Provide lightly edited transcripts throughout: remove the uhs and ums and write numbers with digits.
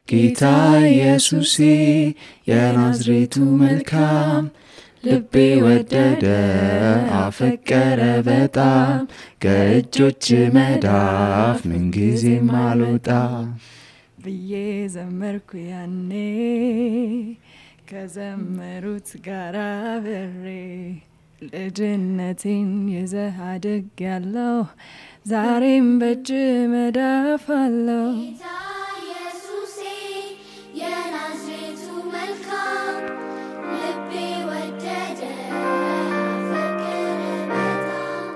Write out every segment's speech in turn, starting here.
ጌታ ኢየሱሴ የናዝሬቱ መልካም ልቤ ወደደ አፈቀረ በጣም ከእጆች መዳፍ ምንጊዜም አልወጣ ብዬ ዘመርኩ ያኔ ከዘመሩት ጋር አብሬ ልጅነቴን ይዘህ አድጌያለሁ ዛሬም በእጅ መዳፍ አለው ጌታ ኢየሱሴ የናዝሬቱ መልካም ልቤ ወደደ አፈቀረ በጣም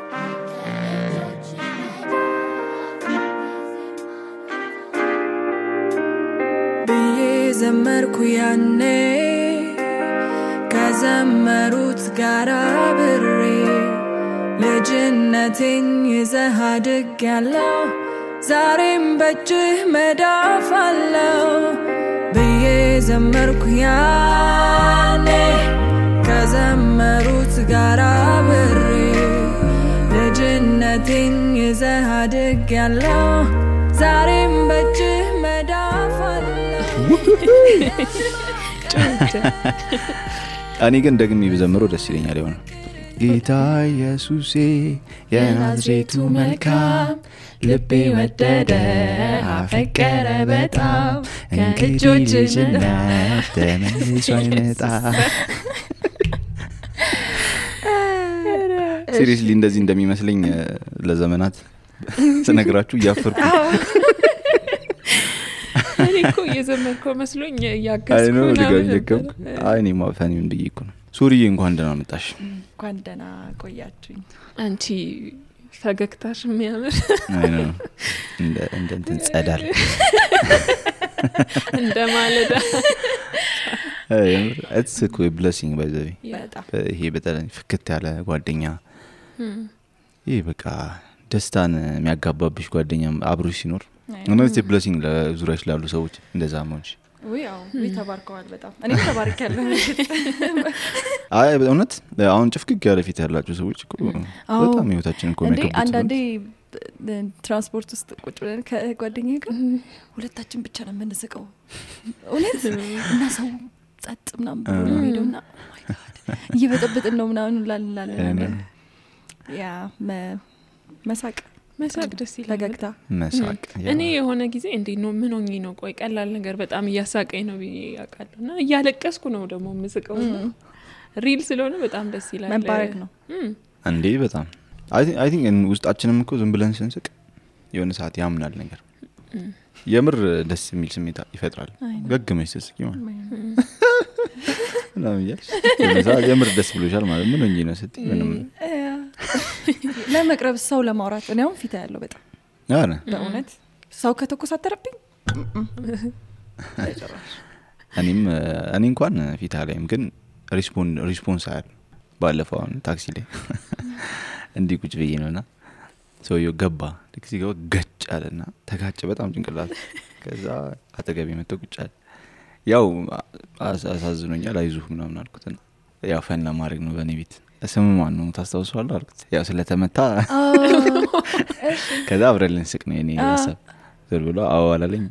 ከእጆች መዳፍ ብዬ ዘመርኩ ያኔ ከዘመሩት ጋር አብሬ ልጅነቴን ይዘህ አድጌያለሁ ዛሬም በእጅህ መዳፍ አለው ብዬ ዘመርኩ ያኔ ከዘመሩት ጋር አብሬ ልጅነቴን ይዘህ አድጌያለሁ ዛሬም በእጅህ መዳፍ አለው እኔ ግን ደግሜ ብዘምረው ደስ ይለኛል ይሆን ጌታ ኢየሱሴ የናዝሬቱ መልካም ልቤ ወደደ አፈቀረ በጣም ከእጆች መዳፍ ተመልሶ አይመጣ ሲሪየስሊ እንደዚህ እንደሚመስለኝ ለዘመናት ስነግራችሁ እያፈርኩ እኔ እኮ እየዘመርኩ መስሎኝ ያጋስኩ ነው አይኔ ማፈኒውን ብዬ ነው ሱሪዬ እንኳን ደህና መጣሽ እንኳን ደህና ቆያችሁኝ አንቺ ፈገግታሽ የሚያምር አይኖ እንደ እንትን ጸዳል እንደ ማለዳ it's a cool blessing by the way ይሄ በጣም ፍክት ያለ ጓደኛ ይሄ በቃ ደስታን የሚያጋባብሽ ጓደኛ አብሮሽ ሲኖር ነው it's a blessing ለዙሪያሽ ላሉ ሰዎች እንደዛ ማንቺ ወይው ተባርከዋል በጣም እኔ ተባርካለሁ አይ በእውነት አሁን ጭፍቅቅ ያለ ፊት ያላችሁ ሰዎች እኮ በጣም ህይወታችንን እኮ የሚያከብሩት አንዳንዴ ትራንስፖርት ውስጥ ቁጭ ብለን ከጓደኛዬ ጋር ሁለታችን ብቻ ነው የምንስቀው እውነት እና ሰው ጸጥ ምናምን ብሎ ሄዶና እየበጠበጥን ነው ምናምን ላላላላ ያ መሳቅ ደስ ይላል ፈገግታ መሳቅ እኔ የሆነ ጊዜ እንዴ ነው ምን ሆኜ ነው ቆይ ቀላል ነገር በጣም እያሳቀኝ ነው ያቃለውና እያለቀስኩ ነው ደግሞ መስቀው ሪል ስለሆነ በጣም ደስ ይላል መባረክ ነው እንዴ በጣም I think ውስጣችንም እኮ ዝም ብለን ስንስቅ የሆነ ሰዓት ያምናል ነገር የምር ደስ የሚል ስሜት ይፈጥራል ገግመሽ ስስቂ ማለት ነው ያያሽ የምር ደስ ብሎሻል ማለት ምን ሆኜ ነው ስትይ ምንም ለመቅረብ ሰው ለማውራት ነው ፊት ያለው በጣም አረ በእውነት ሰው ከተኮሳተረብኝ እኔ እንኳን ፊት አለኝም ግን ሪስፖንስ አለ ባለፈው ታክሲ ላይ እንዲ ቁጭ ብዬ ነውና ሰውየው ገባ ታክሲ ጋር ገጭ አለና ተጋጨ በጣም ጭንቅላት ከዛ አጠገቤ መጥቶ ቁጭ አለ ያው አሳዝኖኛል አይዞህ ምናምን አልኩትና ያው ፈን ለማድረግ ነው በኔ ቤት ስሙ ማን ነው ታስታውሳለህ አልኩት ያው ስለተመታ ከዛ አብረን ስቅ ነው እኔ ያሰብ ዘር ብሎ አዋላለኝ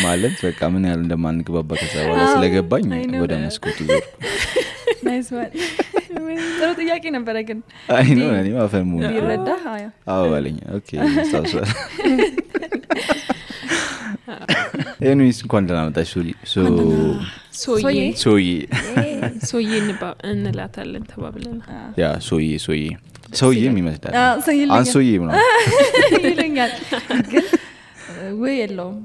ማለት በቃ ምን ያህል እንደማንግባባ ከዛ በኋላ ስለገባኝ ወደ መስኮቱ ዞርኩ ናይስ ዋን ጥሩ ጥያቄ ነበር ግን አይ ነው እኔ ማፈሙ ይረዳ አዋለኝ ኦኬ ታውሳለ ኤኒዌይስ እንኳን ደህና መጣሽ ሶዬ እንላታለን ተባብለን ያ ሶዬ የሚመስላል አንሶዬ ምናምን ይለኛል ግን ወይ የለውም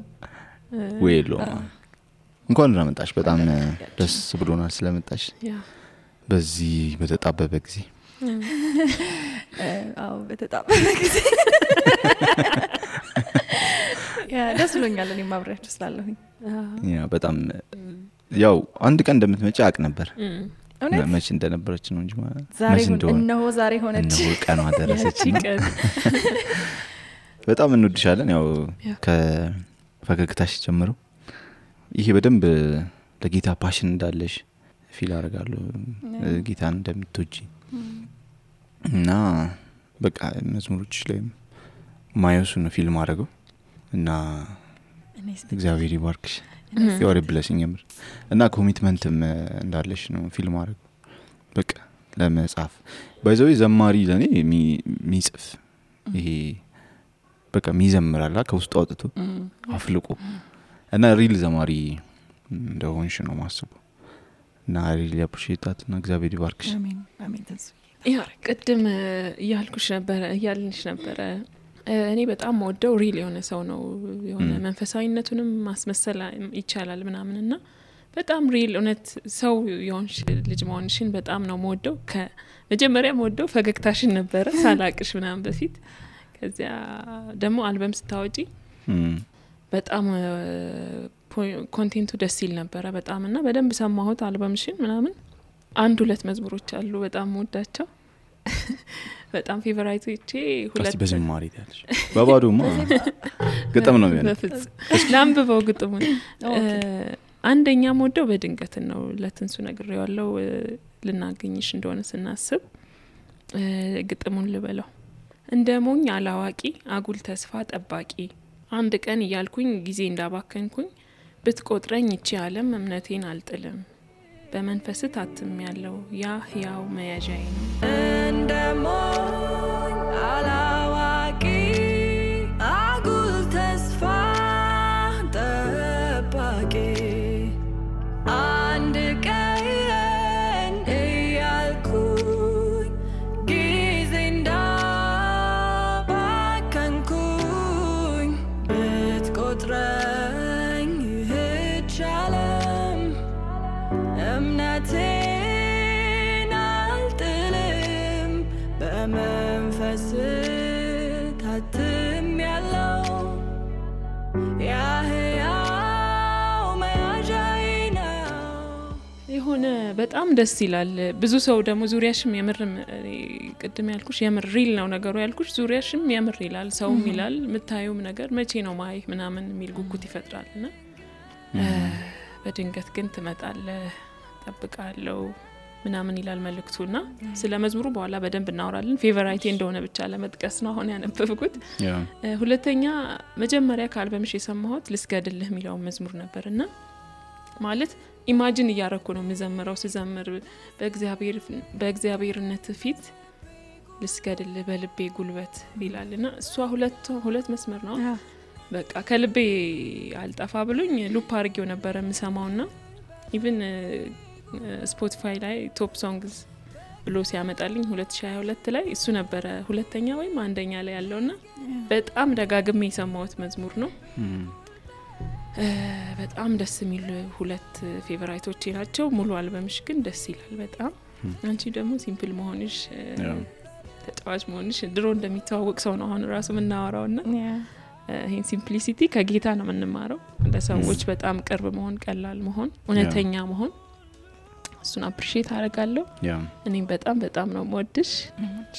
እንኳን ደህና መጣሽ በጣም ደስ ብሎናል ስለመጣሽ በዚህ በተጣበበ ጊዜ በተጣበበ ጊዜ ያ ደስ ብሎኛል እኔ ማብራሪያ ስላለሁኝ ያ በጣም ያው አንድ ቀን እንደምትመጪ አቅ ነበር መች እንደነበረች ነው እንጂ ማለት ነው ዛሬ ሆነች ነው ቀኗ ደረሰች በጣም እንወድሻለን ያው ከፈገግታሽ ጀምሮ ይሄ በደንብ ለጌታ ፓሽን እንዳለሽ ፊል አደርጋለሁ ጌታን እንደምትወጂ እና በቃ መዝሙሮች ላይ ማየሱ ነው ፊልም አደረገው እና እግዚአብሔር ይባርክሽ you're a blessing የምር እና ኮሚትመንትም እንዳለሽ ነው ፊልም አረግ በቃ ለመጻፍ ባይዘው ዘማሪ ለኔ ሚጽፍ ይሄ በቃ ሚዘምራላ ከውስጥ አውጥቶ አፍልቆ እና ሪል ዘማሪ እንደሆንሽ ነው ማስበው እና ሪል ያፕሪሺየት እና እግዚአብሔር ይባርክሽ አሜን አሜን ተስፋ ያ ቅድም ያልንሽ ነበር እኔ በጣም ወደው ሪል የሆነ ሰው ነው የሆነ መንፈሳዊነቱንም ማስመሰል ይቻላል ምናምንና በጣም ሪል እውነት ሰው የሆንሽ ልጅ መሆንሽን በጣም ነው ወደው ከመጀመሪያ ወደው ፈገግታሽን ነበር ሳላቅሽ ምናምን በፊት ከዚያ ደግሞ አልበም ስታወጪ በጣም ኮንቴንቱ ደስ ይል ነበር በጣም እና በደንብ ሰማሁት አልበምሽን ምናምን አንድ ሁለት መዝሙሮች አሉ በጣም ወዳቸው በጣም ፌቨራይቶቼ ሁለት በዝማሬ ታለሽ ባባዶማ ግጥም ነው የሚሆነው ላምብበው ግጥሙን አንደኛ ወደው በድንገት ነው ለትንሱ ነግሬዋለሁ ልናገኝሽ እንደሆነ ስናስብ ግጥሙን ልበለው እንደ ሞኝ አላዋቂ አጉል ተስፋ ጠባቂ አንድ ቀን እያልኩኝ ጊዜ እንዳባከንኩኝ ብትቆጥረኝ እቺ ዓለም እምነቴን አልጥልም በመንፈስ ታትም ያለው ያ ህያው መያዣዬ ነው እንደ ሞኝ አላዋቂ አጉል ተስፋ ጠባቂ አንድ ቀን እያልኩኝ ጊዜ እንዳባከንኩኝ ብትቆጥረኝ ይህች ዓለም እምነቴን አልጥልም በመንፈስ ታትም ያለው ያህያው መያዣዬ ነው የሆነ በጣም ደስ ይላል ብዙ ሰው ደግሞ ዙሪያሽም የምርም ቅድም ያልኩሽ የምር ሪል ነው ነገሩ ያልኩሽ ዙሪያሽም የምር ይላል ሰውም ይላል ምታዩም ነገር መቼ ነው ማይክ ምናምን የሚል ጉጉት ይፈጥራልና በድንገት ግን ትመጣለህ ጠብቃለሁ ምናምን ይላል መልእክቱና ስለ መዝሙሩ በኋላ በደንብ እናወራለን ፌቨራይቴ እንደሆነ ብቻ ለመጥቀስ ነው አሁን ያነበብኩት ሁለተኛ መጀመሪያ ከአልበምሽ የሰማሁት ልስገድልህ የሚለው መዝሙር ነበርና ማለት ኢማጂን እያረኩ ነው መዘመረው ስዘምር በእግዚአብሔርነት ፊት ልስገድልህ በልቤ ጉልበት ይላልና እሷ ሁለት መስመር ነው በቃ ከልቤ አልጠፋ ብሎኝ ሉፕ አርጌው ነበር የምሰማውና ኢቭን ስፖቲፋይ ላይ ቶፕ ሶንግስ ብሎ ሲያመጣልኝ 2022 ላይ እሱ ነበር ሁለተኛ ወይም አንደኛ ላይ ያለውና በጣም ደጋግሜ የሰማሁት መዝሙር ነው በጣም ደስ የሚል ሁለት ፌቨራይቶቼ ናቸው ሙሉ አልበምሽ ግን ደስ ይላል በጣም አንቺ ደግሞ ሲምፕል መሆንሽ ተጫዋች መሆንሽ ድሮ እንደሚተዋወቅ ሰው ነው አሁን ራሱ ምናወራውና ይሄን ሲምፕሊሲቲ ከጌታ ነው የምንማረው ለሰዎች በጣም ቅርብ መሆን ቀላል መሆን እውነተኛ መሆን እሱን አፕሪሺየት አደርጋለሁ እኔም በጣም ነው የምወድሽ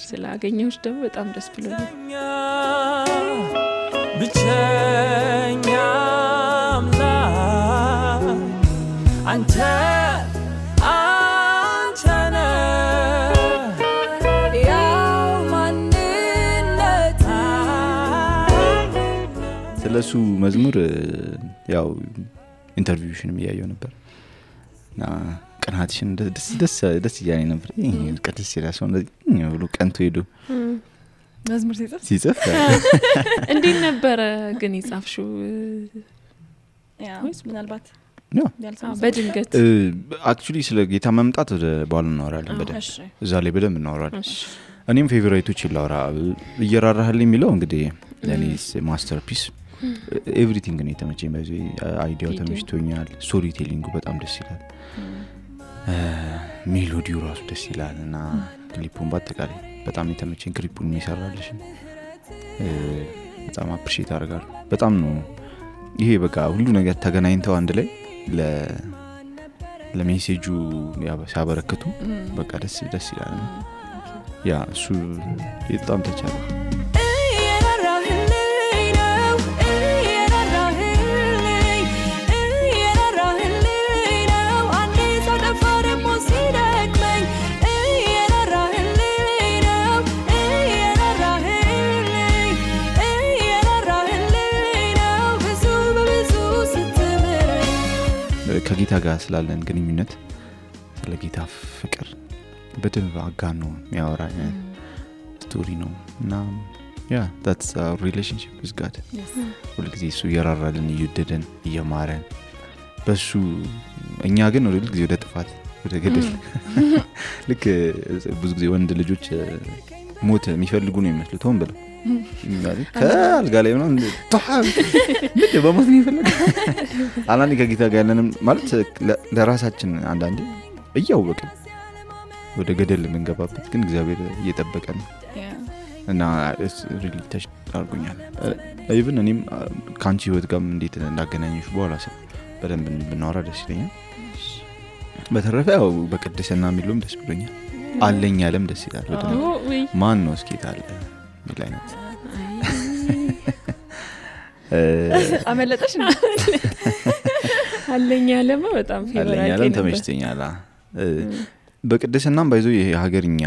ስላገኘሁሽ ደግሞ በጣም ደስ ብሎኛል ብቸኛ አምላክ አንተ ስለሱ መዝሙር ያው ኢንተርቪውሽንም ያየው ነበር እና ቀናትሽን ደስ እያለኝ ነበር ቀጥስ ይላሰው እንደዚህ ብሎ ቀንቶ ሄዶ መዝሙር ሲጽፍ እንዴት ነበር ግን ይጻፍሽው ወይስ ምናልባት በድንገት አክቹሊ ስለ ጌታ መምጣት ወደ በኋላ እናወራለን በደንብ እዛ ላይ በደንብ እናወራለን እኔም ፌቨራይቶች ይላውራ እየራራህልኝ የሚለው እንግዲህ ለኔስ ማስተርፒስ ኤቭሪቲንግ ነው የተመቸኝ በዚህ አይዲያው ተመችቶኛል ስቶሪ ቴሊንጉ በጣም ደስ ይላል ሜሎዲው ራሱ ደስ ይላል እና ክሊፑን በአጠቃላይ በጣም የተመቸኝ ክሊፑን የሚሰራልሽ በጣም አፕሪሺየት አደርጋለሁ በጣም ነው ይሄ በቃ ሁሉ ነገር ተገናኝተው አንድ ላይ ለሜሴጁ ሲያበረክቱ በቃ ደስ ይላል ያ እሱ በጣም ተቻለ ከጌታ ጋር ስላለን ግንኙነት ስለ ጌታ ፍቅር በደንብ አጋኖ የሚያወራ ስቶሪ ነው እና that's our relationship with God. ሁሉ ጊዜ እሱ እየራራልን እየወደደን እየማረን በሱ እኛ ግን ሁሉ ጊዜ ወደ ጥፋት ወደ ገደል ልክ ብዙ ጊዜ ወንድ ልጆች ሞት የሚፈልጉ ነው የሚመስሉት ሆን ብለው ማለት ከአልጋ ላይ ነው ምን በሞት ነው የሚፈልጉ አንዳንዴ ከጌታ ጋር ያለንም ማለት ለራሳችን አንዳንዴ እያወቅን ወደ ገደል የምንገባበት ግን እግዚአብሔር እየጠበቀን እና really touch አድርጎኛል even እኔም ካንቺ ህይወት ጋር እንዴት እንዳገናኘሽ በኋላ በደንብ ብናወራ ደስ ይለኛል በተረፈ ያው በቅድስና የሚሉም ደስ ብሎኛል አለኝ ያለም ደስ ይላል በደንብ ማን ነው እስኪ ታለ ሚላይነት አመለጠሽ አለኝ ያለም በጣም ፌቨራይት አለኝ ያለም ተመችቶኛል በቅድስናም ባይዞ የሀገርኛ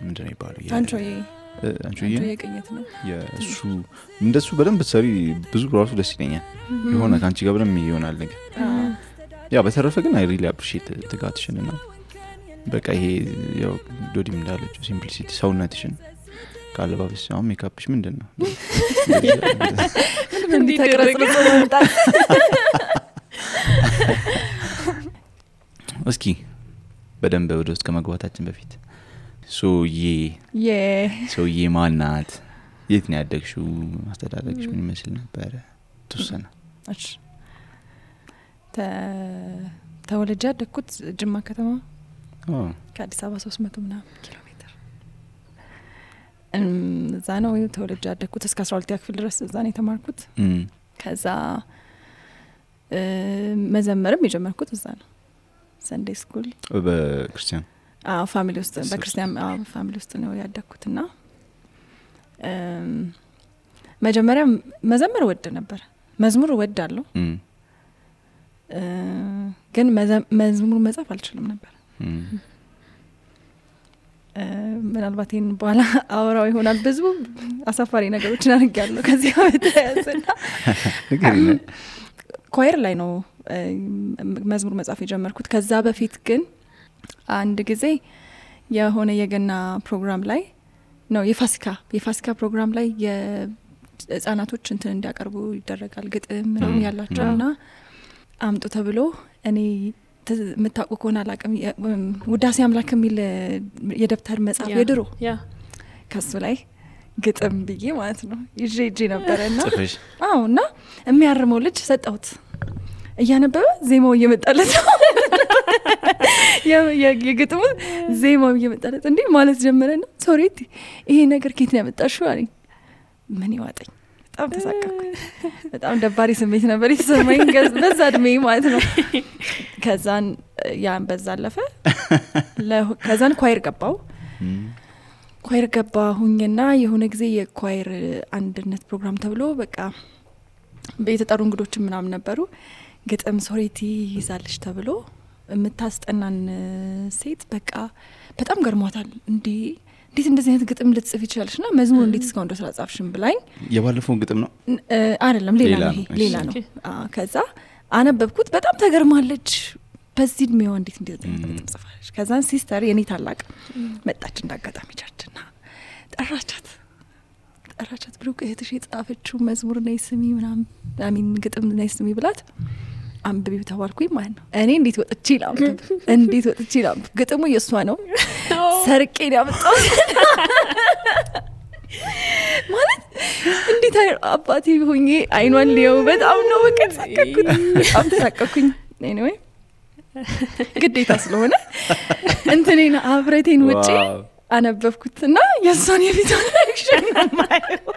ምንድነው ይባላል አንቺዬ የቅኝት ነው የሱ እንደሱ በደንብ ሰሪ ብዙ ራሱ ደስ ይለኛል የሆነ ካንቺ ጋር በደንብ ይሆናል ነገር ያ በተረፈ ግን I really appreciate ትጋትሽንና በቃ ይሄ ያው ዶዲም እንዳለችው ሲምፕሊሲቲ ሰውነትሽን ካለባበስ አሁን ሜካፕሽ ምንድነው እንዴት ተቀረጽ ነው እስኪ በደንብ ወደ ውስጥ ከመግባታችን በፊት ሶዬ ማናት የት ነው ያደግሽው አስተዳደግሽ ምን ይመስል ነበር ተወሰነ እሺ ተወልጄ ያደግኩት ጅማ ከተማ ከአዲስ አበባ 300 ምናምን ኪሎ ሜትር እዛ ነው ተወልጄ ያደግኩት እስከ 12ኛ ክፍል ድረስ እዛ ነው የተማርኩት ከዛ መዘመርም የጀመርኩት እዛ ነው ሰንዴይ ስኩል በክርስቲያን ፋሚሊ ውስጥ በክርስቲያን ፋሚሊ ውስጥ ነው ያደግኩትና መጀመሪያ መዘመር ወድ ነበር መዝሙር ወዳለሁ ግን መዝሙር መጻፍ አልችልም ነበር ምናልባት ይሄን በኋላ አወራው ይሆናል ብዙ አሳፋሪ ነገሮችን አድርጌያለሁ ከዚህ በተያያዘና ኳየር ላይ ነው መዝሙር መጻፍ የጀመርኩት ከዛ በፊት ግን አንድ ጊዜ የሆነ የገና ፕሮግራም ላይ ነው የፋሲካ ፕሮግራም ላይ የህፃናቶች እንትን እንዲያቀርቡ ይደረጋል ግጥም ነው ያላቸውና አምጡ ተብሎ እኔ ምታውቁ ከሆነ አላቅም ውዳሴ አምላክ የሚል የደብተር መጽሐፍ የድሮ ከሱ ላይ ግጥም ብዬ ማለት ነው ይዤ ነበርና እና የሚያርመው ልጅ ሰጣሁት እያነበበ ዜማው እየመጣለት የግጥሙ ዜማው እየመጣለት እንዴ ማለት ጀመረና ሶሪቲ ይሄ ነገር ከየት ነው ያመጣሽው አለኝ ምን ይዋጠኝ በጣም ተሳቀቅኩ በጣም ደባሪ ስሜት ነበር የተሰማኝ በዛ እድሜ ማለት ነው ከዛን ያን በዛ አለፈ ከዛን ኳየር ገባሁኝና የሆነ ጊዜ የኳየር አንድነት ፕሮግራም ተብሎ በቃ በየተጠሩ እንግዶች ምናምን ነበሩ ግጥም ሶሪቲ ይዛልሽ ተብሎ የምታስጠናን ሴት በቃ በጣም ገርሟታል እንዴት እንደዚህ አይነት ግጥም ልትጽፍ ይችላልሽና መዝሙር እንዴት እስካሁን ድረስ አጻፍሽም ብላኝ የባለፈው ግጥም ነው አይደለም ሌላ ነው ከዛ አነበብኩት በጣም ተገርማለች በዚህ እድሜዋ እንዴት ግጥም ጽፋለች ከዛን ሲስተር የኔ ታላቅ መጣች እንዳጋጣሚ ቻችና ጠራቻት ብሩክ እህትሽ የጻፈችው መዝሙር ነይ ስሚ ምናምን አሚን ግጥም ነይ ስሚ ብላት አንብቢ ተባልኩኝ ማለት ነው እኔ እንዴት ወጥቼ ላምብ ግጥሙ የሷ ነው ሰርቄ ያመጣው ማለት እንዴት አባቴ ሆኜ አይኗን ሊያው በጣም ነው ተሳቀቅኩኝ anyway ግዴታ ስለሆነ እንትኔና አብረቴን ውጪ አነበብኩትና የሷን የቪዲዮ ሪአክሽን ማየው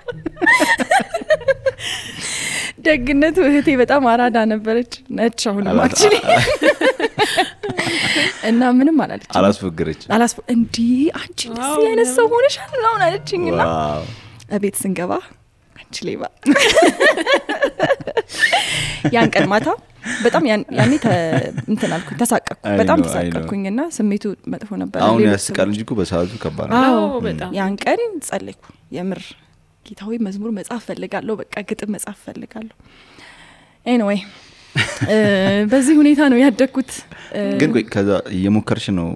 ደግነቱ እህቴ በጣም አራዳ ነበረች ነች አሁንም actually እና ምንም አላለች እንዴ አንቺ እንደዚህ አይነት ሰው ሆነሻል ነው አለችኝና አቤት ስንገባ አንቺ ሌባ ያን ቀን ማታ በጣም ያኔ እንትን አልኩኝ ተሳቀቅኩ በጣም ተሳቀቅኩኝና ስሜቱ መጥፎ ነበር አሁን ያስቃል እንጂ በሰዓቱ ከባድ ነው በጣም ያን ቀን ጸለይኩ የምር ጌታዊ መዝሙር መጻፍ ፈልጋለሁ በቃ ግጥም መጻፍ ፈልጋለሁ anyway በዚህ ሁኔታ ነው ያደግኩት። ግን ቆይ ከዛ እየሞከርሽ ነው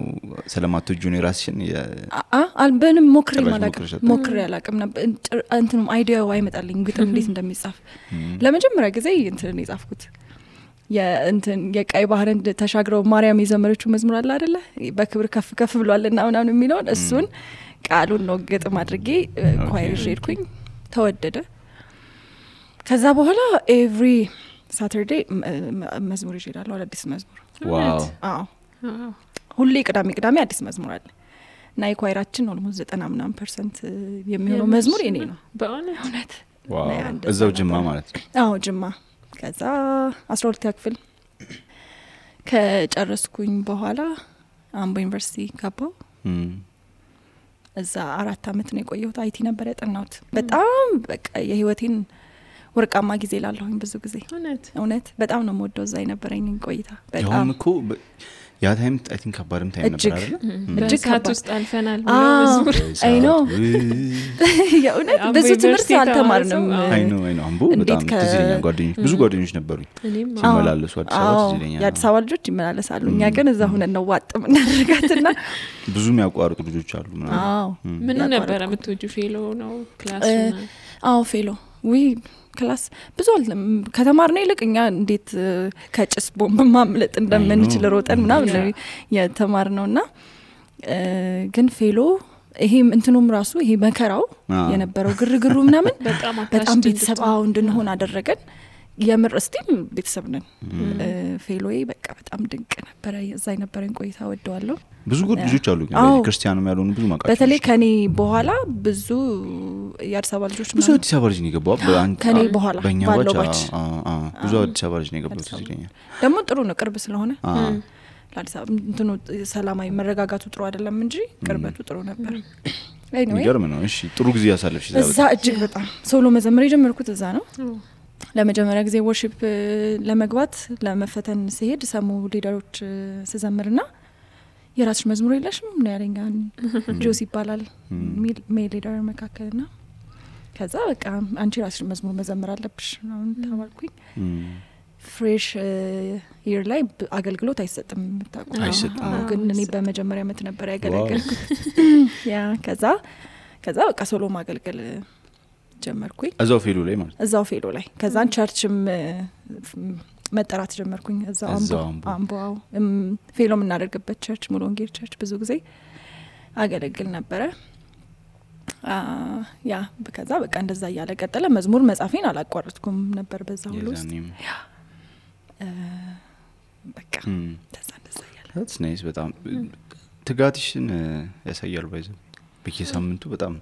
ስለማትወጁ ነው ራስሽን አልበንም ሞክሬ አላቅም ነበር። እንትንም አይዲያው አይመጣልኝ ግጥም እንዴት እንደሚጻፍ ለመጀመሪያ ጊዜ እንትን የጻፍኩት የቀይ ባህርን ተሻግረው ማርያም የዘመረችው መዝሙር አለ አይደለ በክብር ከፍ ከፍ ብሏልና ምናምን የሚለውን እሱን ቃሉን ነው ግጥም አድርጌ ኳይር ሄድኩኝ ተወደደ። ከዛ በኋላ ኤቭሪ ሳተርዴ መዝሙር ይሄዳለሁ አዲስ መዝሙር ዋው አዎ ሁሌ ቅዳሜ አዲስ መዝሙር አለ እና የኳይራችን ኦልሞስት 90% የሚሆነው መዝሙር የኔ ነው በእውነት ዋው እዛው ጅማ ማለት ነው አዎ ጅማ ከዛ 12 ክፍል ከጨረስኩኝ በኋላ አምቦ ዩኒቨርሲቲ ገባሁ እዛ 4 አመት ነው የቆየሁት አይቲ ነበር ያጠናሁት በጣም በቃ የህይወቴን ወርቃማ ጊዜ ላለሁኝ ብዙ ጊዜ እውነት በጣም ነው የምወደው እዛ የነበረኝ ቆይታ በጣም እኮ ያ ታይም አይ ቲንክ ከባድም ታይም ነበር አይደል እጅግ ካት ውስጥ አልፈናል መዝሙር አይ ኖ የእውነት ብዙ ትምህርት አልተማርንም አይ ኖ አምቦ በጣም ትዝለኛ ጓደኞች ብዙ ጓደኞች ነበሩኝ ሲመላለሱ አዲስ አበባ ትዝለኛ የአዲስ አበባ ልጆች ይመላለሳሉ እኛ ግን እዛ ሆነን ነው ዋጥም እናደርጋትና ብዙ የሚያቋርጡ ልጆች አሉ ምን ነበር የምትወጁ ፌሎ ነው ክላስ አዎ ፌሎ ወይ ክላስ ብዙ አልለም ከተማርነ ይልቅኛ እንዴት ከጭስ ቦምብ ማምለጥ እንደምንችል ሮጠን ምናምን ነው የተማርነውና ግን ፌሎ ይሄ እንትኑም ራሱ ይሄ መከራው የነበረው ግርግሩ ምናምን በጣም ቤተሰባው እንድንሆን አደረገን የምር እስቲም ቤተሰብ ነን ፌሎዬ በቃ በጣም ድንቅ ነበር እዛ የነበረን ቆይታ ወደዋለሁ ብዙ ልጆች አሉ ግን ክርስቲያንም ያልሆኑ ብዙ ማቃቸው በተለይ ከኔ በኋላ ብዙ የአዲስ አበባ ልጆች ብዙ አዲስ አበባ ልጅ ነው የገባው ከኔ በኋላ ባለው ባች ብዙ አዲስ አበባ ልጅ ነው የገባው ይለኛል ደግሞ ጥሩ ነው ቅርብ ስለሆነ ለአዲስ አበባ እንትኑ ሰላማዊ መረጋጋቱ ጥሩ አይደለም እንጂ ቅርበቱ ጥሩ ነበር ይገርም ነው እሺ ጥሩ ጊዜ ያሳለፍሽ እዛ እጅግ በጣም ሶሎ መዘመር የጀመርኩት እዛ ነው ለመጀመሪያ ጊዜ ወርሺፕ ለመግባት ለመፈተን ሲሄድ ሰሙ ሊደሮች ስዘምርና የራስሽ መዝሙር የለሽም ምን ያለኛል ጆሲ ይባላል ሜል ሊደር መካከልና ከዛ በቃ አንቺ ራስሽ መዝሙር መዘመር አለብሽ ነው ተባልኩኝ ፍሬሽ ይር ላይ አገልግሎት አይሰጥም አይሰጥም ግን እኔ በመጀመሪያ አመት ነበር ያገለገልኩት ያ ከዛ በቃ ሶሎ ማገልገል ጀመርኩኝ እዛው ፌሎ ላይ ማለት እዛው ፌሎ ላይ ከዛን ቸርችም መጠራት ጀመርኩኝ እዛው አምቦ ፌሎ የምናደርግበት ቸርች ሙሉ ወንጌል ቸርች ብዙ ጊዜ አገለግል ነበረ ያ ከዛ በቃ እንደዛ እያለ ቀጠለ መዝሙር መጻፌን አላቋረጥኩም ነበር በዛ ሁሉ ውስጥ በቃ እንደዛ እያለ that's nice በጣም ትጋትሽን ያሳያል ባይዘው በየሳምንቱ በጣም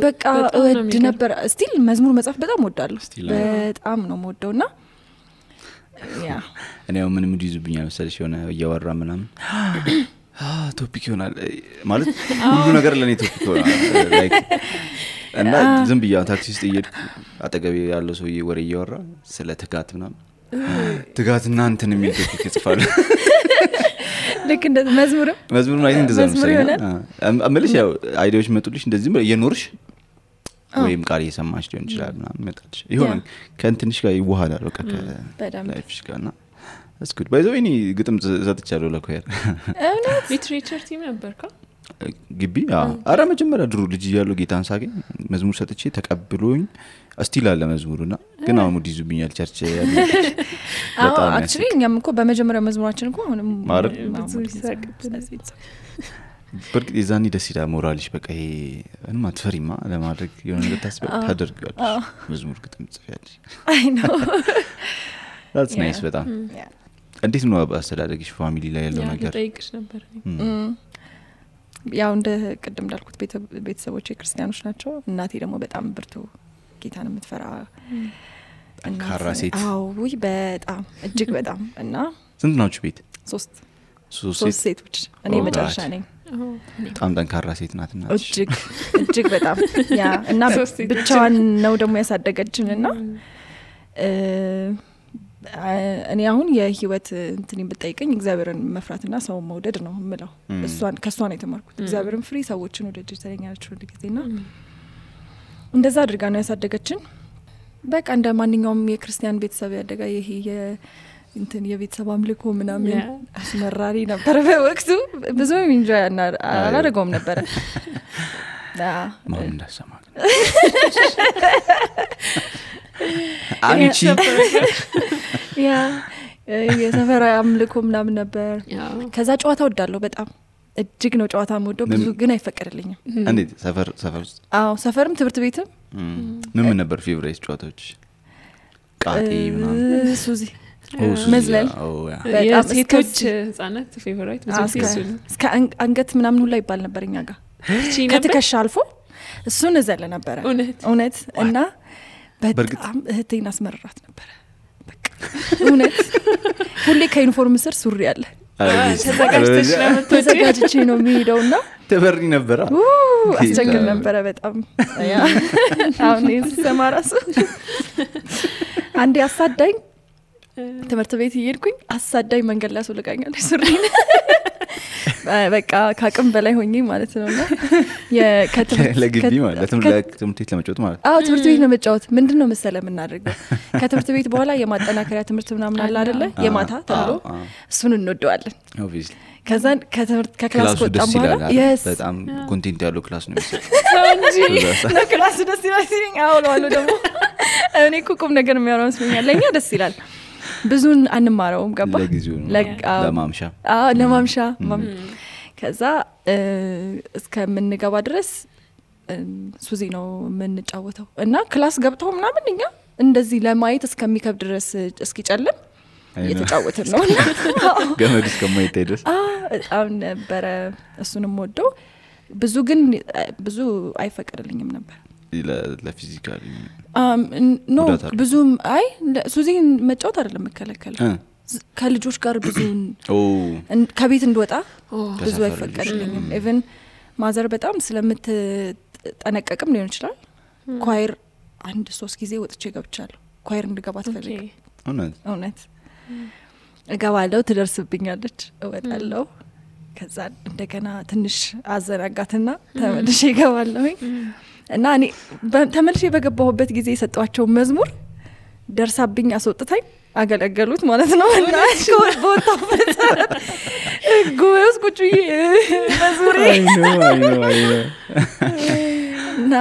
በቃ ወድ ነበር ስቲል መዝሙር መጻፍ በጣም ወዳለሁ በጣም ነው የምወደውና ያ እኔ ምን ይዙብኛል መሰለሽ የሆነ እያወራ ምናምን ቶፒክ ይሆናል ማለት ሁሉ ነገር ለኔ ቶፒክ ይሆናል ላይክ እና ዝም ብያ ታክሲ ውስጥ እየሄድኩ አጠገቤ ያለው ሰውዬ ወሬ እያወራ ስለ ትጋት ምናምን ትጋትና እንትን የሚል ቶፒክ ይጽፋል ልክ እንደ መዝሙር ማለት እንደዛ ነው አመልሽ ያው አይዲያዎች መጡልሽ እንደዚህ እየኖርሽ ወይም ቃል እየሰማሽ ሊሆን ይችላል ምናምን መጣልሽ ይሆን ከእንትንሽ ጋር ይዋሃዳል በቃ ከላይፍሽ ጋርና that's good by the way እኔ ግጥም ዘጥቻለሁ ለኮየር ሊትሬቸር ቲም ነበርካ ግቢ አራ መጀመሪያ ድሮ ልጅ ያለው ጌታን ሳገኝ መዝሙር ሰጥቼ ተቀብሎኝ እስቲል አለ መዝሙሩና ግን አሁን ሙድ ይዙብኛል ቸርች በጣም actually እኛም እኮ በመጀመሪያ መዝሙራችን እኮ አሁንም ብዙ ይሳቅብን በርግጥ የዛኔ ደስ ይላል ሞራልሽ በቃ ይሄ እንማ ትፈሪማ ለማድረግ የሆነ ነገር ታደርጋለሽ መዝሙር ግጥም ጽፋለሽ I know that's nice በጣም እንዴት ነው አስተዳደግሽ ፋሚሊ ላይ ያለው ነገር ጠይቅሽ ነበር ያው እንደ ቅድም እንዳልኩት ቤተሰቦቼ ክርስቲያኖች ናቸው እናቴ ደግሞ በጣም ብርቱ ጌታን የምትፈራ ጠንካራ ሴት ወይ በጣም እጅግ በጣም እና ስንት ናችሁ ቤት ሶስት ሴቶች እኔ መጨረሻ ነኝ በጣም ጠንካራ ሴት ናትና እጅግ በጣም ያ እና ብቻዋን ነው ደግሞ ያሳደገችንና እኔ አሁን የህይወት እንትን ብትጠይቀኝ እግዚአብሔርን መፍራትና ሰው መውደድ ነው የምለው ከሷ ነው የተማርኩት እግዚአብሔርን ፍሪ ሰዎችን ወደጅ ተለኛለች ሁሉ ጊዜና እንደዛ አድርጋ ነው ያሳደገችን በቃ እንደ ማንኛውም የክርስቲያን ቤተሰብ ያደጋ ይሄ እንትን የቤተሰብ አምልኮ ምናምን አስመራሪ ነበር በወቅቱ ብዙ ኢንጆይ አላደረገውም ነበር ማን እንዳሰማ አንቺ የሰፈር አምልኮ ምናምን ነበር ከዛ ጨዋታ ወዳለሁ በጣም እጅግ ነው ጨዋታ የምወደው ብዙ ግን አይፈቀድልኝም እንዴት ሰፈር ውስጥ ሰፈርም ትምህርት ቤትም ምን ነበር ፌቨራይት ጨዋታዎች ቃጤ ምናምን ሱዚ መዝለል የሴቶች ህጻናት ፌቨራይት ብዙ ሲሱን እስከ አንገት ምናምን ሁላ ይባል ነበር እኛ ጋር ከትከሻ አልፎ እሱን እዘለ ነበር እውነት እና በጣም እህቴን አስመረራት ነበር በቃ እውነት ሁሌ ከዩኒፎርም ስር ሱሪ አለ ተዘጋጅቼ ነው የሚሄደውና ተበሪ ነበር አስቸግር ነበር በጣም አሁን እየሰማራሱ አንዴ አሳዳኝ ትምህርት ቤት እየሄድኩኝ አሳዳኝ መንገድ ላይ አስወልቃኛለች ሱሪን በቃ ካቅም በላይ ሆኜ ማለት ነውና ለግቢ ማለት ለትምህርት ቤት ለመጫወት ማለት ትምህርት ቤት ነው መጫወት ምንድነው መሰለ የምናደርገው ከትምህርት ቤት በኋላ የማጠናከሪያ ትምህርት ምናምን አለ አይደለ የማታ ተብሎ እሱን እንወደዋለን obviously ከዛ ከክላስ ወጣን በኋላ በጣም ኮንቴንት ያለው ክላስ ነው ክላስ ደስ ይላል አውሎ ደግሞ እኔ ቁም ነገር የሚያወራው ስለኛል ለኛ ደስ ይላል ብዙን አንማረውም ገባ ለማምሻ ከዛ እስከምንገባ ድረስ ሱዚ ነው የምንጫወተው እና ክላስ ገብተው ምናምን እኛ እንደዚህ ለማየት እስከሚከብድ ድረስ እስኪጨልም እየተጫወትን ነው ገመድ እስከማይታይ ድረስ በጣም ነበረ እሱንም ወደው ብዙ አይፈቀድልኝም ነበር ለፊዚካሊ ኖ ብዙም ሱዚን መጫወት አይደለም መከለከል ከልጆች ጋር ብዙ ከቤት እንድወጣ ብዙ አይፈቀድልኝም ኢቭን ማዘር በጣም ስለምትጠነቀቅም ሊሆን ይችላል ኳየር 1-3 ጊዜ ወጥቼ ገብቻለሁ ኳየር እንድገባ ትፈልግ እውነት እገባለሁ ትደርስብኛለች እወጣለሁ ከዛ እንደገና ትንሽ አዘናጋትና ተመልሼ እገባለሁ እና እኔ ተመልሼ በገባሁበት ጊዜ የሰጧቸው መዝሙር ደርሳብኝ አስወጥታኝ አገለገሉት ማለት ነው እና ቦታበት ጎስ ቁጭዬ መዝሙሬ እና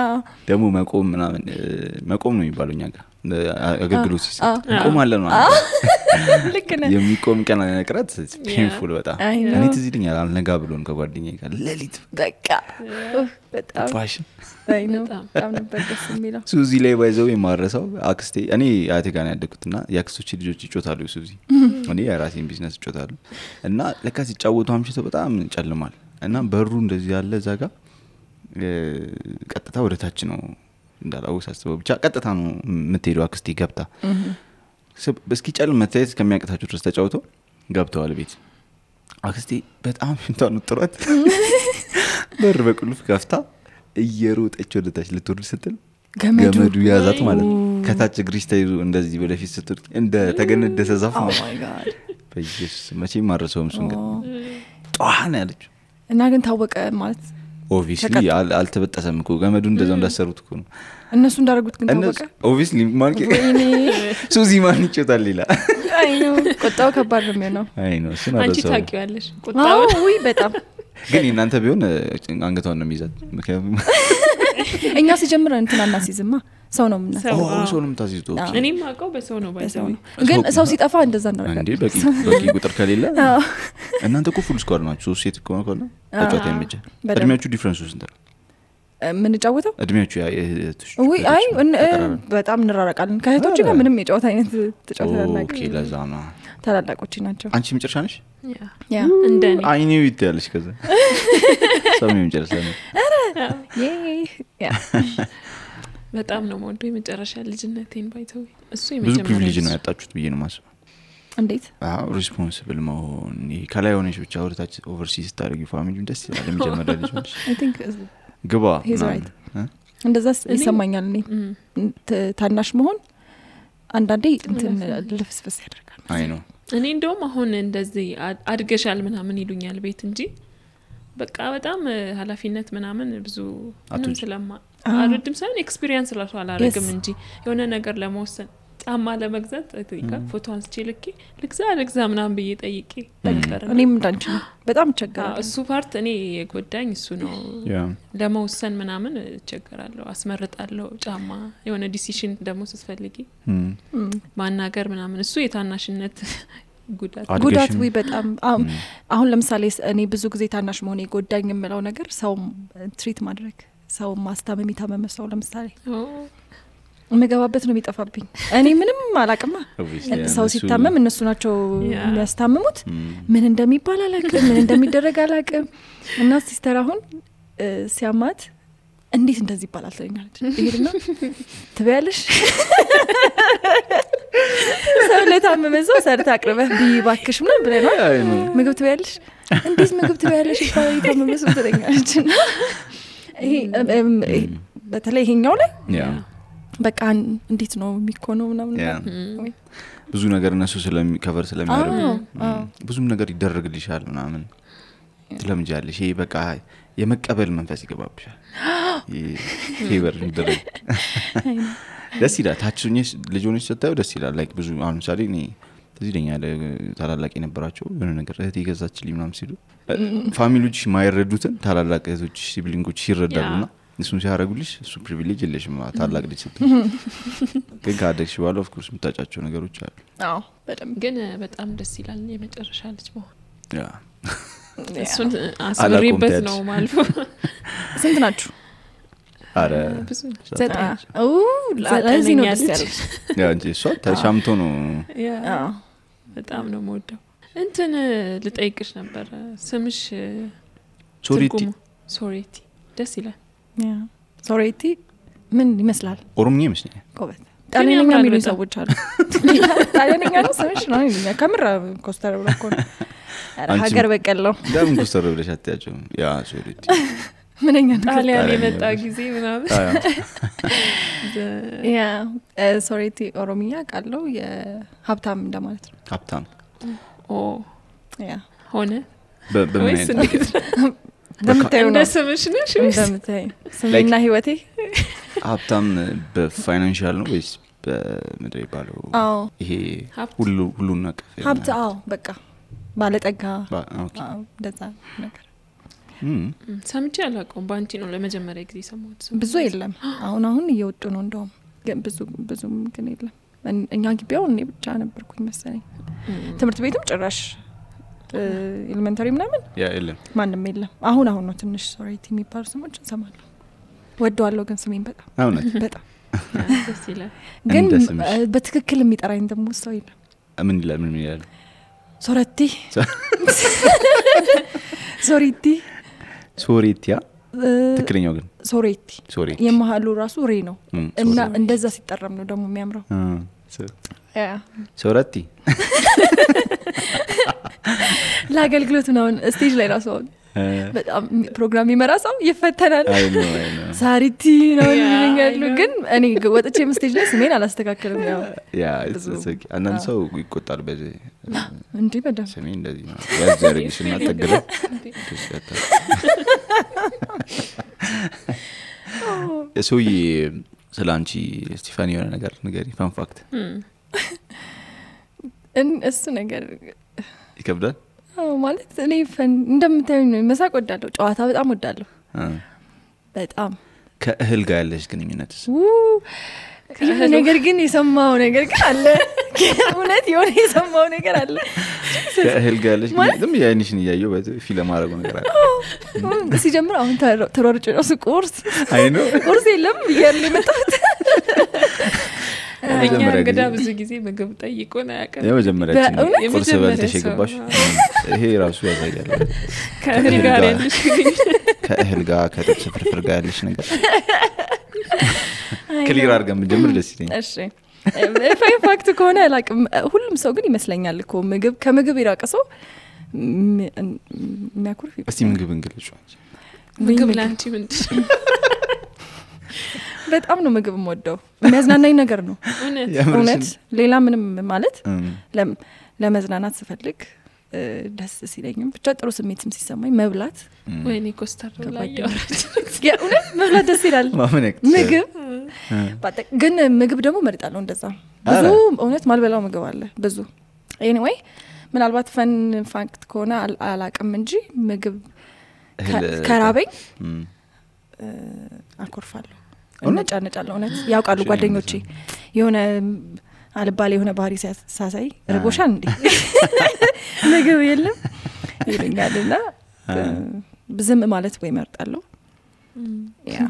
ደግሞ መቆም ነው የሚባለው እኛ ጋር አገልግሎት ሲሰጥ ቆም አለ ነው ልክ ነህ የሚቆም ቀን ነቅረት ፔንፉል በጣም እኔ ትዝ ይለኛል አልነጋ ብሎን ከጓደኛዬ ጋር ለሊት በቃ በጣም ፋሽን በጣም ነበር ደስ የሚለው ሱዚ ላይ ባይዘው የማረሳው አክስቴ እኔ አያቴ ጋር ያደግኩትና ያክስቶች ልጆች ይጮታሉ ሱዚ እኔ የራሴን ቢዝነስ ይጮታሉ እና ለካ ሲጫወቱ አምሽተው በጣም ጨልማል እና በሩ እንደዚህ ያለ እዛ ጋር ቀጥታ ወደ ታች ነው እንዳላው ሳስበው ብቻ ቀጥታ ነው የምትሄደው አክስቴ ገብታ በስኪ ጨልም መታየት ከሚያቀታቸው ድረስ ተጫውተው ገብተዋል ቤት አክስቴ በጣም እንታኑ ጥሯት በር በቁልፍ ከፍታ እየሮጠች ወደ ታች ልትወርድ ስትል ገመዱ ያዛት ማለት ከታች ግሪስ ተይዞ እንደዚህ ወደፊት ስትል እንደ ተገነደሰ ዛፍ ነው በኢየሱስ መቼም ማረሰውም እሱን ግን ጧና ያለች እና ግን ታወቀ ማለት obviously አልተበጠሰም እኮ ገመዱ እንደዛው እንዳሰሩት እኮ ነው እነሱ እንዳደረጉት ግን ታወቀ obviously ማንኪ ሱዚ ማን ይጮታል ይላል አይ ነው ቆጣው ከባድ ነው የሚሆነው አይ ነው እሱ ነው አንቺ ታውቂዋለሽ ቆጣው ወይ በጣም ግን እናንተ ቢሆን አንገቷን ነው የሚይዛት ምክንያቱም እኛ ሲጀምር እንትና እናሲዝማ ሰው ነው ምናምን ሰው ነው የምታሲዙት እኔም አውቀው በሰው ነው ባይዘው ግን ሰው ሲጠፋ እንደዛ ነው እንዴ በቂ ቁጥር ከሌለ እናንተ እኮ ፉል ስኳድ ናችሁ ሴት እኮ ነው ተጫውታ የሚጀ እድሜያችሁ ዲፈረንስ ውስጥ እንደ ምን ጫወተው እድሜያችሁ ወይ አይ በጣም እንራራቃለን ከእህቶች ጋር ምንም የጫወታ አይነት ተጫውተናል ኦኬ ለዛ ነው ታላላቆች ናቸው አንቺ መጨረሻ ነሽ ያ እንደኔ አይኔው ይታያለሽ ከዛ ሰው መጨረሻ ነው ያ በጣም ነው የምወደው የመጨረሻ ልጅነቴን ባይተው እሱ ብዙ የመጀመሪያ ፕሪቪሌጅ ነው ያጣችሁት ብዬ ነው ማስበው እንዴት ሪስፖንሲብል መሆን ከላይ ሆነሽ ብቻ ወደታች ኦቨርሲስ ታደርጊ ፋሚሊውን ደስ ይላል የሚጀመረው ልጅ ነሽ I think ግባ he's right እንደዛ ይሰማኛል እኔ ታናሽ መሆን አንዳንዴ እንትን ልፍስፍስ ያደርጋል አይ ነው እኔ እንደውም አሁን እንደዚህ አድገሻል ምናምን ይሉኛል ቤት እንጂ በቃ በጣም ኃላፊነት ምናምን ብዙ ምንም ስለማ አልወድም ሳይሆን ኤክስፒሪየንስ ላሽ አላረግም እንጂ የሆነ ነገር ለመወሰን ጫማ ለመግዛት አይተይካ ፎቶ አንስቼ ልግዛ ምናምን ብዬ ጠይቄ ተቀረ እኔም እንዳንቺ ነው በጣም ቸገራለሁ እሱ ፓርት እኔ የጎዳኝ እሱ ነው ለመወሰን ምናምን ቸገራለሁ አስመርጣለሁ ጫማ የሆነ ዲሲሽን ደግሞ ስትፈልጊ ማናገር ምናምን እሱ የታናሽነት ጉዳት ወይ በጣም አሁን ለምሳሌ እኔ ብዙ ጊዜ ታናሽ መሆኔ ጎዳኝ የምለው ነገር ሰው ትሪት ማድረግ ሰው ማስታመም ይታመም ሰው ለምሳሌ መገባበት ነው የሚጠፋብኝ እኔ ምንም አላቅማ ሰው ሲታመም እነሱ ናቸው የሚያስታምሙት ምን እንደሚባል አላቅም ምን እንደሚደረግ አላቅም እና ሲስተር አሁን ሲያማት እንዴት እንደዚህ ይባላል ትለኛለች ይሄድና ትበያለሽ ሰው ለታመመ ሰው ሰርታ አቅርበህ ቢባክሽ ምናምን ብለናል ምግብ ትበያለሽ እንዴት ምግብ ትበያለሽ ይባላል ታመመ ሰው ትለኛለች ይሄ በተለይ ይሄኛው ላይ በቃ እንዴት ነው የሚኮነው ምናምን ብዙ ነገር እነሱ ከቨር ስለሚያደርጉ ብዙም ነገር ይደረግልሻል ምናምን ትለምጃለሽ ይሄ በቃ የመቀበል መንፈስ ይገባብሻል ፌቨር ይደረግ ደስ ይላል ታችሁኝስ ልጆች ስታዩ ደስ ይላል ላይክ ብዙ አሁን ምሳሌ እኔ እዚህ ደኛ ታላላቅ የነበራቸው የሆነ ነገር እህት ይገዛችልኝ ምናምን ሲሉ ፋሚሊዎች ማይረዱትን ታላላቅ እህቶች ሲብሊንጎች ይረዳሉና እሱን ሲያረጉልሽ እሱ ፕሪቪሌጅ የለሽም ታላቅ ልጅ ስትይ ግን ካደግሽ በኋላ ኦፍ ኮርስ የምታጫቸው ነገሮች አሉ አዎ በደምብ ግን በጣም ደስ ይላል የመጨረሻ ልጅ መሆን ያ እሱን አስመሪበት ነው ማልፎ ስንት ናችሁ አረ ብዙ ለዚህ ነው ደስ ያለሽ ያ እንጂ እሷ ተሻምቶ ነው ያ በጣም ነው የምወደው እንትን ልጠይቅሽ ነበር ስምሽ ሶሬቲ ደስ ይላል ያ ሶሬቲ ምን ይመስላል ኦሮምኛ ይመስላል ኮበት ጣሊያንኛ የሚሉ ሰዎች አሉ ጣሊያንኛ ነው ስምሽ ነው የሚሉኝ ከምራ ኮስተር ብሎ እኮ ሀገር በቀል ነው ለምን ኮስተር ብለሽ አትያቸው ያ ሶሬቲ ምንኛ ጣሊያን የመጣ ጊዜ ምናምን ያ ሶሬቲ ኦሮምኛ ቃለው የሀብታም እንደማለት ነው ሀብታም ያ ሆነ በምን እንደምታዩ ነው ስምሽ ነሽ እንደምታዩ ስምና ህይወቴ ሀብታም በፋይናንሻል ነው ወይስ በምድር ይባለው ይሄ ሁሉ ነገር ሀብት በቃ ባለጠጋ ኦኬ እንደዛ ነገር ሰምቼ አላውቀውም ባንቺ ነው ለመጀመሪያ ጊዜ ሰማሁት ብዙ የለም አሁን እየወጡ ነው እንደውም ግን ብዙም ግን የለም እኛ ግቢያው እኔ ብቻ ነበርኩኝ መሰለኝ ትምህርት ቤትም ጭራሽ ኤሌመንተሪ ምናምን ያ የለም ማንንም የለም አሁን ነው ትንሽ ሶሬቲ የሚባሉ ስሞች እንሰማለን ወደዋለሁ ግን ስሜን በጣም ደስ ይላል ግን በትክክል የሚጠራኝ ደግሞ ሰው የለም ምን ይላል ሶሬቲ ሶሬቲያ ትክክለኛው ግን ሶሬቲ የመሃሉ ራሱ ሬ ነው እና እንደዛ ሲጠራም ነው ደግሞ የሚያምረው ያ ሶሬቲ ለአገልግሎት ነው ስቴጅ ላይ ራሱ በጣም ፕሮግራም ይመራ ሰው ይፈተናል ሳሪቲ ነው የሚሉኛሉ ግን እኔ ወጥቼ ስቴጅ ላይ ስሜን አላስተካክልም ያ አንዳንድ ሰው ይቆጣል በዚህ እንዴ በደም ስሜ እንደዚህ ነው ያዘርግሽና ተገለ እሱይ ስላንቺ ስቲፋኒ የሆነ ነገር ንገሪ ፋን ፋክት እሱ ነገር ይከብዳል ማለት እኔ እንደምታዩኝ ነው መሳቅ ወዳለሁ ጨዋታ በጣም ወዳለሁ በጣም ከእህል ጋር ያለሽ ግንኙነትስ ነገር ግን የሰማው ነገር ግን አለ እውነት የሆነ የሰማው ነገር አለ ከእህል ጋር ያለሽ ግን ያይንሽን ያየው ፊልም አረጉ ነገር አለ ሲጀምር አሁን ተሮርጭ ነው ቁርስ ቁርስ የለም ይያል መጣት እኛ እንግዳ ብዙ ጊዜ ምግብ ጠይቆን አያውቅም የመጀመሪያችን ቁርስ በልተሽ የገባሽ ይሄ ራሱ ያሳያል ከእህል ጋር ያለሽ ከእህል ጋር ከጥብስ ፍርፍር ጋር ያለሽ ነገር ክሊር አድርገን ብንጀምር ደስ ይለኛል እሺ ፋይን ፋክት ከሆነ አላውቅም ሁሉም ሰው ግን ይመስለኛል እኮ ከምግብ ይራቅ ሰው የሚያኩርፍ እስቲ ምግብ እንግለጹ ምግብ ላንቺ ምንድን በጣም ነው ምግብ የምወደው የሚያዝናናኝ ነገር ነው እውነት ሌላ ምንም ማለት ለመዝናናት ስፈልግ ደስ ሲለኝም ብቻ ጥሩ ስሜትም ሲሰማኝ መብላት ወይኔ ኮስተር ላይ ያወራች እውነት መብላት ደስ ይላል ማመነክ ምግብ ግን ምግብ ደግሞ መርጣለሁ እንደዛ ብዙ እውነት ማልበላው ምግብ አለ ብዙ ኤኒዌይ ምናልባት ፈን ፋክት ከሆነ አላቅም እንጂ ምግብ ከራበኝ አልኮርፋለሁ እነጫነጫለሁ እውነት ያውቃሉ ጓደኞቼ የሆነ አልባሌ የሆነ ባህሪ ሳሳይ ርቦሻል እንዴ ምግብ የለም ይለኛልና ዝም ማለት ወይ መርጣለሁ ያ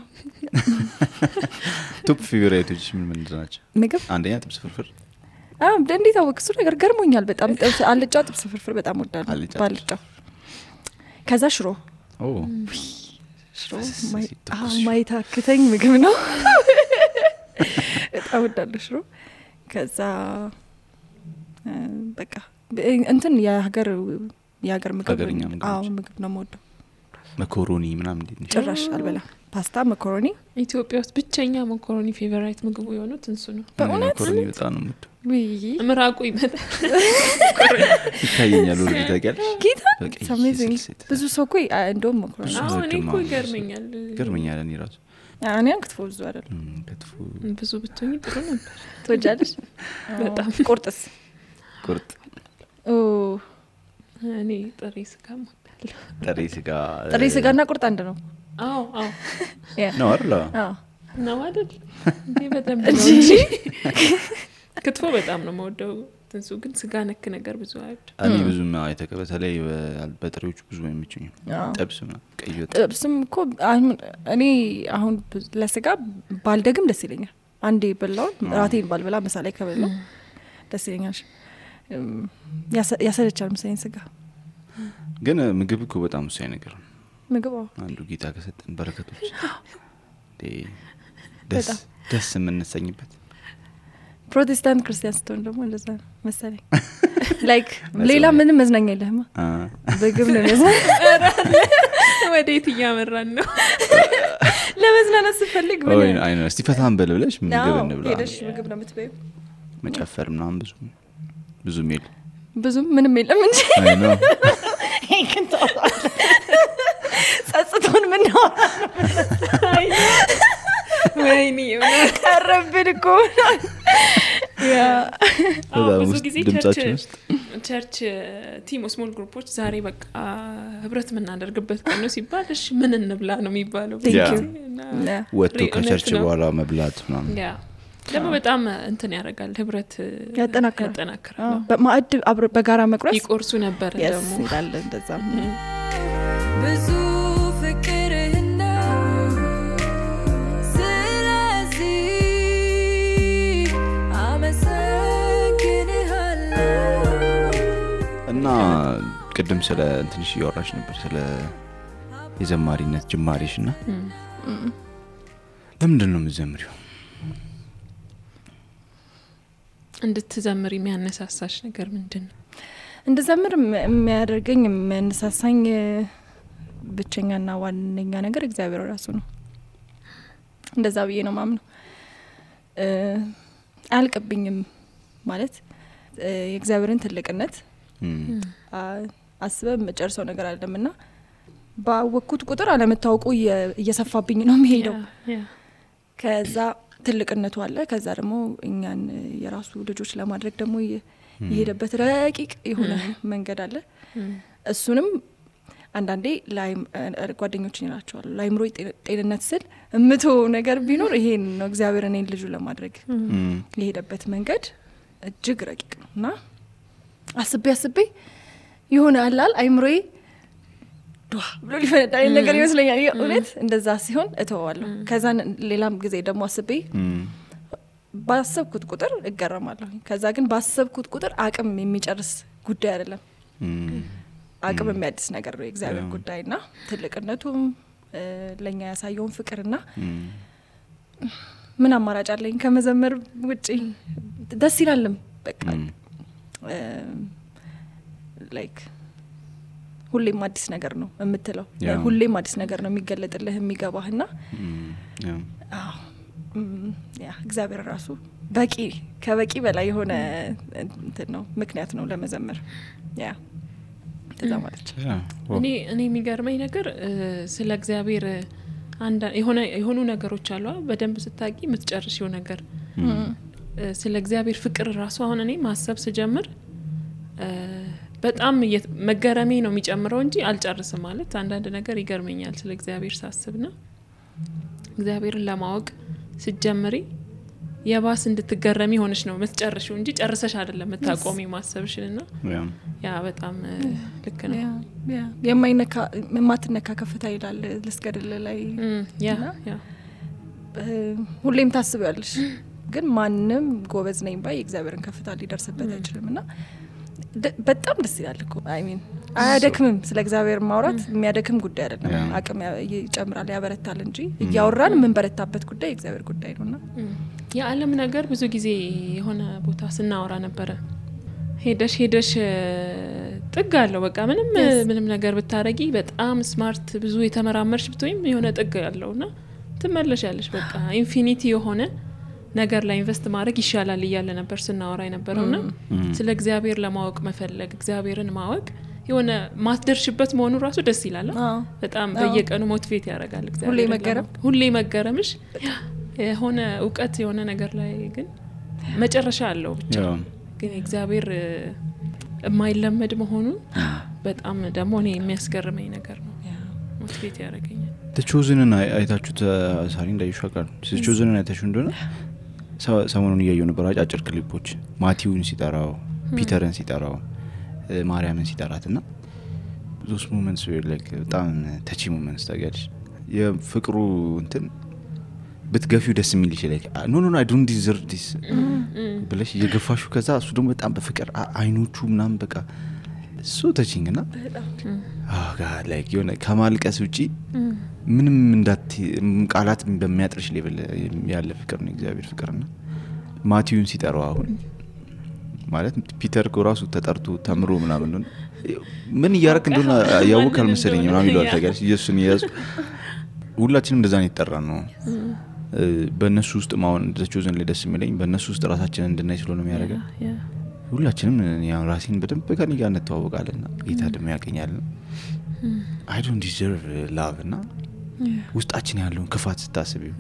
ቶፕ ፌቨራይቶች ምን ናቸው ምግብ አንደኛ ጥብስ ፍርፍር እንዴት አወቅ እሱ ነገር ገርሞኛል በጣም ጥብስ አልጫ ጥብስ ፍርፍር በጣም ወዳለሁ ባልጫ ከዛ ሽሮ ሽሮ ማይታክተኝ ምግብ ነው በጣም ወዳለሁ ሽሮ ከዛ በቃ እንትን የሀገር ምግብ ምግብ ነው የምወደው መኮሮኒ ምናምን እንዴት ጭራሽ አልበላ ፓስታ መኮሮኒ ኢትዮጵያ ውስጥ ብቸኛ መኮሮኒ ፌቨራይት ምግቡ የሆኑት እንሱ ነው በእውነት መኮሮኒ በጣም ነው የምወደው ምራቁ ይመጣል ይታየኛል ወደ ታውቂያለሽ ጌታ አሜዚንግ ብዙ ሰው እኮ እንደውም መኮሮኒ እኔ እኮ ይገርመኛል እኔ ራሱ እኔ ክትፎ ብዙ አይደለም ክትፎ ብዙ ብትሆኚ ጥሩ ነበር ትወጃለሽ በጣም ቁርጥስ ቁርጥ እኔ ጥሬ ስጋ እወዳለሁ ጥሬ ስጋና ቁርጥ አንድ ነው አዎ ነው አይደል ነው አይደል እንዴ በጣም ነው ክትፎ በጣም ነው የምወደው ትንሱ ግን ስጋ ነክ ነገር ብዙ አይወድ እኔ ብዙም በተለይ በጥሬዎቹ ብዙ አይመቹኝም ጥብስም ቀይ ወጥ ጥብስም እኮ እኔ አሁን ለስጋ ባልደግም ደስ ይለኛል አንዴ በላው ራቴን ባልበላ መሳላይ ከበላው ደስ ይለኛል ያሰለቻል መሰለኝ ስጋ ግን ምግብ እኮ በጣም ወሳኝ ነገር ነው ምግብ አንዱ ጌታ ከሰጠን በረከቶች ደስ የምንሰኝበት ፕሮቴስታንት ክርስቲያን ስትሆን ደግሞ እንደዛ መሰለኝ ላይክ ሌላ ምንም መዝናኛ የለህማ ምግብ ነው መዝናኛ ወዴት እያመራን ነው ለመዝናናት ስትፈልግ ምን አይነ እስቲ ፈታን በልብለሽ ምግብ እንብላ ሄደሽ ምግብ ነው የምትበይው መጨፈር ምናምን ብዙ ሜል ብዙ ምንም የለም እንጂ አይ ነው ጸጽቶን ምን ነው ወይኔ ቀረብን እኮ ያ ብዙ ጊዜ ቸርች ቲም ስሞል ግሩፖች ዛሬ በቃ ህብረት ምናደርግበት ቀን ነው ሲባል እሺ ምን እንብላ ነው የሚባለው ወጥቶ ከቸርች በኋላ መብላት ምናምን ያ ደግሞ በጣም እንትን ያደርጋል ህብረት ያጠናክራል በማዕድ በጋራ መቁረስ ይቆርሱ ነበር ደግሞ ይላል እንደዛ ብዙ ፍቅርህና ስለዚህ አመሰግንሃለሁ እና ቅድም ስለ እንትንሽ እያወራሽ ነበር ስለ የዘማሪነት ጅማሬሽና ለምንድን ነው የምትዘምሪው እንድትዘምሪ የሚያነሳሳሽ ነገር ምንድነው እንድዘምር የሚያደርገኝ የሚያነሳሳኝ ብቸኛና ዋነኛ ነገር እግዚአብሔር ራሱ ነው እንደዛ ብዬ ነው ማምነው አልቀብኝም ማለት የእግዚአብሔርን ትልቅነት አስበ መጨረሻው ነገር አይደለምና ባወኩት ቁጥር አለመታወቁ እየሰፋብኝ ነው የሚሄደው ከዛ ትልቅነቱ አለ ከዛ ደግሞ እኛን የራሱ ልጆች ለማድረግ ደግሞ የሄደበት ረቂቅ የሆነ መንገድ አለ እሱንም አንዳንዴ ጓደኞች ይላቸዋል ላይምሮ ጤንነት ስል እምቶ ነገር ቢኖር ይሄን ነው እግዚአብሔር እኔን ልጁ ለማድረግ የሄደበት መንገድ እጅግ ረቂቅ ነውና አስቤ የሆነ አላል አይምሮዬ ዱአ ብሎ ሊፈነዳ ነገር ይመስለኛል እውነት እንደዛ ሲሆን እተዋለሁ ከዛ ሌላም ጊዜ ደግሞ አስቤ ባሰብኩት ቁጥር እገረማለሁ ከዛ ግን ባሰብኩት ቁጥር አቅም የሚጨርስ ጉዳይ አይደለም አቅም የሚያድስ ነገር ነው እግዚአብሔር ጉዳይና ትልቅነቱም ለኛ ያሳየውን ፍቅርና ምን አማራጭ አለኝ ከመዘመር ውጪ ደስ ይላልም በቃ ላይክ ሁሌም አዲስ ነገር ነው የምትለው ሁሌም አዲስ ነገር ነው የሚገለጥልህ የሚገባህና ያ እግዚአብሔር ራሱ ከበቂ በላይ የሆነ እንትን ነው ምክንያት ነው ለመዘመር ያ እንደዛ ማለች እኔ የሚገርመኝ ነገር ስለ እግዚአብሔር የሆኑ ነገሮች አሉ በደንብ ስታቂ የምትጨርሺው ነገር ስለ እግዚአብሔር ፍቅር ራሱ አሁን እኔ ማሰብ ስጀምር በጣም መገረሜ ነው የሚጨምረው እንጂ አልጨርስም ማለት አንዳንድ ነገር ይገርመኛል ስለ እግዚአብሔር ሳስብና እግዚአብሔርን ለማወቅ ስትጀምሪ የባስ እንድትገረሚ ሆነሽ ነው የምትጨርሺው እንጂ ጨርሰሽ አይደለም የምታቆሚ ማሰብሽንና ያ በጣም ልክ ነው የማይነካ ማትነካ ከፍታ ይላል ልስገድል ላይ ያ ሁሌም ታስቢያለሽ ግን ማንም ጎበዝ ነኝ ባይ እግዚአብሔርን ከፍታ ሊደርስበት አይችልምና በጣም ደስ ይላል እኮ አይ ሚን አያደክምም ስለ እግዚአብሔር ማውራት የሚያደክም ጉዳይ አይደለም አቅም ይጨምራል ያበረታል እንጂ ያወራን ምን በረታበት ጉዳይ እግዚአብሔር ጉዳይ ነውና የዓለም ነገር ብዙ ጊዜ የሆነ ቦታ ስናወራ ነበር ሄደሽ ጥግ አለው በቃ ምንም ነገር ብታረጊ በጣም ስማርት ብዙ የተመራመርሽ ብትወይም የሆነ ጥግ ያለውና ትመለሻለሽ በቃ ኢንፊኒቲ የሆነ ነገር ላይ ኢንቨስት ማድረግ ይሻላል ይያለ ነበር ስናወራ የነበረውና ስለ እግዚአብሔር ለማወቅ መፈለግ እግዚአብሔርን ማወቅ የሆነ ማትደርሽበት መሆኑ ራሱ ደስ ይላል በጣም በየቀኑ ሞቲቬት ያደርጋል እግዚአብሔር ሁሌ መገረምሽ የሆነ ዕውቀት የሆነ ነገር ላይ ግን መጨረሻ አለው ብቻ ግን እግዚአብሔር የማይለመድ መሆኑ በጣም ደግሞ እኔ የሚያስገርመኝ ነገር ነው ሞቲቬት ያደርገኛል ተቾዝንን አይታችሁት ሳሪ እንዳይሻካል ተቾዝንን አይታችሁ እንደሆነ ሰሞኑን እያየሁ ነበር አጫጭር ክሊፖች ማቲውን ሲጠራው ፒተርን ሲጠራው ማርያምን ሲጠራትና those moments were like በጣም touch moments ታጋልሽ የፍቅሩ እንትን በትገፊው ደስ የሚል ይችላል ኖ I don't deserve this ብለሽ የገፋሹ ከዛ እሱ ደግሞ በጣም በፍቅር አይኖቹ ምናምን በቃ so touching እና god like የሆነ ከማልቀስ ውጪ ምንም እንዳት ቃላት በሚያጥርሽ ሌቭል ያለ ፍቅር ነው እግዚአብሔር ፍቅርና ማቲውን ሲጠራው አሁን ማለት ፒተር ኮራሱ ተጠርቶ ተምሮ ምናምን ነው ምን ያርክ እንደሆነ ያውቃል መሰለኝ ምናምን ይላል ታጋሽ ኢየሱስን ያዝ ሁላችንም እንደዛ ነው ይጠራን ነው በእነሱ ውስጥ ማውን ተቾዘን ለደስ የሚለኝ በእነሱ ውስጥ ራሳችንን እንድናይ ስለሆነ የሚያደርገን ሁላችንም ያው ራሴን በደንብ ከኔ ጋር እንተዋወቃለና ጌታ ደግሞ ያቀኛልና I don't deserve love እና ውስጣችን ያለው ክፋት ስታስቢው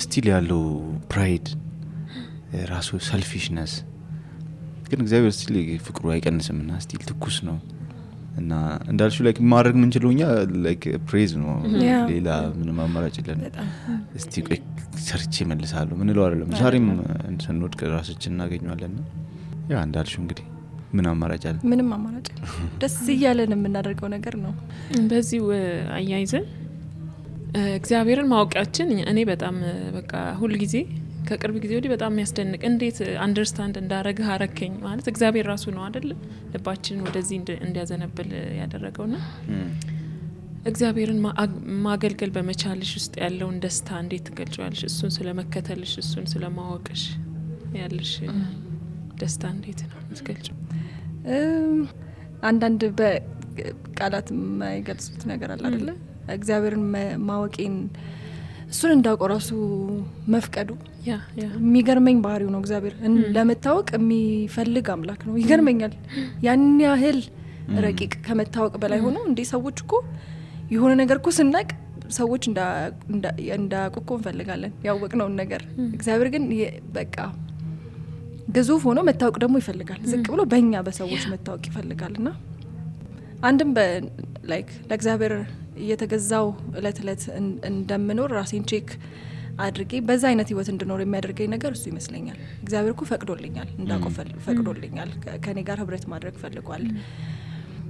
ስቲል ያለው ፕራይድ ራሱ ሰልፊሽነስ ግን እግዚአብሔር ስቲል ፍቅሩ አይቀንስምና ስቲል ትኩስ ነው እና እንዳልሽው ላይክ ማድረግ ምን ችሎኛ ላይክ ፕሬዝ ነው ሌላ ምንም አማራጭ የለም እስቲ ሰርቼ መልሳለሁ ምን ነው አይደለም ዛሬም እንሰንወድቅ ራሳችን እናገኛለን ያ እንዳልሽው እንግዲህ ምን አማራጭ አለ ምንም አማራጭ ደስ ይያለን የምናደርገው ነገር ነው በዚህ አያይዘን እግዚአብሔርን ማወቃችን እኔ በጣም በቃ ሁሉ ጊዜ ከቅርብ ጊዜ ወዲህ በጣም የሚያስደንቅ እንዴት አንደርስታንድ እንዳረገ አረከኝ ማለት እግዚአብሔር ራሱ ነው አይደል ልባችንን ወደዚህ እንዲያዘነብል ያደረገውና እግዚአብሔርን ማገልገል በመቻልሽ ውስጥ ያለውን ደስታ እንዴት ትገልጫለሽ እሱን ስለመከተልሽ እሱን ስለማወቅሽ ያለሽ ደስታ እንዴት ነው ትገልጫለሽ አንዳንድ በቃላት የማይገልጹት ነገር አለ አይደል እግዚአብሔርን ማወቄን እሱን እንዳቆራሱ መፍቀዱ የሚገርመኝ ባህሪው ነው እግዚአብሔር ለመታወቅ የሚፈልግ አምላክ ነው ይገርመኛል ያን ያህል ረቂቅ ከመታወቅ በላይ ሆኖ እንዴ ሰዎች እኮ የሆነ ነገር እኮ ስናቅ ሰዎች እንዳቆቆ እንፈልጋለን ያወቅነው ነገር እግዚአብሔር ግን በቃ ግዙፍ ሆኖ መታወቅ ደግሞ ይፈልጋል ዝቅ ብሎ በእኛ በሰዎች መታወቅ ይፈልጋልና አንድም ላይክ ለእግዚአብሔር እየተገዛው እለት እንደምኖር ራሴን ቼክ አድርጌ በዛ አይነት ህይወት እንድኖር የሚያደርገኝ ነገር እሱ ይመስለኛል እግዚአብሔር እኮ ፈቅዶልኛል እንዳቆፈል ፈቅዶልኛል ከኔ ጋር ህብረት ማድረግ ፈልጓል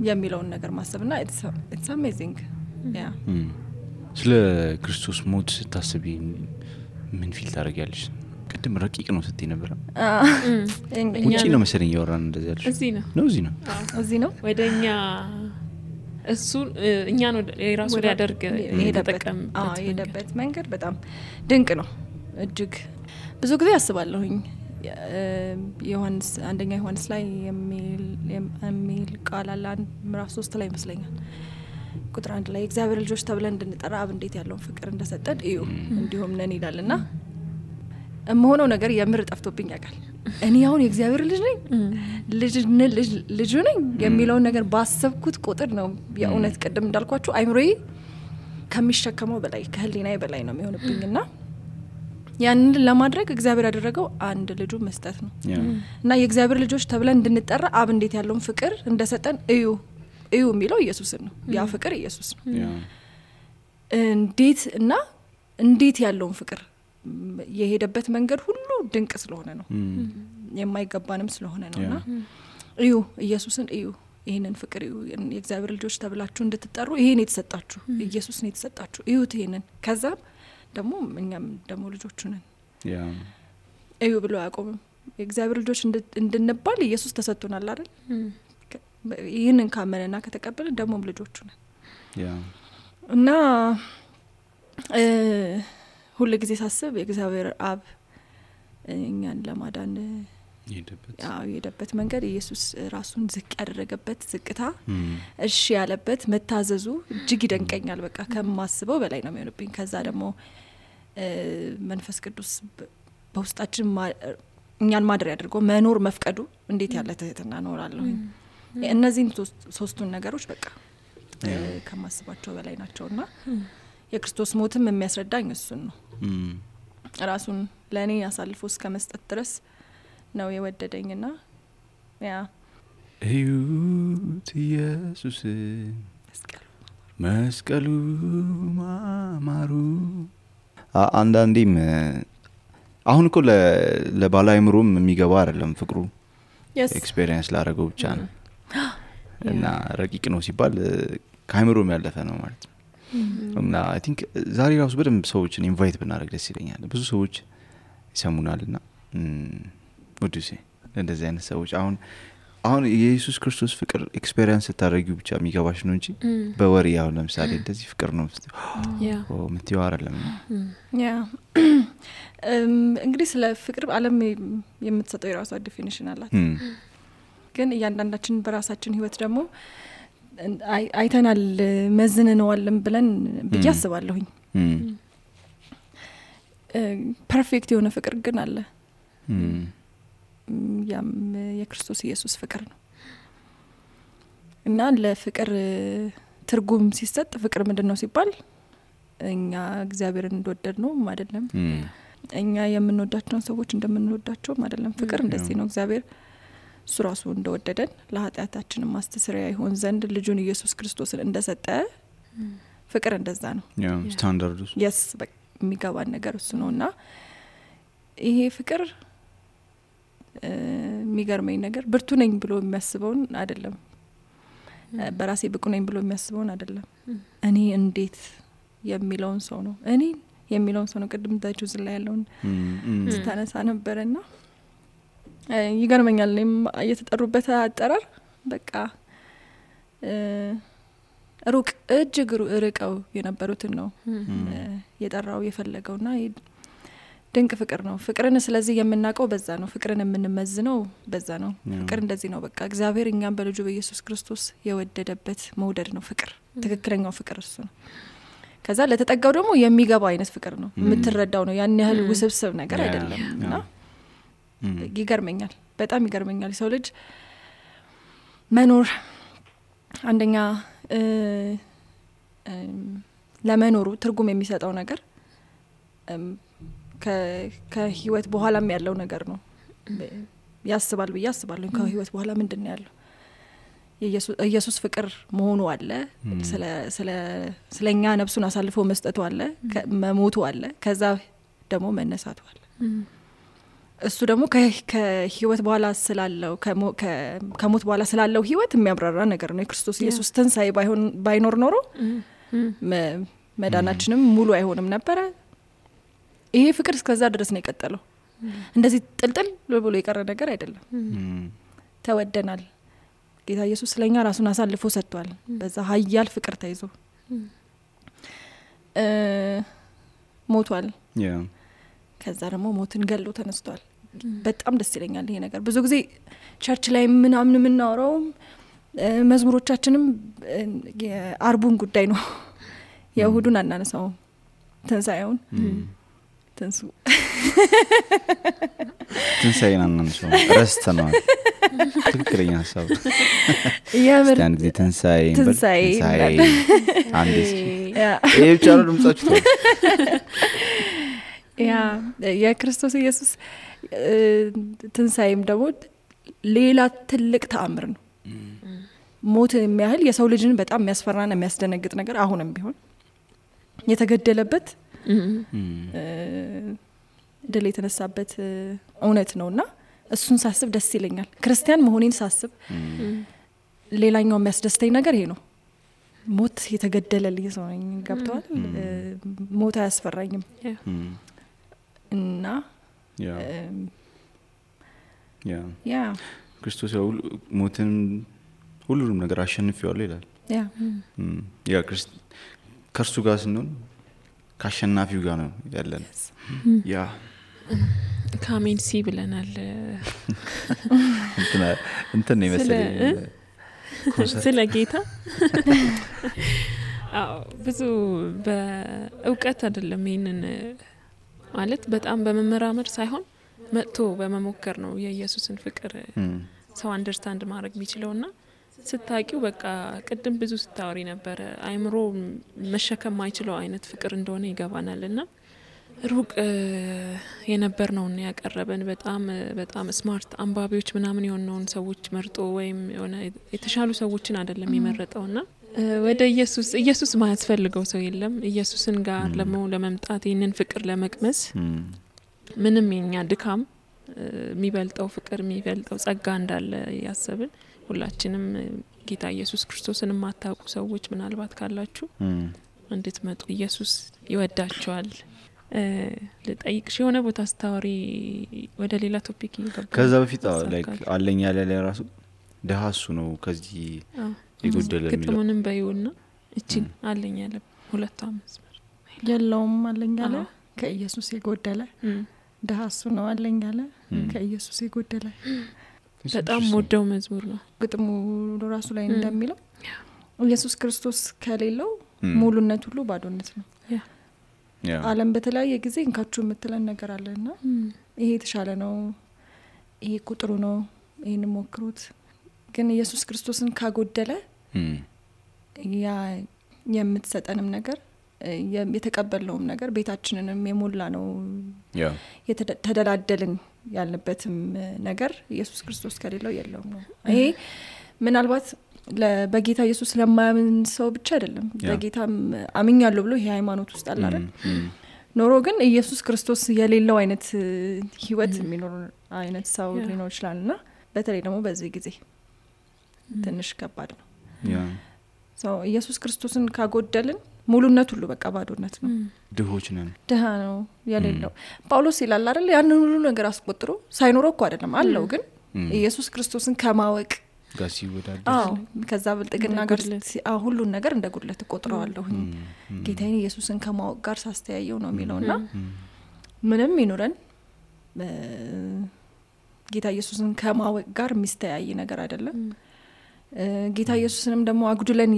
የሚለውን ነገር ማሰብና it's amazing ያ ስለ ክርስቶስ ሞት ታስቢ ምን ፊል ታረጋለሽ ቅድም ረቂቅ ነው ስትይ ነበር ውጪ ነው መሰለኝ ያወራን እንደዚህ ያልሽ እዚህ ነው ወደኛ እሱ እኛ ነው የራሱ ሊያደርግ የሄደበት መንገድ በጣም ድንቅ ነው እጅግ ብዙ ጊዜ አስባለሁኝ ዮሐንስ አንደኛ ዮሐንስ ላይ የሚል ቃል አለ ምዕራፍ 3 ላይ ይመስለኛል ቁጥር 1 ላይ እግዚአብሔር ልጆች ተብለን እንድንጠራ አብ እንዴት ያለውን ፍቅር እንደሰጠን እዩ እንዲሁም ነን ይላልና የምሆነው ነገር የምር ጠፍቶብኝ ያውቃል። እኔ አሁን የእግዚአብሔር ልጅ ነኝ ልጅ ነኝ የሚለውን ነገር ባሰብኩት ቁጥር ነው የእውነት ቅድም እንዳልኳችሁ አይምሮዬ ከሚሸከመው በላይ ከህሊናዬ በላይ ነው የሚሆንብኝና ያንን ለማድረግ እግዚአብሔር ያደረገው አንድ ልጁ መስጠት ነው እና የእግዚአብሔር ልጆች ተብለን እንድንጠራ አብ እንዴት ያለውን ፍቅር እንደሰጠን እዩ የሚለው ኢየሱስን ነው። ያ ፍቅር ኢየሱስ ነው። እንዴት ያለውን ፍቅር የሄደበት መንገድ ሁሉ ድንቅ ስለሆነ ነው የማይገባንም ስለሆነ ነውና እዩ ኢየሱስን እዩ ይሄንን ፍቅር እዩ የእግዚአብሔር ልጆች ተብላችሁ እንድትጠሩ ይሄን የተሰጣችሁ ኢየሱስ ነው የተሰጣችሁ እዩት ይሄንን ከዛ ደግሞ እኛም ደግሞ ልጆቹ ነን እዩ ብሎ ያቆምም የእግዚአብሔር ልጆች እንድንባል ኢየሱስ ተሰጥቶናል አይደል ይሄንን ካመነና ከተቀበለ ደግሞ ልጆቹ ነን እና ሁሉ ጊዜ ሳስብ የእግዚአብሔር አብ እኛን ለማዳን የሄደበት መንገድ ኢየሱስ ራሱን ዝቅ ያደረገበት ዝቅታ እሺ ያለበት መታዘዙ እጅግ ይደንቀኛል። በቃ ከማስበው በላይ ነው የሚሆንብኝ። ከዛ ደግሞ መንፈስ ቅዱስ በውስጣችን እኛን ማድረግ ያድርጎ መኖር መፍቀዱ እንዴት ያለ ትህትና ኖራለሁ። እነዚህን ሶስቱን ነገሮች በቃ ከማስባቸው በላይ ናቸውና የክርስቶስ ሞትም የሚያስረዳኝ እሱን ነው። ራሱን ለኔ አሳልፎ እስከ መስጠት ድረስ ነው የወደደኝና ያ እዩት ኢየሱስ መስቀሉ ማማሩ አንዳንዴም አሁን እኮ ለባላይምሮም የሚገባ አይደለም ፍቅሩ ኤክስፒሪየንስ ላደረገው ብቻ ነው እና ረቂቅ ነው ሲባል ከአይምሮም ያለፈ ነው ማለት ነው። እና አይ ቲንክ ዛሬ ራሱ በደንብ ሰዎችን ኢንቫይት ብናደርግ ደስ ይለኛል። ብዙ ሰዎች ይሰሙናልና ወድሴ እንደዚህ አይነት ሰዎች አሁን የኢየሱስ ክርስቶስ ፍቅር ኤክስፒሪየንስ ታደርጊው ብቻ የሚገባሽ ነው እንጂ በወሬ ያው ለምሳሌ እንደዚህ ፍቅር ነው ምትይው አይደለም። ያ እንግዲህ ስለ ፍቅር ዓለም የምትሰጠው የራሷ ዲፊኒሽን አላት። ግን እያንዳንዳችን በራሳችን ህይወት ደግሞ አይተናል መዝነነዋልም ብለን ብያስባለሁኝ። ፐርፌክት የሆነ ፍቅር ግን አለ። ያም የክርስቶስ ኢየሱስ ፍቅር ነው እና ለፍቅር ትርጉም ሲሰጥ ፍቅር ምንድነው ሲባል እኛ እግዚአብሔርን እንደወደድ ነው አይደለም እኛ የምንወዳቸውን ሰዎች እንደምንወዳቸው አይደለም። ፍቅር እንደዚህ ነው። እግዚአብሔር እሱ ራሱ እንደወደደን ለኃጢአታችን ማስተስሪያ ይሆን ዘንድ ልጁን ኢየሱስ ክርስቶስን እንደሰጠ ፍቅር እንደዛ ነው። ስታንዳርዱ yes የሚገባን ነገር እሱ ነውና ይሄ ፍቅር የሚገርመኝ ነገር ብርቱ ነኝ ብሎ የሚያስበውን አይደለም በራሴ ብቁ ነኝ ብሎ የሚያስበውን አይደለም እኔ እንዴት የሚለውን ሰው ነው እኔ የሚለውን ሰው ነው። ቅድም ታጁ ዝላ ያለውን ስታነሳ ነበርና ይገርመኛል። እኔም እየተጠሩበት አጠራር በቃ ሩቅ እጅግ ርቀው የነበሩትን ነው የጠራው የፈለገውና ድንቅ ፍቅር ነው። ፍቅርን ስለዚህ የምናውቀው በዛ ነው። ፍቅርን የምንመዝነው በዛ ነው። ፍቅር እንደዚህ ነው። በቃ እግዚአብሔር እኛን በልጁ በኢየሱስ ክርስቶስ የወደደበት መውደድ ነው ፍቅር። ትክክለኛው ፍቅር እሱ ነው። ከዛ ለተጠጋው ደግሞ የሚገባ አይነት ፍቅር ነው። የምትረዳው ነው። ያን ያህል ውስብስብ ነገር አይደለምና ይገርመኛል። በጣም ይገርመኛል። ሰው ልጅ መኖር አንደኛ ለመኖሩ ትርጉም የሚሰጠው ነገር ከህይወት በኋላም ያለው ነገር ነው ያስባል ብዬ አስባለሁ። ከህይወት በኋላ ምንድነው ያለው? ኢየሱስ ፍቅር መሆኑ አለ። ስለኛ ነፍሱን አሳልፎ መስጠቱ አለ፣ መሞቱ አለ፣ ከዛ ደግሞ መነሳቱ አለ። እሱ ደግሞ ከህይወት በኋላ ስላለው ከሞት በኋላ ስላለው ህይወት የሚያብራራ ነገር ነው። የክርስቶስ ኢየሱስ ትንሳኤ ባይኖር ኖሮ መዳናችንም ሙሉ አይሆንም ነበር። ይሄ ፍቅር እስከዛ ድረስ ነው የቀጠለው። እንደዚህ ጥልጥል ብሎ የቀረ ነገር አይደለም። ተወደናል። ጌታ ኢየሱስ ስለኛ ራሱን አሳልፎ ሰጥቷል። በዛ ኃያል ፍቅር ተይዞ ሞቷል። ከዛ ደግሞ ሞትን ገሎ ተነስቷል። በጣም ደስ ይለኛል ይሄ ነገር። ብዙ ጊዜ ቸርች ላይ ምናምን የምናወራው መዝሙሮቻችንም የአርቡን ጉዳይ ነው። የእሁዱን አናነሳው። ትንሳኤውን ትንሱ ትንሳኤን አናንሰው ረስተናል ትክክለኛ ሀሳብ የምር አንድ ጊዜ ትንሳኤ አንድ ያ ብቻ ነው ድምጻችሁ ያ የክርስቶስ ኢየሱስ ትንሳኤም ደግሞ ሌላ ትልቅ ተአምር ነው። ሞት የሚያህል የሰው ልጅን በጣም የሚያስፈራና የሚያስደነግጥ ነገር አሁንም ቢሆን የተገደለበት ድል የተነሳበት እውነት ነውና እሱን ሳስብ ደስ ይለኛል። ክርስቲያን መሆኔን ሳስብ ሌላኛው የሚያስደስተኝ ነገር ይሄ ነው። ሞት የተገደለልኝ ሰው ነኝ። ገብቷል? ሞት አያስፈራኝም እና ያ ክርስቶስ ሞትን ሁሉንም ነገር አሸንፈዋል ይላል። ያ ከእርሱ ጋር ስንሆን ከአሸናፊው ጋር ነው ያለን። ያ ካሜን ሲ ብለናል። እንትን ነው መሰለኝ ስለ ጌታ ብዙ በእውቀት አይደለም ይሄንን ማለት በጣም በመመራመር ሳይሆን መጥቶ በመሞከር ነው የኢየሱስን ፍቅር ሰው አንደርስታንድ ማድረግ የሚችለውና ስታቂው በቃ ቅድም ብዙ ስታወሪ ነበር አይምሮ መሸከም ማይችለው አይነት ፍቅር እንደሆነ ይገባናልና ሩቅ የነበር ነውና ያቀረበን በጣም ስማርት አንባቢዎች ምናምን የሆነውን ሰዎች መርጦ ወይም የሆነ የተሻሉ ሰዎችን አይደለም የመረጠውና ወደ ኢየሱስ ማያስፈልገው ሰው የለም። ኢየሱስን ጋር ለመምጣት ይሄንን ፍቅር ለመቅመስ ምንም የኛ ድካም የሚበልጠው ፍቅር የሚበልጠው ጸጋ እንዳለ ያሰብን ሁላችንም ጌታ ኢየሱስ ክርስቶስን ማታውቁ ሰዎች ምናልባት ካላችሁ እንድትመጡ ኢየሱስ ይወዳችኋል። ለጠይቅሽ የሆነ ቦታ ስታወሪ ወደ ሌላ ቶፒክ ይገባል። ከዛ በፊት ላይክ አለኝ ያለ ለራሱ ደሃሱ ነው ከዚህ ይጎደለ የሚለው ግጥሙንም በይውና እቺ አለኝ ያለ ሁለቱ መስመር የለውም አለኝ ያለ ከኢየሱስ የጎደለ ደሃሱ ነው አለኝ ያለ ከኢየሱስ የጎደለ በጣም ወደው መዝሙር ነው። ግጥሙ ራሱ ላይ እንደሚለው ኢየሱስ ክርስቶስ ከሌለው ሙሉነት ሁሉ ባዶነት ነው። ዓለም በተለያየ ጊዜ እንካቹ የምትለን ነገር አለና ይሄ ተሻለ ነው፣ ይሄ ቁጥሩ ነው፣ ይሄን ሞክሩት። ግን ኢየሱስ ክርስቶስን ካጎደለ ያ የምትሰጠንም ነገር የተቀበልነውም ነገር ቤታችንንም የሞላ ነው የተደላደልን ያለበትም ነገር ኢየሱስ ክርስቶስ ከሌለው የለውም ነው። ይሄ ምናልባት በጌታ ኢየሱስ ለማያምን ሰው ብቻ አይደለም። በጌታም አምኛለሁ ብሎ ይሄ ሃይማኖት ውስጥ አለ አይደል ኖሮ ግን ኢየሱስ ክርስቶስ የሌለው አይነት ህይወት የሚኖር አይነት ሰው ሊኖር ይችላልና በተለይ ደግሞ በዚህ ጊዜ ትንሽ ከባድ ነው። ኢየሱስ ክርስቶስን ካጎደልን ሙሉነት ሁሉ በቃ ባዶነት ነው። ድሆች ነን። ድሃ ነው የሌለው። ጳውሎስ ይላል አይደል ያንን ሁሉ ነገር አስቆጥሮ ሳይኖረው እኮ አይደለም አለው ግን ኢየሱስ ክርስቶስን ከማወቅ ጋር ሲወዳደር ከዛ ብልጥግና ጋር ሁሉን ነገር እንደ ጉድለት ቆጥረዋለሁ ጌታዬን ኢየሱስን ከማወቅ ጋር ሳስተያየው ነው የሚለውና ምንም ይኖረን ጌታ ኢየሱስን ከማወቅ ጋር የሚስተያይ ነገር አይደለም። ጌታ ኢየሱስንም ደግሞ አጉድለን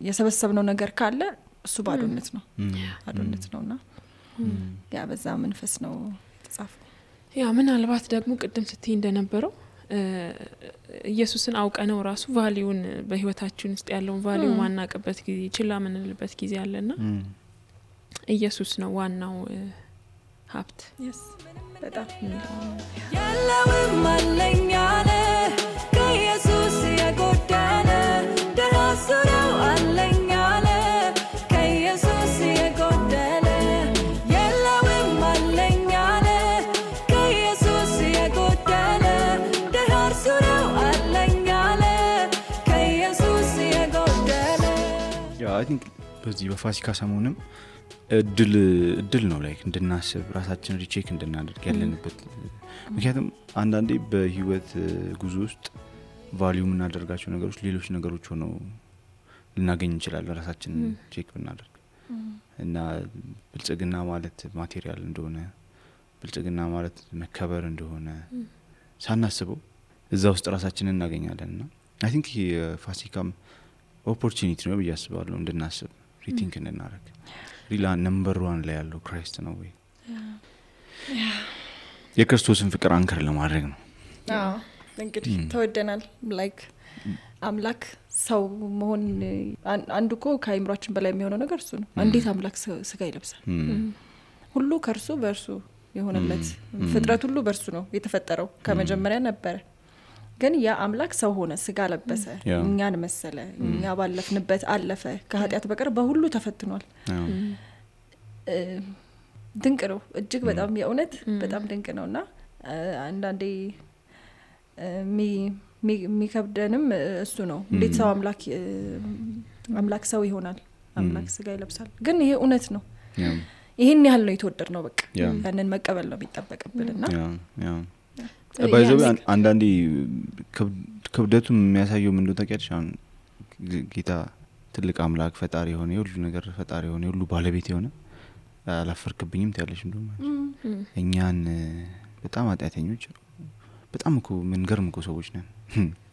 የሰበሰብነው ነገር ካለ እሱ ባዶነት ነውና ያ በዛ መንፈስ ነው ተጻፈው። ያ ምናልባት ደግሞ ቅድም ስትይ እንደነበረው ኢየሱስን አውቀነው ራሱ ቫልዩን በህይወታችን ውስጥ ያለውን ቫልዩ ማናቀበት ጊዜ ችላ ምንልበት ጊዜ አለና ኢየሱስ ነው ዋናው ሀብት። በጣም ያለውም አለኝ አለ ከኢየሱስ የጎደለ ደራሱ ነው አለኝ አለ ከኢየሱስ የጎደለ ያለውም አለኝ አለ ከኢየሱስ የጎደለ ደራሱ ነው አለኝ አለ ከኢየሱስ የጎደለ አይ ቲንክ በዚህ በፋሲካ ሰሞንም እድል ነው ላይክ እንድናስብ ራሳችን ሪቼክ እንድናደርግ ያለንበት። ምክንያቱም አንዳንዴ በህይወት ጉዞ ውስጥ ቫልዩ የምናደርጋቸው ነገሮች ሌሎች ነገሮች ሆነው ልናገኝ እንችላለን ራሳችን ቼክ ብናደርግ እና ብልጽግና ማለት ማቴሪያል እንደሆነ ብልጽግና ማለት መከበር እንደሆነ ሳናስበው እዛ ውስጥ ራሳችንን እናገኛለንና አይ ቲንክ የፋሲካም ኦፖርቹኒቲ ነው ብዬ አስባለሁ እንድናስብ ሪቲንክ እንድናደርግ ሪላ ነምበር 1 ላይ ያለው ክራይስት ነው ወይ የክርስቶስን ፍቅር አንከር ለማድረግ ነው። እንግዲህ ተወደናል ላይክ አምላክ ሰው መሆን አንዱ እኮ ከአይምሯችን በላይ የሚሆነው ነገር እሱ ነው። እንዴት አምላክ ስጋ ይለብሳል? ሁሉ ከእርሱ በእርሱ የሆነለት ፍጥረት ሁሉ በእርሱ ነው የተፈጠረው ከመጀመሪያ ነበረ። ግን ያ አምላክ ሰው ሆነ፣ ስጋ ለበሰ፣ እኛን መሰለ፣ እኛ ባለፍንበት አለፈ፣ ከኃጢአት በቀር በሁሉ ተፈትኗል። ድንቅ ነው እጅግ በጣም የእውነት በጣም ድንቅ ነውና አንዳንዴ የሚከብደንም እሱ ነው። እንዴት ሰው አምላክ ሰው ይሆናል? አምላክ ስጋ ይለብሳል። ግን ይሄ እውነት ነው። ይሄን ያህል ነው የተወደድ ነው። በቃ ያንን መቀበል ነው የሚጠበቅብንና ባይዘው አንዳንዴ ክብደቱን የሚያሳየው ምን እንደሆነ ታውቂያለሽ? አሁን ጌታ ትልቅ አምላክ ፈጣሪ የሆነ የሁሉ ነገር ፈጣሪ የሆነ የሁሉ ባለቤት የሆነ አላፈርክብኝም ትያለሽ እንደውም እኛን በጣም ኃጢአተኞች በጣም እኮ ምን ገርም እኮ ሰዎች ነን።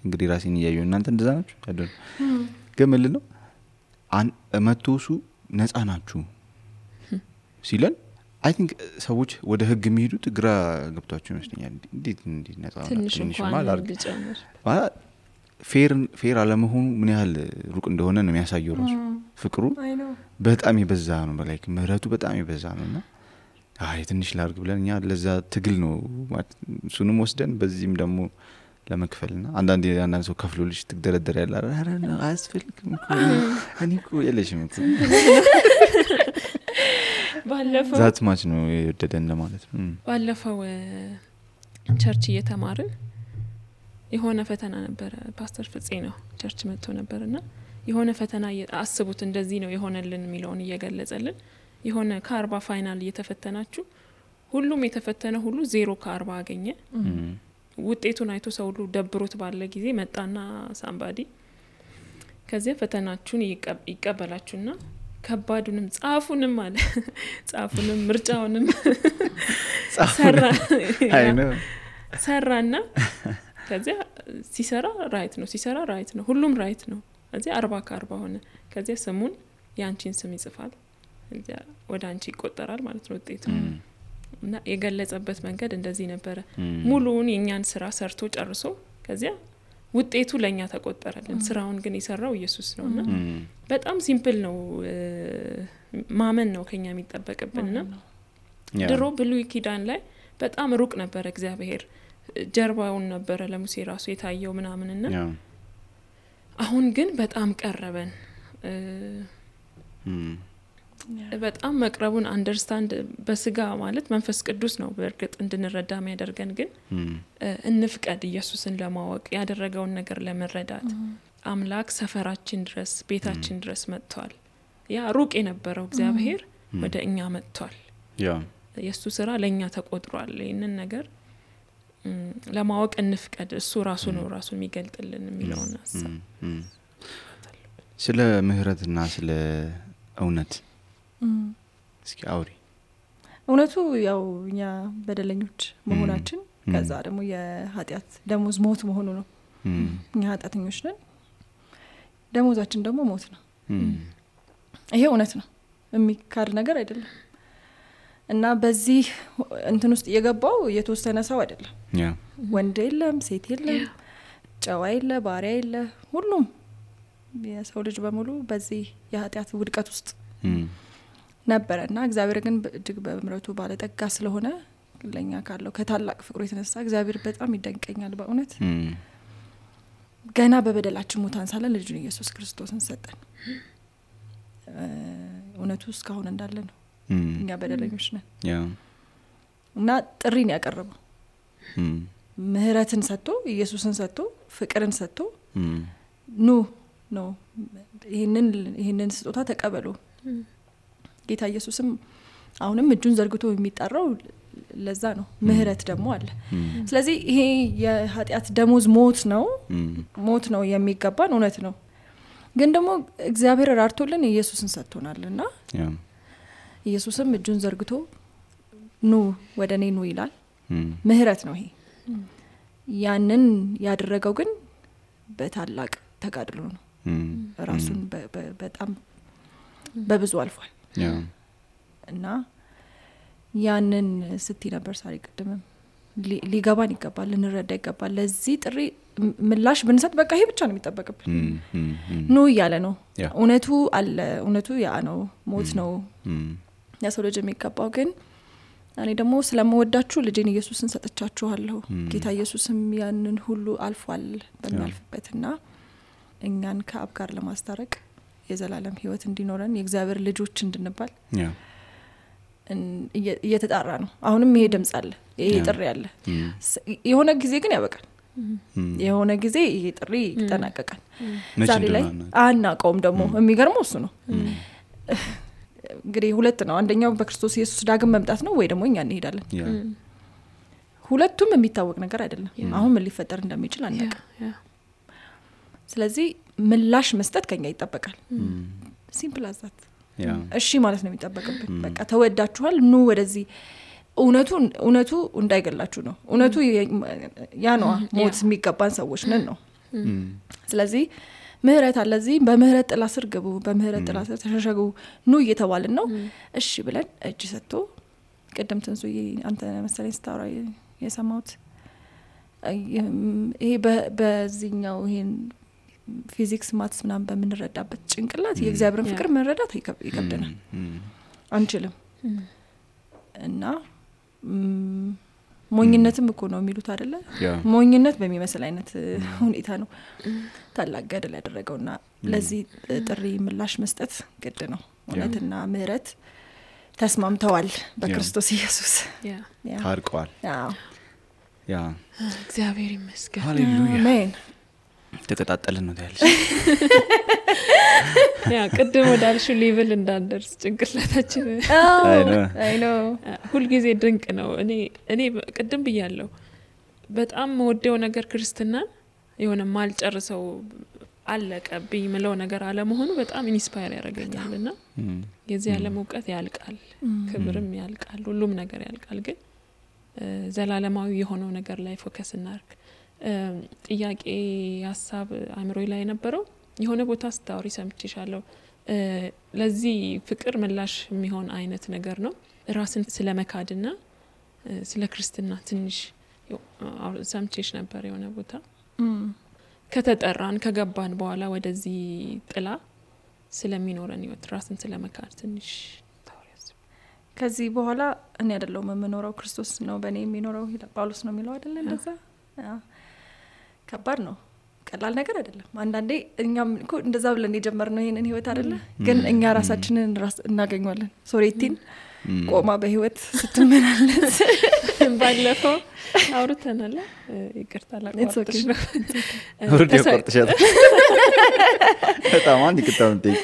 እንግዲህ ራሴን እያየሁ እናንተ እንደዛ ናችሁ አይደል? ግን ምን ነው መቶሱ ነፃ ናችሁ ሲለን አይ ቲንክ ሰዎች ወደ ህግ የሚሄዱት ግራ ገብቷቸው ይመስለኛል። እንዴት ነፃ ትንሽ ማለት ፌር አለመሆኑ ምን ያህል ሩቅ እንደሆነ ነው የሚያሳየው። ራሱ ፍቅሩ በጣም ይበዛ ነው፣ ላይክ ምህረቱ በጣም ይበዛ ነውና አይ ትንሽ ላርግ ብለን እኛ ለዛ ትግል ነው እሱንም ወስደን በዚህም ደግሞ ለመክፈልና አንዳንድ ሰው ከፍሎልሽ ትግደረደር ያለ አረና አያስፈልግም እኔ እኮ የለሽም እኮ ባለፈው ዛት ማች ነው የወደደን ለማለት ነው። ባለፈው ቸርች እየተማርን የሆነ ፈተና ነበር። ፓስተር ፍፄ ነው ቸርች መጥቶ ነበርና የሆነ ፈተና አስቡት እንደዚህ ነው የሆነልን የሚለውን እየገለጸልን የሆነ ከ40 ፋይናል እየተፈተናችሁ ሁሉም የተፈተነ ሁሉ 0 ከ40 አገኘ። ውጤቱን አይቶ ሰው ሁሉ ደብሮት ባለ ጊዜ መጣና ሳምባዲ ከዚህ ፈተናችሁን ይቀበላችሁና ከባዱንም ጻፉንም አለ ጻፉንም ምርጫውንም ሰራና ከዚያ ሲሰራ ራይት ነው ሁሉም ራይት ነው። ከዚያ 40 ከ40 ሆነ። ከዚያ ስሙን ያንቺን ስም ይጽፋል፣ ከዚያ ወደ አንቺ ይቆጠራል ማለት ነው ውጤቱ። እና የገለጸበት መንገድ እንደዚህ ነበረ። ሙሉውን የኛን ስራ ሰርቶ ጨርሶ ከዚያ ውጤቱ ለኛ ተቆጠረልን። ስራውን ግን የሰራው ኢየሱስ ነውና በጣም ሲምፕል ነው። ማመን ነው ከኛ የሚጠበቅብንና ድሮ ብሉይ ኪዳን ላይ በጣም ሩቅ ነበር እግዚአብሔር፣ ጀርባውን ነበር ለሙሴ ራሱ የታየው ምናምንና አሁን ግን በጣም ቀረበን። በጣም መቅረቡን አንደርስታንድ በስጋ ማለት መንፈስ ቅዱስ ነው በእርግጥ እንድንረዳ የሚያደርገን። ግን እንፍቀድ ኢየሱስን ለማወቅ ያደረገውን ነገር ለመረዳት። አምላክ ሰፈራችን ድረስ ቤታችን ድረስ መጥቷል። ያ ሩቅ የነበረው እግዚአብሔር ወደ እኛ መጥቷል። የሱ ስራ ለኛ ተቆጥሯል። ይሄንን ነገር ለማወቅ እንፍቀድ። እሱ ራሱ ነው ራሱን የሚገልጥልን የሚለውን ሐሳብ ስለ ምህረትና ስለ እውነት እስኪ አውሪ። እውነቱ ያው እኛ በደለኞች መሆናችን ከዛ ደግሞ የኃጢአት ደሞዝ ሞት መሆኑ ነው። እኛ ኃጢአተኞች ነን፣ ደሞዛችን ደግሞ ሞት ነው። ይሄ እውነት ነው፣ የሚካድ ነገር አይደለም። እና በዚህ እንትን ውስጥ የገባው የተወሰነ ሰው አይደለም። ወንድ የለም፣ ሴት የለም፣ ጨዋ የለ፣ ባሪያ የለ፣ ሁሉም የሰው ልጅ በሙሉ በዚህ የኃጢአት ውድቀት ውስጥ ነበረና እግዚአብሔር ግን እጅግ በምህረቱ ባለጠጋ ስለሆነ ለኛ ካለው ከታላቅ ፍቅሩ የተነሳ እግዚአብሔር በጣም ይደንቀኛል በእውነት። ገና በበደላችን ሙታን ሳለን ልጁን ኢየሱስ ክርስቶስን ሰጠን። እውነቱ እስካሁን እንዳለ ነው። እኛ በደለኞች ነን እና ጥሪን ያቀረበው ምህረትን ሰጥቶ ኢየሱስን ሰጥቶ ፍቅርን ሰጥቶ ኑ ነው ይሄንን ስጦታ ተቀበሉ። ጌታ ኢየሱስም አሁንም እጁን ዘርግቶ የሚጣራው ለዛ ነው። ምህረት ደግሞ አለ። ስለዚህ ይሄ የኃጢአት ደሞዝ ሞት ነው የሚገባን እውነት ነው። ግን ደግሞ እግዚአብሔር ራርቶልን ኢየሱስን ሰጥቶናልና ኢየሱስም እጁን ዘርግቶ ኑ ወደኔ ኑ ይላል። ምህረት ነው ይሄ። ያንን ያደረገው ግን በታላቅ ተጋድሎ ነው። ራሱን በጣም በብዙ አልፏል እና ያንን ስትይ ነበር ሳሪ ቅድምም ሊገባን ይገባል ልንረዳ ይገባል ለዚህ ጥሪ ምላሽ ብንሰጥ በቃ ይሄ ብቻ ነው የሚጠበቅብን ነው ያለ ነው እውነቱ አለ እውነቱ ያ ነው ሞት ነው ያሰው ልጅ የሚገባው ግን እኔ ደግሞ ስለምወዳችሁ ልጄን ኢየሱስን ሰጥቻችኋለሁ ጌታ ኢየሱስም ያንን ሁሉ አልፏል በሚያልፍበትና እኛን ከአብ ጋር ለማስታረቅ የዘላለም ህይወት እንዲኖረን የእግዚአብሔር ልጆች እንድንባል እየተጣራ ነው አሁንም ይሄ ድምጽ አለ ይሄ ጥሪ አለ የሆነ ጊዜ ግን ያበቃል የሆነ ጊዜ ይሄ ጥሪ ይጠናቀቃል ዛሬ ላይ አናቀውም ደግሞ የሚገርመው እሱ ነው እንግዲህ ሁለት ነው አንደኛው በክርስቶስ ኢየሱስ ዳግም መምጣት ነው ወይ ደግሞ እኛ እንሄዳለን ሁለቱም የሚታወቅ ነገር አይደለም አሁን ምን ሊፈጠር እንደሚችል አናውቅም ስለዚህ ምላሽ መስጠት ከኛ ይጠበቃል ሲምፕል አዛት እሺ ማለት ነው የሚጠበቅብን በቃ ተወዳችኋል ኑ ወደዚህ እውነቱ እንዳይገላችሁ ነው እውነቱ ያ ነው ሞት የሚገባን ሰዎች ነን ነው ስለዚህ ምህረት አለዚህ በምህረት ጥላ ስር ግቡ በምህረት ጥላ ስር ተሸሸጉ ኑ እየተባልን ነው እሺ ብለን እጅ ሰጥቶ ቀደም ተንሱይ አንተ መሰለኝ ስታወራ የሰማሁት ይሄ በዚህኛው ይሄን ፊዚክስ ማትስ ምናምን በምንረዳበት ጭንቅላት የእግዚአብሔርን ፍቅር መረዳት ይከብደናል አንችልም እና ሞኝነትም እኮ ነው የሚሉት አይደለ ሞኝነት በሚመስል አይነት ሁኔታ ነው ታላቅ ገድል ያደረገውና ለዚህ ጥሪ ምላሽ መስጠት ግድ ነው እውነትና ምህረት ተስማምተዋል በክርስቶስ ኢየሱስ ታርቀዋል ያ እግዚአብሔር ይመስገን ሃሌሉያ አሜን ተቀጣጣለን ነው ያለሽ ያ ቅድም ወዳልሽው ሌቭል እንዳንደርስ ጭንቅላታችን አይ ኖ ሁሉ ጊዜ ድንቅ ነው እኔ ቅድም ብያለሁ በጣም ወደው ነገር ክርስትናን የሆነ ማልጨርሰው አለቀብኝ ምለው ነገር አለ መሆኑ በጣም ኢንስፓየር ያደርገኛልና የዚህ ዓለም ዕውቀት ያልቃል ክብርም ያልቃል ሁሉም ነገር ያልቃል ግን ዘላለማዊ የሆነው ነገር ላይ ፎከስ እናርግ ጥያቄ ሐሳብ አእምሮዬ ላይ ነበረው የሆነ ቦታ ስታወሪ ሰምቼሻለሁ ለዚህ ፍቅር ምላሽ የሚሆን አይነት ነገር ነው ራስን ስለመካድና ስለ ክርስትና ትንሽ ሰምቼሽ ነበር የሆነ ቦታ ከተጠራን ከገባን በኋላ ወደዚህ ጥላ ስለሚኖረን ህይወት ራስን ስለመካድ ትንሽ ታወሪያስ ከዚህ በኋላ እኔ አይደለም የምኖረው ክርስቶስ ነው በእኔ የሚኖረው ጳውሎስ ነው የሚለው አይደለ እንደዛ ከባድ ነው ቀላል ነገር አይደለም አንዳንዴ እኛም እኮ እንደዛ ብለን የጀመርነው ይሄንን ህይወት አይደለ ግን እኛ ራሳችንን እናገኘዋለን ሶሬቲን ቆማ በህይወት ስትመላለስ ባለፈው አውርተናል ይቅርታ ላቋርጥሽ ነው ወርድ ያቋርጥሻል በጣም አንድ ይቅርታውን ጠይቅ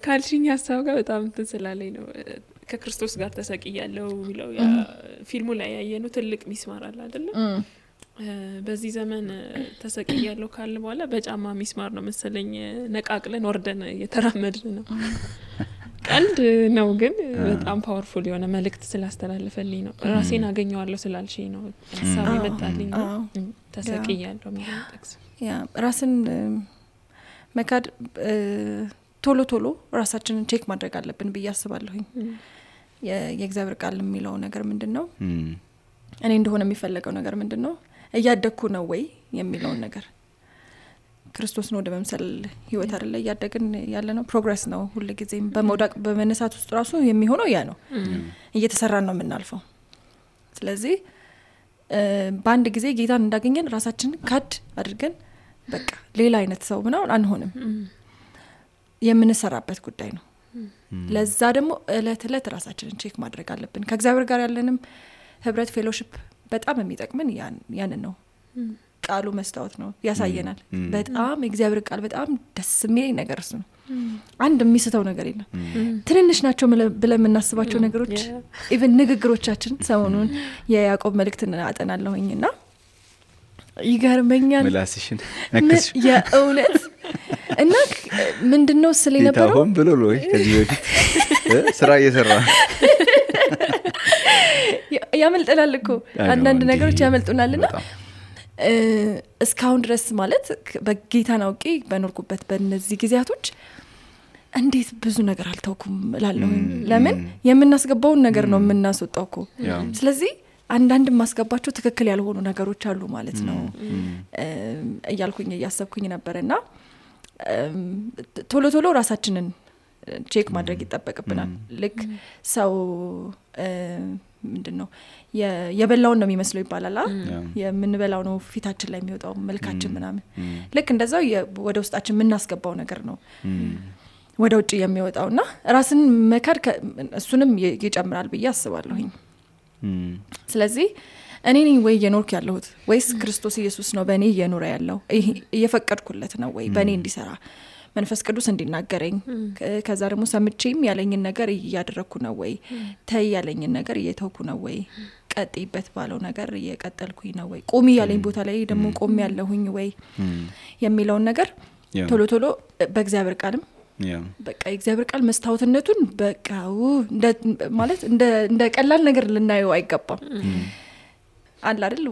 ካልሽኝ ሐሳብ ጋር በጣም ተስላለኝ ነው ከክርስቶስ ጋር ተሰቅያለሁ የሚለው ያ ፊልሙ ላይ ያየነው ትልቅ ሚስማር አለ አይደለ በዚህ ዘመን ተሰቅያለሁ ካለ በኋላ በጫማ ሚስማር ነው መሰለኝ ነቃቅለን ወርደን እየተራመድን ነው ቀልድ ነው ግን በጣም ፓወርፉል የሆነ መልእክት ስላስተላለፈልኝ ነው ራሴን አገኘዋለሁ ስላልሽኝ ነው ሐሳብ ይመጣልኝ ተሰቅያለሁ የሚለው ጥቅስ ያ ራስን መካድ ቶሎ ራሳችንን ቼክ ማድረግ አለብን ብዬ አስባለሁኝ የእግዚአብሔር ቃል የሚለው ነገር ምንድነው እኔ እንደሆነ የሚፈልገው ነገር ምንድነው እያደኩ ነው ወይ የሚለው ነገር ክርስቶስ ነው ወደመምሰል ህይወት አይደለ ያደግን ያለ ነው ፕሮግሬስ ነው ሁሉ ጊዜም በመውደቅ በመነሳት ውስጥ ራሱ የሚሆነው ያ ነው እየተሰራን ነው የምናልፈው ስለዚህ በአንድ ጊዜ ጌታን እንዳገኘን ራሳችንን ካድ አድርገን በቃ ሌላ አይነት ሰው ምናምን አንሆንም የምንሰራበት ጉዳይ ነው ለዛ ደግሞ እለት ራሳችንን ቼክ ማድረግ አለብን ከእግዚአብሔር ጋር ያለንም ህብረት ፌሎሺፕ በጣም የሚጠቅመን ያንን ነው ቃሉ መስታወት ነው ያሳየናል በጣም እግዚአብሔር ቃል በጣም ደስ የሚል ነገር ነው አንድ የሚስተው ነገር የለም ትንንሽ ናቸው ብለን የምናስባቸው ነገሮች ኢቭን ንግግሮቻችን ሰሞኑን የያዕቆብ መልእክትን አጠናለሁኝና ይገርመኛል ምላስሽን ነክስ የእውነት እና ምንድነው ስለ ነበረው ታሆን ብሎ ነው ከዚህ በፊት ስራ እየሰራ ያመልጠናል እኮ አንዳንድ ነገሮች ያመልጡናልና እስካሁን ድረስ ማለት በጌታ ናውቂ በኖርኩበት በእነዚህ ጊዜያቶች እንዴት ብዙ ነገር አልተውኩም እላለሁ ለምን የምናስገባውን ነገር ነው የምናስወጣው እኮ ስለዚህ አንዳንድ ማስገባቸው ትክክል ያልሆኑ ነገሮች አሉ ማለት ነው እያልኩኝ እያሰብኩኝ ነበርና ቶሎ ቶሎ ራሳችንን ቼክ ማድረግ ይተበቀብናል ልክ ሰው ምንድነው የበላውን ነው የሚመስለው ይባላል የምንበላው ነው ፊታችን ላይ የሚወጣው መልካችን ምናምን ልክ እንደዛው ወደ ውስጣችን የምናስገባው ነገር ነው ወደ ውጪ የሚወጣውና ራስን መካድ እሱንም ይጨምራል ብዬ አስባለሁኝ ስለዚህ እኔ ነኝ ወይ የኖርክ ያለሁት ወይስ ክርስቶስ ኢየሱስ ነው በእኔ እየኖረ ያለው እየፈቀድኩለት ነው ወይ በእኔ እንዲሰራ መንፈስ ቅዱስ እንዲናገረኝ ከዛ ደግሞ ሰምቼም ያለኝን ነገር እያደረኩ ነው ወይ ተይ ያለኝን ነገር እየተውኩ ነው ወይ ቀጥይበት ባለው ነገር እየቀጠልኩኝ ነው ወይ ቆሚ ያለኝ ቦታ ላይ ደግሞ ቆሚ ያለሁኝ ወይ የሚለው ነገር ቶሎ ቶሎ በእግዚአብሔር ቃልም በቃ እግዚአብሔር ቃል መስታወትነቱን በቃው ማለት እንደ ቀላል ነገር ልናየው አይገባም አለ አይደል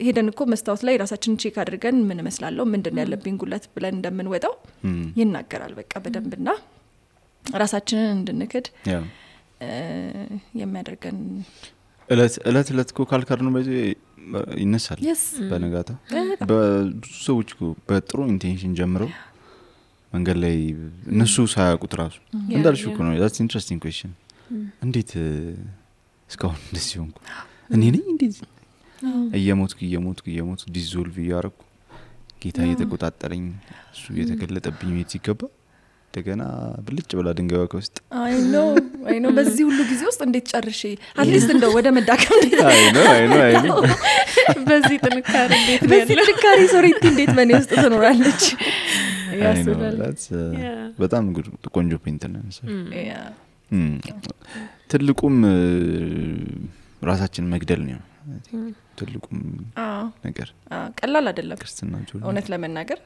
ሄደን እኮ መስታወት ላይ ራሳችንን ቼክ አድርገን ምን መስላለሁ ምንድነው ያለብኝ ጉለት ብለን እንደምንወጣው ይናገራል በቃ በደንብና ራሳችንን እንድንክድ የሚያደርገን እለት እኮ ካልካር ነው በዚህ ይነሳል በነጋታ በብዙ ሰዎች በጥሩ ኢንቴንሽን ጀምረው መንገድ ላይ እነሱ ሳያውቁት ራሱ እንዳልሽ እኮ ነው that's interesting question እንዴት እስካሁን እንደዚህ ሆንኩ እኔ ነኝ እንደዚህ እየሞትኩ ዲዞልቭ ያረኩ ጌታ እየተቆጣጠረኝ እሱ እየተገለጠብኝ ይገባ እንደገና ብልጭ ብላ ድንጋይዋ ከውስጥ አይ ኖ በዚህ ሁሉ ጊዜ ውስጥ እንዴት ጨርሼ አትሊስት እንደው ወደ መዳከም አይ ኖ በዚህ ጥንካሬ ሶሪቲ እንዴት በኔ ውስጥ ትኖራለች ያስባል በጣም ቆንጆ ፖይንት ነው ትልቁም ራሳችን መግደል ነው ትልቁም ነገር ቀላል አይደለም ክርስትና እውነት ለመናገር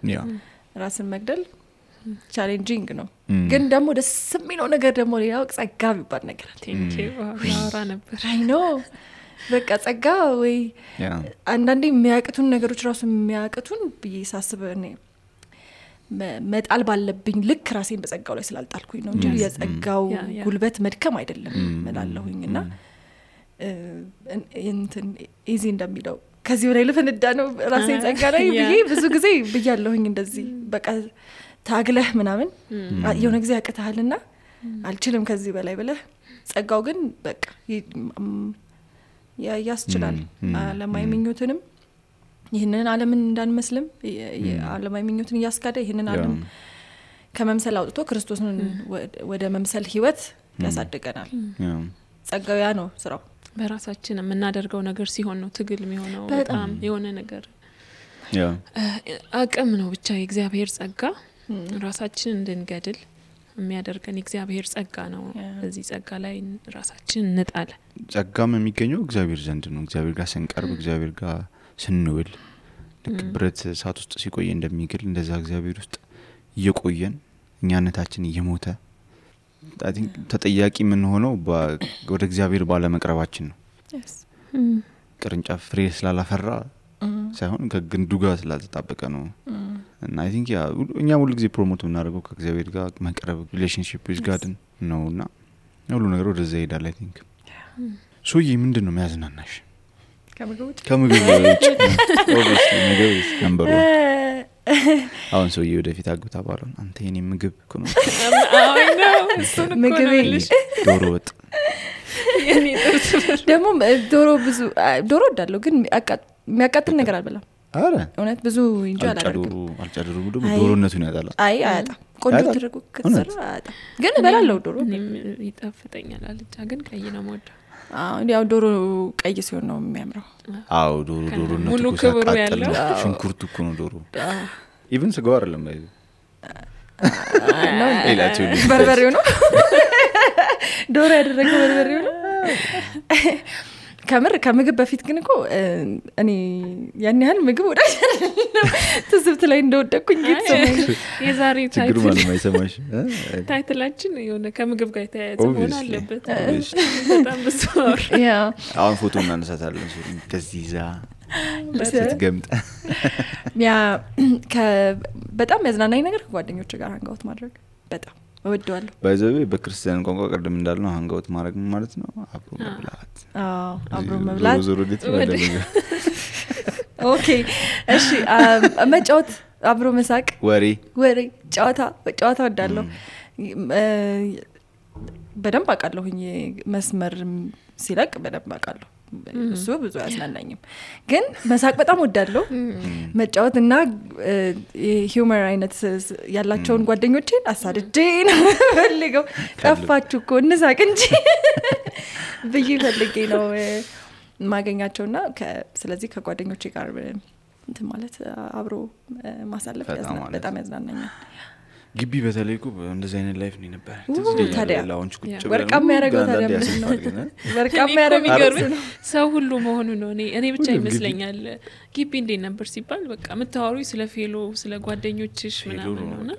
ራስን መግደል ቻሌንጂንግ ነው ግን ደግሞ ደስ የሚለው ነገር ደግሞ ሌላው ጸጋ ቢባል ነገር ያወራ ነበር አይ ኖ በቃ ጸጋ ወይ አንዳንዴ የሚያቅቱን ነገሮች ራሱ የሚያቅቱን በየሳስበ እኔ መጣል ባለብኝ ልክ ራሴን በጸጋው ላይ ስላልጣልኩኝ ነው እንጂ የጸጋው ጉልበት መድከም አይደለም መላለሁኝና እንትን ኢዚ እንደሚለው ከዚህ ወደ ልፈንዳ ነው ራሴን ጸጋ ላይ ብዬ ብዙ ጊዜ ብያለሁኝ እንደዚህ በቃ ታግለህ ምናምን የሆነ ጊዜ ያቀታልና አልችልም ከዚህ በላይ ብለህ ጸጋው ግን በቃ ያስችላል ለማይመኙትንም ይሄንን ዓለምን እንዳንመስልም ዓለማዊ ምኞትን ያስካደ ይሄንን ዓለም ከመምሰል አውጥቶ ክርስቶስን ወደ መምሰል ህይወት ያሳድገናል ጸጋው ያ ነው ስራው በራሳችን የምናደርገው ነገር ሲሆን ነው ትግል የሚሆነው በጣም የሆነ ነገር አቅም ነው ብቻ የእግዚአብሔር ጸጋ ራሳችን እንድንገድል የሚያደርገን እግዚአብሔር ጸጋ ነው በዚህ ጸጋ ላይ ራሳችን እንጣል ጸጋም የሚገኘው እግዚአብሔር ዘንድ ነው እግዚአብሔር ጋር ስንቀርብ እግዚአብሔር ጋር ስንውል ልክ ብረት እሳት ውስጥ ሲቆይ እንደሚግል እንደዛ እግዚአብሔር ውስጥ እየቆየን እኛነታችን እየሞተ I think ተጠያቂ ምን ሆነው ወደ እግዚአብሔር ባለ መቅረባችን ነው ቅርንጫፍ ፍሬ ስላላፈራ ሳይሆን ከግንዱ ጋር ስላልተጣበቀ ነው እና I think እኛ ሁሉ ጊዜ ፕሮሞት እናደርገው ከእግዚአብሔር ጋር መቅረብ ሪሌሽንሺፕ with God ነውና ሁሉ ነገር ወደዛ ይሄዳል I think ሶዬ ምንድነው የሚያዝናናሽ ከምግብ ውጭ obviously ምግብ ነበር አሁን ሰውዬ ወደፊት አግብታ ባለው አንተ የኔ ምግብ እኮ ነው አይ ነው ምግብ ዶሮ ወጥ የኔ ጥርስ ደግሞ ዶሮ እንዳለው ግን የሚያቃጥል ነገር አልበላም አረ እውነት ብዙ እንጂ አላደርግም አልጨድሩ ዶሮነቱን ያጣላ አይ አያጣ ቆንጆ ተደርጎ ከተሰራ አያጣ ግን እበላለሁ ዶሮ ይጣፍጠኛል አልጫ ግን ቀይ ነው የምወደው ያው ዶሮ ቀይ ሲሆን ነው የሚያምረው አው ዶሮ ነው ሙሉ ክብሩ ያለው ሽንኩርቱ እኮ ነው ዶሮ ኢቭን ስጋው አይደለም ባይ ነው ኤላችሁ በርበሬው ነው ዶሮ ያደረገው በርበሬው ነው ከምግብ በፊት ግን እኮ እኔ ያን ያህል ምግብ ወዳጅ አይደለም ትዝብት ላይ እንደወደኩኝ ይተሰማኝ የዛሬ ችግር ማለት ማይሰማሽ ታይትላችን የሆነ ከምግብ ጋር የተያያዘ መሆን አለበት በጣም በስማር ያ አሁን ፎቶ እናነሳታለን ከዚህ ዛ ለተገምጣ ያ በጣም ያዝናናኝ ነገር ጓደኞች ጋር አንጋውት ማድረግ በጣም እወደዋለሁ ባይዘቤ በክርስቲያን ቋንቋ ቀደም እንዳልነው ሃንጋውት ማድረግ ማለት ነው አብሮ መብላት አብሮ መብላት ዞሮ ኦኬ እሺ መጫወት አብሮ መሳቅ ወሬ ጨዋታ ወዳለሁ በደንብ አቃለሁኝ መስመር ሲለቅ በደንብ አቃለሁ እሱ ብዙ ያስናናኝም ግን መሳቅ በጣም ወዳለሁ መጫወትና ሂዩመር አይነት ያላቸውን ጓደኞቼን አሳድጄ ነው ፈልገው ጠፋችሁ እኮ እንሳቅ እንጂ ብዬ ፈልጌ ነው ማገኛቸውና ስለዚህ ከጓደኞቼ ጋር እንትን ማለት አብሮ ማሳለፍ በጣም ያዝናናኛል ግቢ በተለይ እኮ እንደዚህ አይነት ላይፍ ነው ነበር ታዲያ ላውንች ቁጭ ብለን ወርቃማ ያረጋው ታዲያ ወርቃማ ያረጋው ሰው ሁሉ መሆኑ ነው እኔ ብቻ ይመስለኛል ግቢ እንዴት ነበር ሲባል በቃ መታወሩ ስለ ፌሎ ስለ ጓደኞችሽ ምናምን ነውና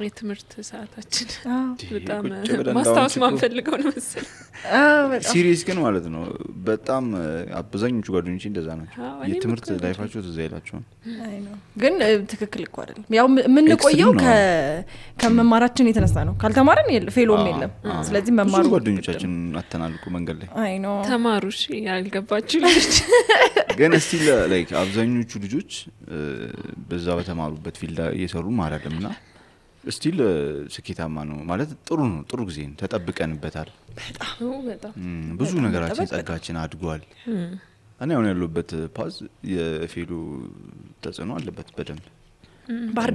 የትምህርት ሰዓታችን በጣም ማስታወስ ማንፈልገው ነው መሰለኝ ሲሪየስ ግን ማለት ነው በጣም አብዛኞቹ ጓደኞቼ እንደዛ ናቸው የትምህርት ላይፋቸው ትዝ አይላቸውም አይ ነው ግን ትክክል እኮ አይደለም ያው ምን ቆየው ከመማራችን የተነሳ ነው ካልተማረን ፌሎም የለም ስለዚህ መማሩ ጓደኞቻችን አተናልኩ መንገድ ላይ አይ ነው ተማሩሽ ያልገባችሁ ልጆች ግን እስቲ ላይክ አብዛኞቹ ልጆች በዛ በተማሩበት ፊልድ እየሰሩ ማራደምና ስቲል ስኬታማ ነው ማለት ጥሩ ጊዜ ተጠብቀንበታል በጣም ብዙ ነገራችን ጸጋችን አድጓል እኔ አሁን ያለሁበት ፓዝ የፌሎ ተጽዕኖ አለበት በደንብ ባህር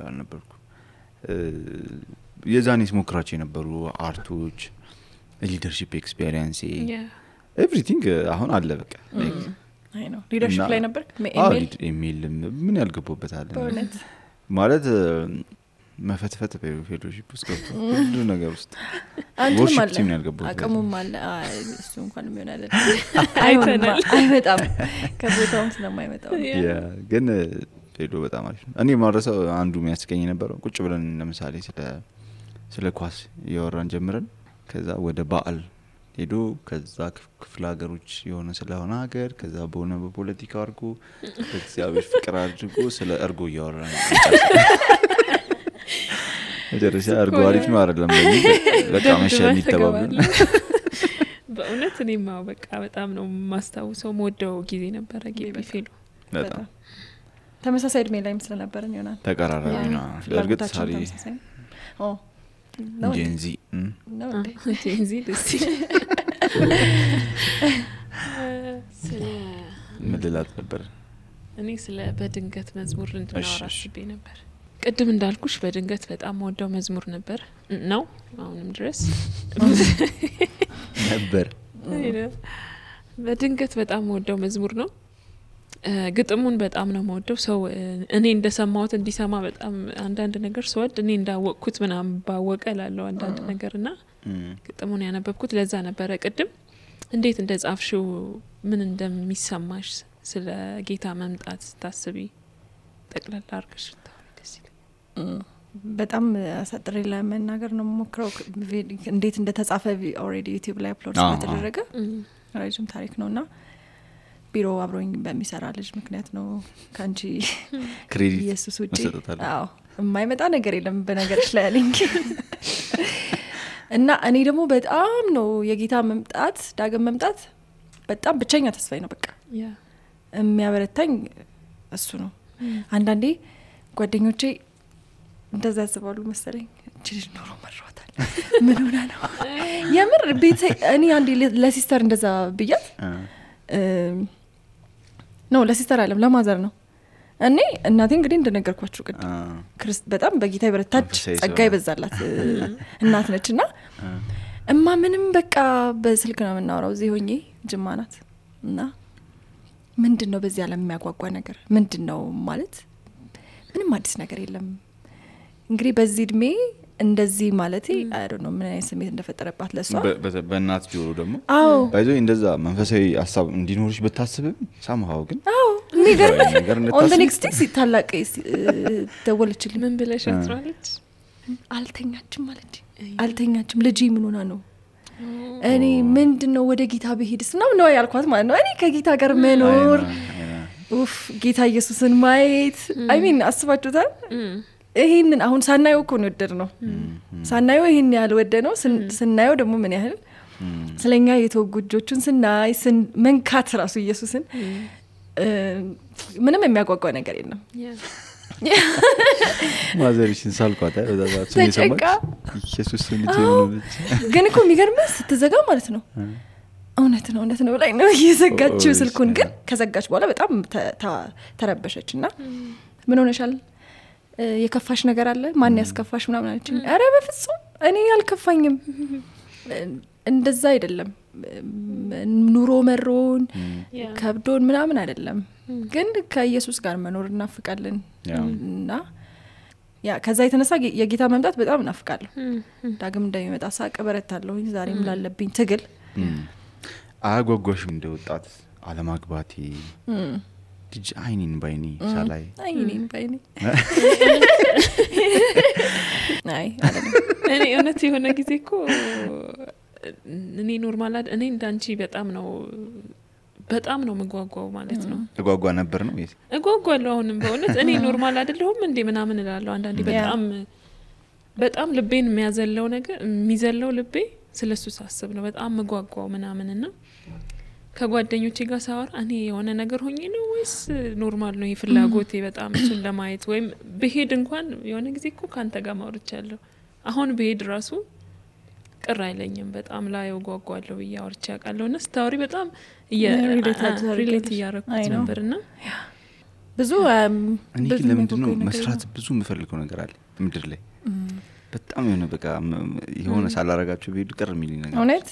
ዳር ነበርኩ የዛኔስ ሞክራቸው የነበሩ አርቶች ሊደርሺፕ ኤክስፒሪየንስ ኤቭሪቲንግ አሁን አለ በቃ አይ ነው ሊደርሺፕ ላይ ነበር ኢሜል ምን ያልገባበታል ማለት መፈትፈት በፌሎሺፕ ውስጥ ገብቶ ሁሉ ነገር ውስጥ ወርሺፕ ቲም ያልገባው አቀሙም አለ እሱ እንኳን ምን አይሆናል አይመጣም ከቦታው ስለማይመጣው ግን ፌሎ በጣም አሪፍ ነው እኔ ማረሰው አንዱ የሚያስቀኝ ነበር ቁጭ ብለን ለምሳሌ ስለ ኳስ ያወራን ጀምረን ከዛ ወደ በዓል ሄዶ ከዛ ክፍለ ሀገሮች የሆነ ስለሆነ ሀገር ከዛ በሆነ በፖለቲካ አርጎ በእግዚአብሔር ፍቅር አድርጎ ስለ እርጎ ያወራን መጨረሻ እርጎ አሪፍ ነው አይደለም በቃ መሸን ይተባበል በእውነት እኔማ በቃ በጣም ነው ማስታውሰው ሞደው ጊዜ ነበር ግቢ ፌሎ በጣም ተመሳሳይ እድሜ ላይ መስለ ነበርን ይሆናል ተቀራራቢ ነው ለርግጥ ሳሪ ጄንዚ ደስ ምልላት ነበር እኔ ስለ በድንገት መዝሙር እንድናወራ አስቤ ነበር ቅድም እንዳልኩሽ በድንገት በጣም ወደው መዝሙር ነበር ነው አሁንም ድረስ ነበር በድንገት በጣም ወደው መዝሙር ነው ግጥሙን በጣም ነው የምወደው ሰው እኔ እንደሰማሁት እንዲሰማ በጣም አንዳንድ ነገር ሰወድ እኔ እንዳወቅኩት ምናምን ባወቀ ላለው አንዳንድ ነገርና ግጥሙን ያነበብኩት ለዛ ነበር ቅድም እንዴት እንደጻፍሽው ምን እንደሚሰማሽ ስለ ጌታ መምጣት ታስቢ ጠቅላላ አርገሽ ታውቂስ በጣም አሳጥሬ ለመናገር ነው የምሞክረው እንዴት እንደተጻፈ ኦሬዲ ዩቲዩብ ላይ አፕሎድ ስለተደረገ ረጅም ታሪክ ነውና ቢሮ አብሮኝ በሚሰራ ልጅ ምክንያት ነው ካንቺ ክሬዲት ኢየሱስ ውጪ አዎ የማይመጣ ነገር የለም በነገርሽ ላይ አለኝ እና እኔ ደግሞ በጣም ነው የጌታ መምጣት ዳግም መምጣት በጣም ብቸኛ ተስፋዬ ነው በቃ የሚያበረታኝ እሱ ነው አንዳንዴ ጓደኞቼ እንደዛ ያስባሉ መሰለኝ ልጅ ኖሮ መሯታል ምን ሆነ ነው የምር ቤት እኔ አንዴ ለሲስተር እንደዛ ብያት ነው ለሲስተር አለም ለማዘር ነው እኔ እናቴ እንግዲህ እንደነገርኳችሁ ቅድም በጣም በጌታ ይበረታች ጸጋ ይበዛላት እናት ነችና እማ ምንም በቃ በስልክ ነው የምናወራው እዚህ ሆኜ ጅማ ናት እና ምንድነው በዚህ ዓለም የሚያጓጓ ነገር ምንድነው ማለት ምንም አዲስ ነገር የለም እንግዲህ በዚህ እድሜ እንደዚህ ማለት አይ ዶንት ኖ ምን አይነት ስሜት እንደፈጠረባት ለሷ በእናት ጆሮ ደግሞ ባይዞ እንደዛ መንፈሳዊ ሐሳብ እንዲኖርሽ በታስብም ሳምሃው ግን ነገር on the next day ታላቅ ደወለችልኝ ምን ብለሽ አጥራለች አልተኛችም ማለት አልተኛችም ልጅ ምን ሆና ነው እኔ ምንድነው ወደ ጌታ በሄድስ ነው ያልኳት ማለት ነው እኔ ከጌታ ጋር መኖር ኡፍ ጌታ ኢየሱስን ማየት አይ ሚን አስባችሁታል ይሄንን አሁን ሳናየው እኮ ነው ወደድነው ሳናየው ይሄን ያህል ወደድነው ስናየው ደግሞ ምን ያህል ስለኛ የተወጉጆቹን ስናይ መንካት ራሱ ኢየሱስን ምንም የሚያጓጓ ነገር የለም ማዘርሽን ሳልኳታ ወዳዛት ሰማች ኢየሱስ ልጅ ነው ግን እኮ የሚገርምህ ስትዘጋ ማለት ነው እውነት ነው ላይ ነው እየዘጋችው ስልኩን ግን ከዘጋች በኋላ በጣም ተረበሸችና ምን ሆነሻል የከፋሽ ነገር አለ ማን ያስከፋሽ ምናምን አለችኝ አረ በፍጹም እኔ ያልከፋኝም እንደዛ አይደለም ኑሮ መሮን ከብዶን ምናምን አይደለም ግን ከኢየሱስ ጋር መኖር እናፍቃለን እና ያ ከዛ የተነሳ የጌታ መምጣት በጣም እናፍቃለሁ ዳግም እንደሚመጣ ሳቅ በረታለሁ ዛሬም ላለብኝ ትግል አጓጓሽም እንደወጣት አለማግባቴ ልጅ አይኒን ባይኒ ሳላይ አይኒን ባይኒ አይ እኔ እውነት የሆነ ጊዜ እኮ እኔ ኖርማል እኔ እንዳንቺ በጣም ነው መጓጓው ማለት ነው ተጓጓ ነበር ነው ወይስ እጓጓለሁ አሁንም በእውነት እኔ ኖርማል አይደለሁም እንዴ ምናምን እላለሁ አንዳንዴ በጣም ልቤን የሚዘለው ልቤ ስለሱ ሳስብ ነው በጣም መጓጓው ምናምንና ከጓደኞቼ ጋር ሳወራ እኔ የሆነ ነገር ሆኜ ነው ወይስ ኖርማል ነው ይፍላጎቴ በጣም እሱን ለማየት ወይም በሄድ እንኳን የሆነ ጊዜ እኮ ካንተ ጋር ማውርቻለሁ አሁን በሄድ ራሱ ቅር አይለኝም በጣም ላይ ጓጓለሁ ያወርቻ ያቃለውና ስታውሪ በጣም ሪሌት ያረኩት ነበርና ብዙ እኔ ለምንድነው መስራት ብዙ የምፈልገው ነገር አለ ምድር ላይ በጣም የሆነ በቃ የሆነ ሳላረጋቸው በሄዱ ቅር የሚልኝ ነገር እውነት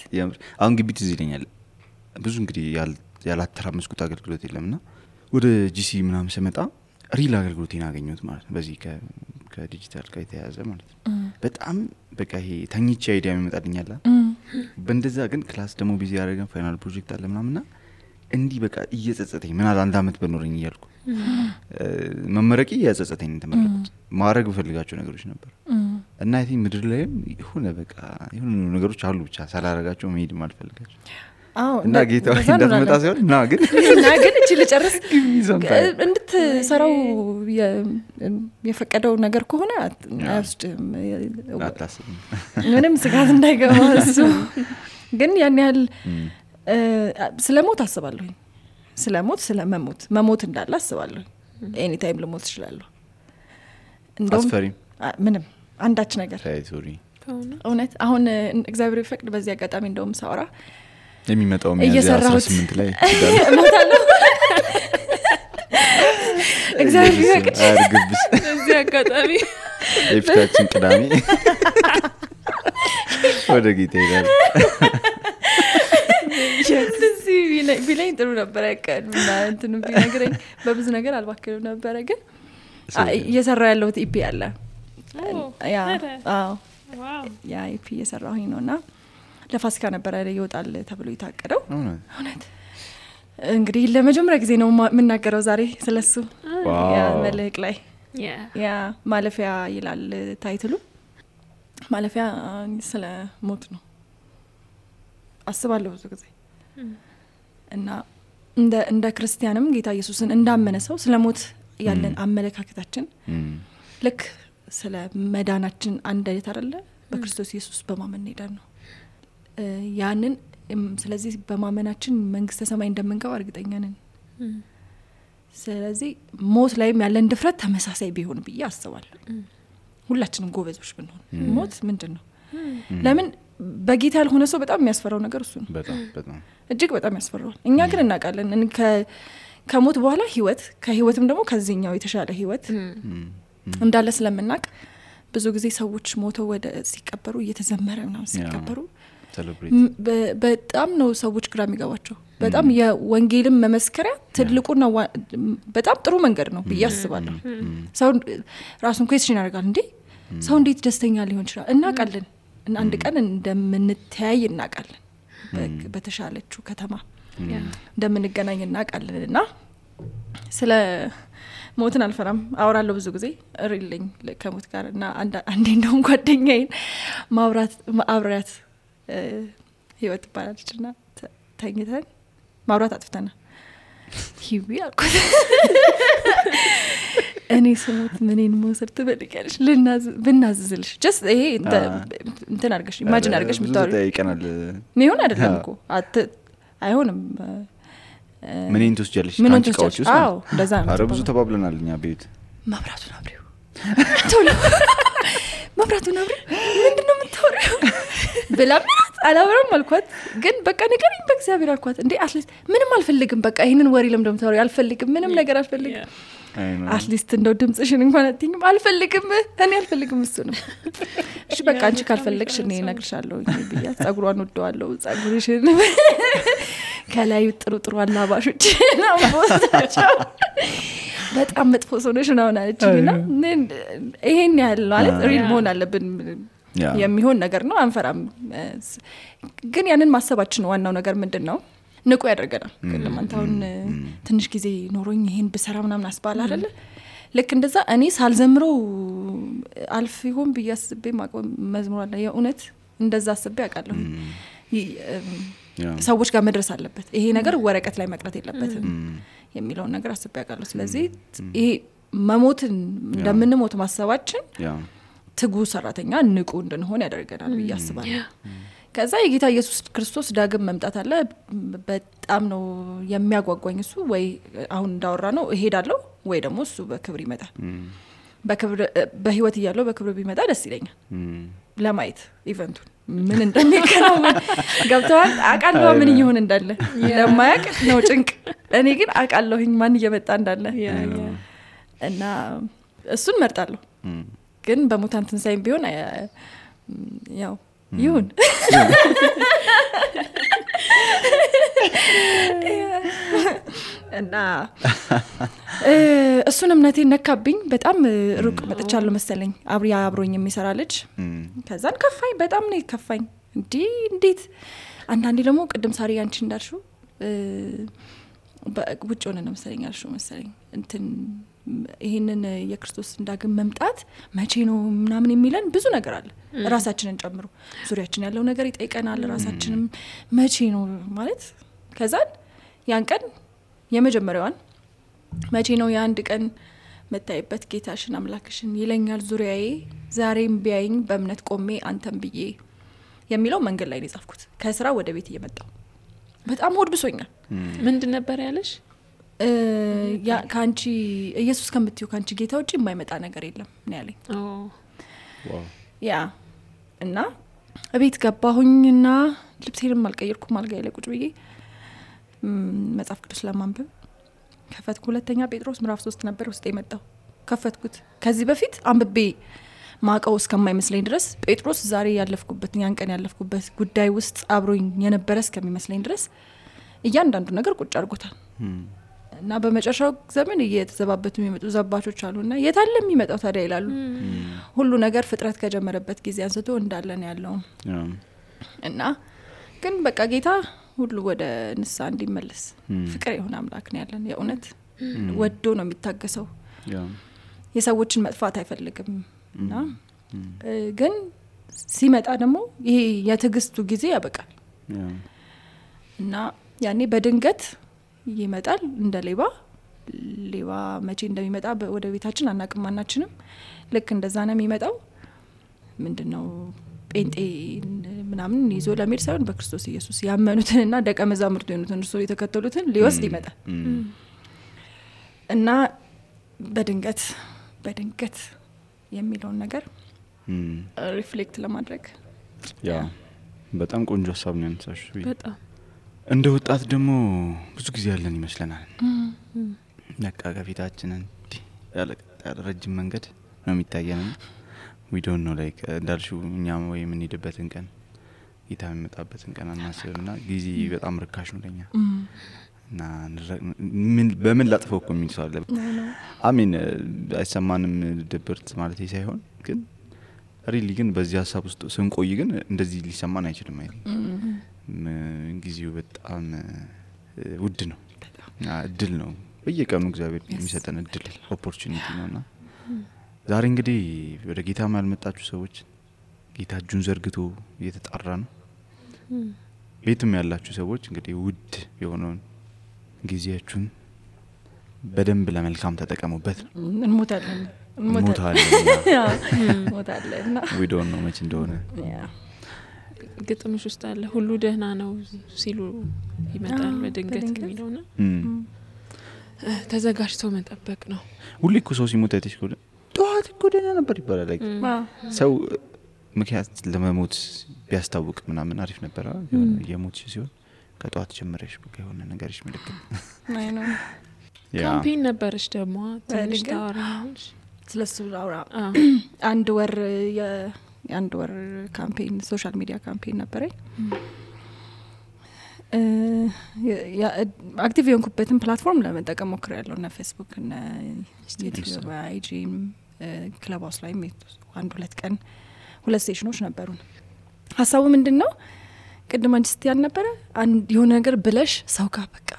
አሁን ግቢት እዚህ ይለኛል ብዙ እንግዲህ ያላተራመስኩት አገልግሎት የለምና ወደ ጂሲ ምናምን ስመጣ ሪል አገልግሎቴን አገኘሁት ማለት ነው በዚህ ከዲጂታል ጋር የተያያዘ ማለት ነው በጣም በቃ ይሄ ተኝቼ አይዲያ የሚመጣልኛል በእንደዛ ግን ክላስ ደግሞ ቢዚ ያደረገን ፋይናል ፕሮጀክት አለ ምናምንና እንዲህ በቃ እየጸጸተኝ ምን አለ አንድ አመት በኖርኝ እያልኩ መመረቂ እየጸጸተኝ ተመረኩት ማድረግ በፈልጋቸው ነገሮች ነበር እና አይ ቲንክ ምድር ላይም የሆነ በቃ የሆነ ነገሮች አሉ ብቻ ሳላረጋቸው መሄድ ማልፈልጋቸው እና ጌታው እንደተመጣ ሲሆን እና ግን እቺ ልጨርስ እንድትሰራው የፈቀደው ነገር ከሆነ አይወስድም ምንም ስጋት እንዳይገባ እሱ ግን ያን ያህል ስለሞት አስባለሁ ስለመሞት እንዳለ አስባለሁ ኤኒ ታይም ልሞት እችላለሁ እንደውም ምንም አንዳች ነገር እውነት አሁን እግዚአብሔር ይፈቅድ በዚህ አጋጣሚ እንደውም ሳወራ የሚመጣው ሚያዝያ 18 ላይ እሞታለሁ እግዚአብሔር ይፈቅድ አርግብስ በዚህ አጋጣሚ የፊታችን ቅዳሜ ወደ ጌታ ይላል ስለዚህ ቢለኝ ጥሩ ነበር ያቀድና እንትኑ ቢነግረኝ በብዙ ነገር አልባከለው ነበር ግን እየሰራ ያለው ኢፒ አለ ያ ኢፒ እየሰራሁኝ ነውና ለፋሲካ ነበር ይወጣል ተብሎ ይታቀደው እውነት እንግዲህ ለመጀመሪያ ጊዜ ነው የምናገረው ዛሬ ስለሱ ያ መልእክ ላይ ያ ማለፊያ ይላል ታይትሉ ማለፊያ ስለ ሞት ነው አስባለሁ ብዙ ጊዜ እና እንደ ክርስቲያንም ጌታ ኢየሱስን እንዳመነ ሰው ስለ ሞት ያለን አመለካከታችን ልክ ስለ መዳናችን አንድ አይነት አይደለ በክርስቶስ ኢየሱስ በማመን ሄደን ነው ያንን ስለዚህ በማመናችን መንግስተ ሰማይ እንደምንገባ እርግጠኛ ነን ስለዚህ ሞት ላይም ያለን ድፍረት ተመሳሳይ ቢሆን ብዬ አስባለሁ ሁላችንም ጎበዞች ብንሆን ሞት ምንድነው ለምን በጌታ ያልሆነ ሰው በጣም የሚያስፈራው ነገር እሱ ነው በጣም እጅግ በጣም ያስፈራው እኛ ግን እናውቃለን ከሞት በኋላ ህይወት ከህይወትም ደግሞ ከዚህኛው የተሻለ ህይወት እንዳለ ስለምናውቅ ብዙ ጊዜ ሰዎች ሞተው ወደ ሲቀበሩ እየተዘመረ ነው ሲቀበሩ በጣም ነው ሰዎች ግራ የሚገባቸው በጣም የወንጌልም መመስከሪያ ትልቁና በጣም ጥሩ መንገድ ነው ብዬ አስባለሁ ሰው ራሱን ኩዌስችን ያደርጋል እንዴ ሰው እንዴት ደስተኛ ሊሆን ይችላል እናውቃለን እና አንድ ቀን እንደምንተያይ እናውቃለን በተሻለችው ከተማ እንደምንገናኝ እናውቃለንና ስለ ሞትን አልፈራም አወራለሁ ብዙ ጊዜ ሪልኝ ከሞት ጋር እና አንዴ እንደውም ጓደኛዬን ማብራት ህይወት ባላችና ተኝተን ማብራት አጥፍተና ሂዊ አልኳት እኔ ስሞት ምንን መውሰድ ትፈልጊያለሽ ብናዝዝልሽ ጀስት ይሄ እንትን አድርገሽ ኢማጂን አድርገሽ ምታወሪ ይቀናል ምን አይደለም እኮ አይሆንም ምንን ትወስጃለሽ ካንቺ ቃዎች ውስጥ አዎ እንደዛ ነው አረ ብዙ ተባብለናል እኛ ቤት መብራቱን አብሪው ቶሎ መብራቱን አብሪው ምንድነው የምታወሪው ብላምናት አላወራም አልኳት ግን በቃ ንገሪኝ በእግዚአብሔር አልኳት እንዴ አትሊስት ምንም አልፈልግም በቃ ይሄንን ወሬ ለምን እንደምታወሪ አልፈልግም ምንም ነገር አልፈልግም አትሊስት እንደው ድምጽሽን እንኳን አትይኝም አልፈልግም እኔ አልፈልግም እሱ ነው እሺ በቃ አንቺ ካልፈለግሽ እኔ እነግርሻለሁ ብያት ጸጉሯን ወደዋለሁ ጸጉርሽን ከላይ ጥሩ አላባሾች ነው ቦታቸው በጣም መጥፎ ሰውነሽ ነው አለችኝና ይሄን ያህል ማለት ሪል መሆን አለብን የሚሆን ነገር ነው አንፈራም ግን ያንን ማሰባችን ዋናው ነገር ምንድነው ንቁ ያደርገናል ለማንታውን ትንሽ ጊዜ ኖሮኝ ይሄን በሰራ ምናምን አስባል አይደለ ልክ እንደዛ እኔ ሳልዘምረው አልፍ ይሆን በያስቤ መዝሙር አለ የኡነት እንደዛ አስቤ አቃለሁ ሰዎች ጋር መድረስ አለበት ይሄ ነገር ወረቀት ላይ መቅረት የለበትም የሚለው ነገር አስቤ አቃለሁ ስለዚህ ይሄ መሞትን እንደምንሞት ማሰባችን ትጉ ሰራተኛ ንቁ እንድንሆን ያደርገናል በያስባለሁ ከዛ የጌታ ኢየሱስ ክርስቶስ ዳግም መምጣት አለ በጣም ነው የሚያጓጓኝ እሱ ወይ አሁን እንዳወራ ነው እሄዳለሁ ወይ ደግሞ እሱ በክብር ይመጣል በክብር በህይወት ይያለው በክብር ቢመጣ ደስ ይለኛል ለማየት ኢቨንቱን ምን እንደሚከናወን ገብቷል አቃለው ምን ይሆን እንዳለ ለማያቅ ነው ጭንቅ እኔ ግን አቃለሁኝ ማን እየመጣ እንዳለ እና እሱን መርጣለሁ ግን በሙታን ትንሳኤም ቢሆን ያው ይሁን እና እሱን እምነቴን ነካብኝ በጣም ሩቅ መጥቻለሁ መሰለኝ አብሮኝ የሚሰራ ልጅ ከዛን ከፋኝ በጣም ነው ከፋኝ እንዴት አንዳንዴ ደግሞ ቅድም ሳሪ አንቺ እንዳልሽው በውጭ ሆነን መሰለኝ እንትን ይሄንን የክርስቶስ እንዳግም መምጣት መቼ ነው ምናምን የሚለን ብዙ ነገር አለ ራሳችንን ጨምሮ ዙሪያችን ያለው ነገር ይጠይቀናል ራሳችንም መቼ ነው ማለት ከዛን ያን ቀን የመጀመሪያዋን መቼ ነው የአንድ ቀን መታየበት ጌታሽን አምላክሽን ይለኛል ዙሪያዬ ዛሬም ቢያይኝ በእምነት ቆሜ አንተም ብዬ የሚለው መንገድ ላይ ነው የጻፍኩት ከስራ ወደ ቤት እየመጣው በጣም ወድብሶኛል ምንድን ነበር ያለሽ ያ ካንቺ ኢየሱስ ከምትዩ ካንቺ ጌታ ውጪ የማይመጣ ነገር የለም ነው ያለኝ ዋው ያ እና እቤት ገባሁኝና ልብሴንም አልቀየርኩም አልጋዬ ላይ ቁጭ ብዬ መጽሐፍ ቅዱስ ለማንበብ ከፈትኩ ሁለተኛ ጴጥሮስ ምዕራፍ 3 ነበር ውስጥ የመጣው ከፈትኩት ከዚህ በፊት አንብቤ ማቀው እስከማይመስለኝ ድረስ ጴጥሮስ ዛሬ ያለፍኩበት ያን ቀን ያለፍኩበት ጉዳይ ውስጥ አብሮኝ የነበረ እስከሚመስለኝ ድረስ እያንዳንዱ ነገር ቁጭ አድርጎታል እና በመጨረሻው ዘመን እየተዘባበቱ የሚመጡ ዘባቾች አሉና የታለ የሚመጣው ታዲያ ይላሉ ሁሉ ነገር ፍጥረት ከጀመረበት ጊዜ አንስቶ እንዳለን ያለው እና ግን በቃ ጌታ ሁሉ ወደ ንሳ እንዲመለስ ፍቅር የሆነ አምላክ ነው ያለን የኡነት ወዶ ነው የሚታገሰው የሰዎችን መጥፋት አይፈልግም እና ግን ሲመጣ ደግሞ ይሄ የትግስቱ ጊዜ ያበቃል እና ያኔ በድንገት ይመጣል እንደ ሌባ መቼ እንደሚመጣ ወደ ቤታችን አናቅማናችንም ልክ እንደዛ ነው የሚመጣው ምንድነው ጴንጤ ምናምን ይዞ ለሚል ሳይሆን በክርስቶስ ኢየሱስ ያመኑትንና ደቀ መዛሙርት የሆኑትን እርሱ የተከተሉትን ሊወስድ ይመጣል እና በድንገት የሚለውን ነገር ሪፍሌክት ለማድረግ ያ በጣም ቆንጆ ሐሳብ ነው ያነሳሽ በጣም እንደ ወጣት ደግሞ ብዙ ጊዜ ያለን ይመስለናል ነቃ ከፊታችንን ያለ ረጅም መንገድ ነው የሚታየን we don't know like እንዳልሽው እኛም ወይ ምን ሄድበትን ቀን ጌታ የሚመጣበትን ቀን አናስብና ጊዜ በጣም ርካሽ ነው ለኛ እና በምን ላጥፈው እኮ ምን ይሳለ አሜን አይሰማንም ድብርት ማለት ሳይሆን ግን ሪሊ ግን በዚህ ሐሳብ ውስጥ ስንቆይ ግን እንደዚህ ሊሰማን አይችልም አይደል ጊዜው በጣም ውድ ነው እድል ነው በየቀኑ እግዚአብሔር የሚሰጠን እድል ኦፖርቹኒቲ ነውና ዛሬ እንግዲህ ወደ ጌታ ማልመጣችሁ ሰዎች ጌታ እጁን ዘርግቶ እየተጣራ ነው ቤትም ያላችሁ ሰዎች እንግዲህ ውድ የሆነውን ጊዜያችሁን በደንብ ለመልካም ተጠቀሙበት። እንሞታለን ሞታለና we don't know much እንደሆነ ግጥምሽ ውስጥ አለ ሁሉ ደህና ነው ሲሉ ይመጣል በድንገት የሚለውና ተዘጋጅቶ መጠበቅ ነው። ሁሉ እኮ ሰው ሲሞት አይተሽ እኮ ጧት እኮ ደህና ነበር ይባላል። ሰው ምክንያት ለመሞት ቢያስታውቅ ምናምን አሪፍ ነበር። የሞት ሲሆን ከጧት ጀምረሽ በቃ የሆነ ነገርሽ ምልክት አይ ነው። ካምፔን ነበርሽ ደግሞ ትንሽ ታወራለሽ ስለሱ አውራ አንድ ወር ካምፔን ሶሻል ሚዲያ ካምፔን ነበረኝ። አክቲቭ የሆንኩበትን ፕላትፎርም ለመጠቀም ሞክሬያለሁ እና ፌስቡክ እና ዩቲዩብ አይጂ ክለብ ሃውስ ላይ አንድ 2 ቀን 2 ሴሽኖች ነበሩን። ሐሳቡ ምንድነው? ቅድም አንቺ ስትያን ነበር አንድ የሆነ ነገር ብለሽ ሰው ጋር በቃ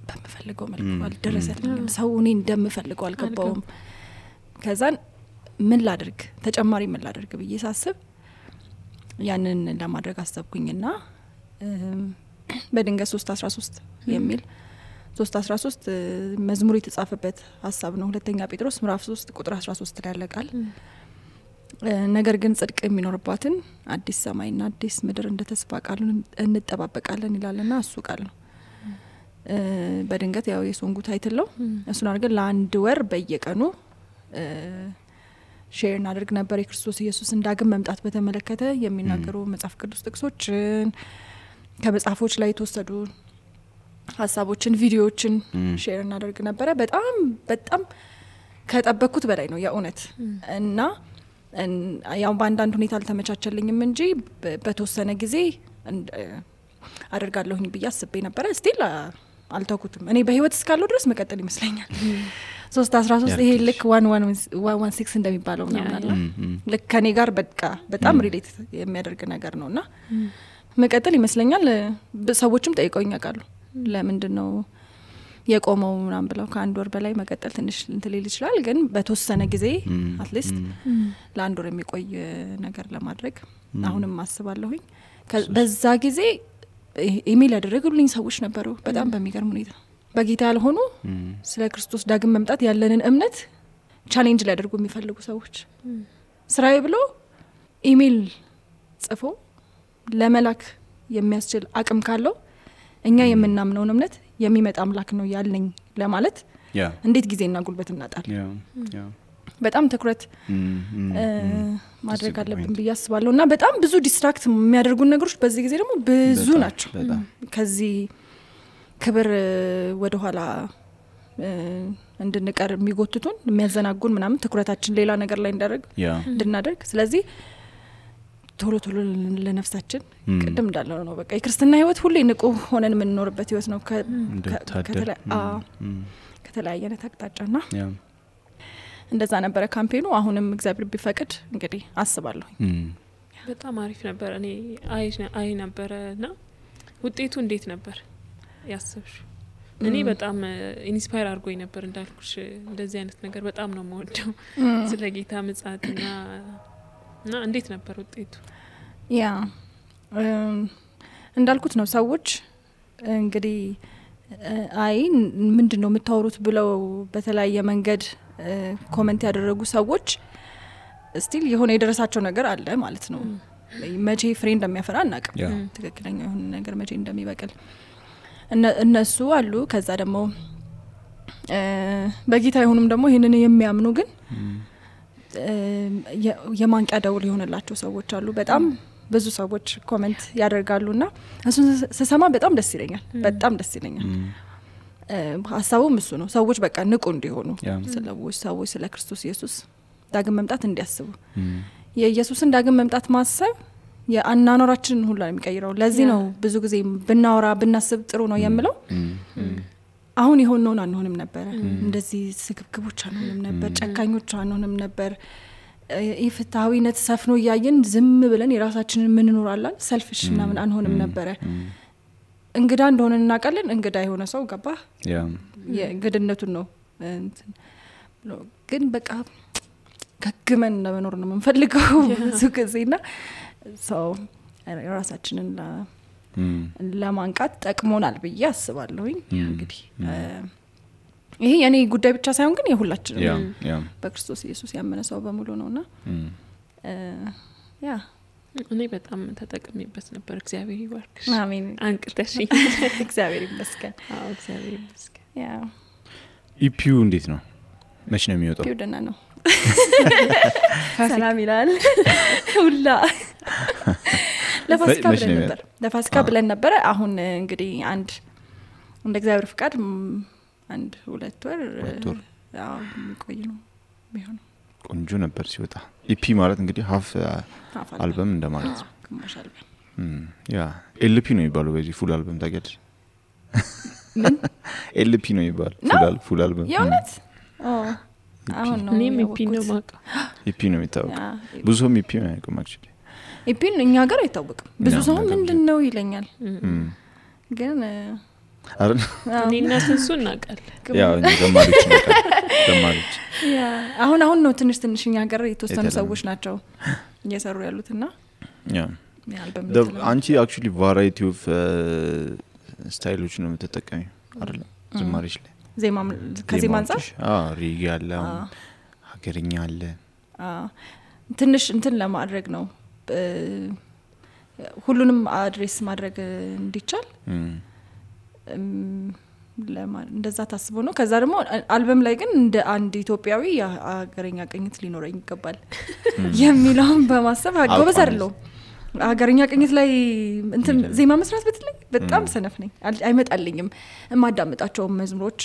በመፈልገው መልኩ አልደረሰልኝም፣ ሰው እኔ እንደምፈልገው አልገባውም። ከዛን ምን ላድርግ ተጨማሪ ምን ላድርግ ብዬ ሳስብ ያንን ለማድረግ አሰብኩኝና በድንገት 3:13 የሚል 3:13 መዝሙር የተጻፈበት ሐሳብ ነው። ሁለተኛ ጴጥሮስ ምዕራፍ 3 ቁጥር 13 ላይ ያለቃል። ነገር ግን ጽድቅ የሚኖርባትን አዲስ ሰማይና አዲስ ምድር እንደተስፋ ቃል እንጠባበቃለን ይላልና እሱ ቃል ነው። በድንገት ያው የሶንጉ ታይትል ነው። እሱን አድርገን ለአንድ ወር በየቀኑ ሼር እናደርግ ነበር። የክርስቶስ ኢየሱስ እንዳግም መምጣት በተመለከተ የሚናገሩ መጽሐፍ ቅዱስ ጥቅሶችን ከመጽሐፎች ላይ የተወሰዱ ሐሳቦችን ቪዲዮዎችን ሼር እናደርግ ነበር። በጣም ከጠበቅኩት በላይ ነው የእውነት እና ያው በአንዳንድ ሁኔታ አልተመቻቸልኝም እንጂ በተወሰነ ጊዜ አደርጋለሁኝ ብዬ አስቤ ነበር። ስቲል አልተውኩትም። እኔ በህይወት እስካለሁ ድረስ መቀጠል ይመስለኛል። 3:13 ይሄ ልክ 116 እንደሚባለው ምናምን ልክ ከኔ ጋር በጣም ሪሌት የሚያደርግ ነገር ነውና መቀጠል ይመስለኛል። ሰዎችም ጠይቀውኝ ያውቃሉ ለምንድነው የቆመው ምናምን ብለው። ከአንድ ወር በላይ መቀጠል ትንሽ እንትልል ይችላል፣ ግን በተወሰነ ጊዜ አትሊስት ለአንድ ወር የሚቆይ ነገር ለማድረግ አሁንም አስባለሁኝ። በዛ ጊዜ ኢሜል ያደረጉልኝ ሰዎች ነበሩ በጣም በሚገርም ሁኔታ በጌታ ያልሆኑ ስለ ክርስቶስ ዳግም መምጣት ያለንን እምነት ቻሌንጅ ሊያደርጉ የሚፈልጉ ሰዎች ስራዬ ብሎ ኢሜል ጽፎ ለመላክ የሚያስችል አቅም ካለው እኛ የምናምነው እምነት የሚመጣ አምላክ ነው ያለኝ ለማለት እንዴት ጊዜና ጉልበት እናጣለን። በጣም ትኩረት ማድረግ አለብን ብዬ አስባለሁ። እና በጣም ብዙ ዲስትራክት የሚያደርጉን ነገሮች በዚህ ጊዜ ደግሞ ብዙ ናቸው። ከዚህ ክብር ወደ ኋላ እንድንቀር የሚጎትቱን የሚያዘናጉን ምናምን ትኩረታችን ሌላ ነገር ላይ እንድናደርግ ስለዚህ ቶሎ ለነፍሳችን ቅድም እንዳለው ነው በቃ የክርስትና ህይወት ሁሌ ንቁ ሆነን የምንኖርበት ህይወት ነው ከተለያየ አቅጣጫና እንደዛ ነበረ ካምፔኑ። አሁንም እግዚአብሔር ቢፈቅድ እንግዲህ አስባለሁ። በጣም አሪፍ ነበር። እኔ አይ ነበርና ውጤቱ እንዴት ነበር ያሰብሽ? እኔ በጣም ኢንስፓየር አድርጎኝ ነበር እንዳልኩሽ። እንደዚህ አይነት ነገር በጣም ነው የምወደው ስለ ጌታ ምጽአትና እና እንዴት ነበር ውጤቱ? እንዳልኩት ነው ሰዎች እንግዲህ አይ ምንድነው የምታወሩት ብለው በተለያየ መንገድ ኮሜንት ያደረጉ ሰዎች ስቲል የሆነ የደረሳቸው ነገር አለ ማለት ነው። መቼ ፍሬ እንደሚያፈራ እናቀም ትክክለኛ የሆነ ነገር መቼ እንደሚበቅል እነሱ አሉ። ከዛ ደግሞ በጌታ ይሁንም ደግሞ ይሄንን የሚያምኑ ግን የማንቂያ ደውል የሆነላቸው ሰዎች አሉ። በጣም ብዙ ሰዎች ኮሜንት ያደርጋሉና እሱን ስሰማ በጣም ደስ ይለኛል። ሐሳቡም እሱ ነው። ሰዎች በቃ ንቁ እንዲሆኑ ሰዎች ስለ ክርስቶስ ኢየሱስ ዳግም መምጣት እንዲያስቡ የኢየሱስን ዳግም መምጣት ማሰብ የአናኖራችንን ሁሉ የሚቀይረው። ለዚህ ነው ብዙ ጊዜ ብናወራ ብናስብ ጥሩ ነው የምለው። አሁን ይሆነውን አንሆንም ነበር፣ እንደዚህ ስግብግቦች አንሆንም ነበር፣ ጨካኞች አንሆንም ነበር። ኢፍትሃዊነት ሰፍኖ ያየን ዝም ብለን የራሳችንን ምን እንኖራለን ሰልፍሽ ምናምን አንሆንም ነበር። እንግዳ እንደሆነ እናቀለን። እንግዳ የሆነ ሰው ገባ የግድነቱን ነው ግን በቃ ከግመን ለመኖር ነው የምንፈልገው ብዙ ጊዜና ሰው ራሳችንን ለማንቃት ጠቅሞናል ብዬ አስባለሁኝ እንግዲህ ይሄ የኔ ጉዳይ ብቻ ሳይሆን ግን የሁላችንም በክርስቶስ ኢየሱስ ያመነ ሰው በሙሉ ነውና ያ እኔ በጣም ተጠቅሜበት ነበር እግዚአብሔር ይባርክሽ አሜን አንቅተሽ እግዚአብሔር ይመስገን አዎ እግዚአብሔር ይመስገን ያ ኢፒዩ እንዴት ነው መች ነው የሚወጣው ኢፒዩ ደህና ነው ሰላም ይላል ሁላ ለፋሲካ ብለን ነበር አሁን እንግዲህ አንድ እንደ እግዚአብሔር ፍቃድ አንድ 2 ወር ያው ቆይ ነው የሚሆነው ቆንጆ ነበር ሲወጣ ኢፒ ማለት እንግዲህ ሃፍ አልበም እንደማለት ነው ግማሽ አልበም ያ ኤልፒ ነው የሚባለው በዚህ ፉል አልበም ታውቂያለሽ ምን ኤልፒ ነው የሚባለው ፉል አልበም የእውነት አሁን ነው እኔም ኢፒ ነው ማቃ ኢፒ ነው የሚታወቀው ብዙ ሰው ኢፒ ነው ያውቀው አክቹሊ ኢፒ እኛ ጋር አይታወቅም ብዙ ሰው ምንድነው ይለኛል ግን አረ እኔና ስንሱ እናውቃለን ያው ዘማሪዎች ያ አሁን ነው ትንሽ እኛ ጋር የተወሰኑ ሰዎች ናቸው እየሰሩ ያሉትና ያ አንቺ አክቹሊ ቫራይቲ ኦፍ ስታይሎች ነው የምትጠቀሚው አይደል ዘማሪዎች ላይ ዜማ ከዜማ አንፃር ሪግ ያለ ሀገርኛ አለ ትንሽ እንትን ለማድረግ ነው ሁሉንም አድሬስ ማድረግ እንዲቻል እንደዛ ታስቦ ነው ከዛ ደግሞ አልበም ላይ ግን እንደ አንድ ኢትዮጵያዊ ሀገርኛ ቅኝት ሊኖረኝ ይገባል የሚለውን በማሰብ ጎበዝ አይደለሁም ሀገርኛ ቅኝት ላይ እንትን ዜማ መስራት በጣም ሰነፍ ነኝ አይመጣልኝም ማዳምጣቸው መዝሙሮች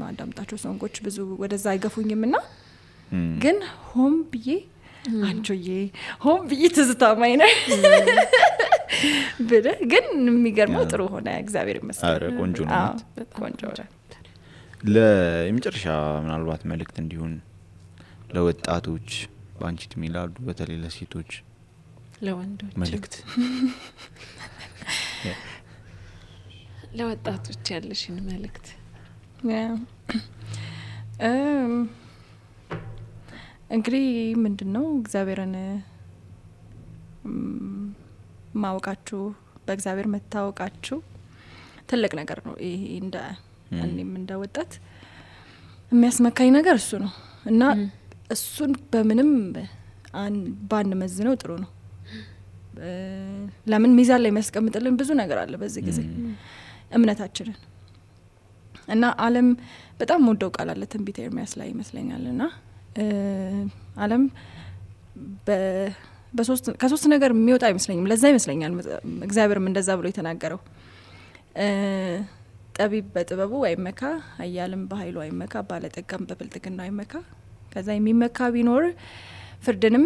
ማዳምጣቸው ሶንጎች ብዙ ወደዛ አይገፉኝምና ግን ሆም ብዬ አንጆዬ ሆም ብዬ ትዝታማኝ ነው ብለ ግን የሚገርመው ጥሩ ሆነ እግዚአብሔር ይመስገን አረ ቆንጆ ነው ቆንጆ ለምጨርሻ ምናልባት መልእክት እንዲሆን ለወጣቶች ባንቺ ትሚላሉ በተለይ ለሴቶች ለወንዶች መልእክት ለወጣቶች ያለሽን መልእክት እንግዲህ ምንድነው እግዚአብሔርን ማወቃችሁ በእግዚአብሔር መታወቃችሁ ትልቅ ነገር ነው ይሄ እኔም እንደወጣት የሚያስመካኝ ነገር እሱ ነው እና እሱን በምንም ባን መዝነው ጥሩ ነው ለምን ሚዛን ላይ የሚያስቀምጥልን ብዙ ነገር አለ በዚህ ጊዜ እምነታችንን እና ዓለም በጣም ወደው ቃል አለ ትንቢተ ኤርምያስ ላይ ይመስለኛልና ዓለም ከሶስት ነገር የሚወጣ አይመስለኝም ለዛ ይመስለኛል እግዚአብሔርም እንደዛ ብሎ የተናገረው ጠቢብ በጥበቡ አይመካ ኃያልም በኃይሉ አይመካ ባለጠጋም በብልጥግናው አይመካ ከዛ የሚመካ ቢኖር ፍርድንም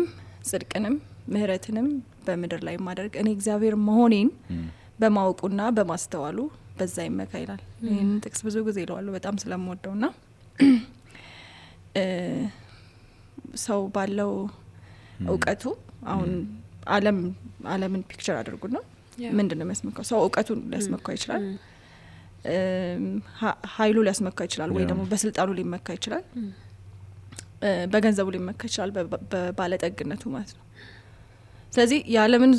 ጽድቅንም ምህረትንም በምድር ላይ ማድረግ እኔ እግዚአብሔር መሆኔን በማወቁና በማስተዋሉ በዛ ይመካ ይላል ይሄን ጥቅስ ብዙ ጊዜ ይለዋል በጣም ስለምወደውና ሰው ባለው እውቀቱ አሁን ዓለምን ፒክቸር አድርጉና ምንድነው የሚያስመካው ሰው እውቀቱን ሊያስመካው ይችላል ኃይሉ ሊያስመካው ይችላል ወይ ደግሞ በስልጣኑ ሊመካ ይችላል በገንዘቡ ሊመካ ይችላል በባለጠግነቱ ማለት ነው ስለዚህ የዓለምን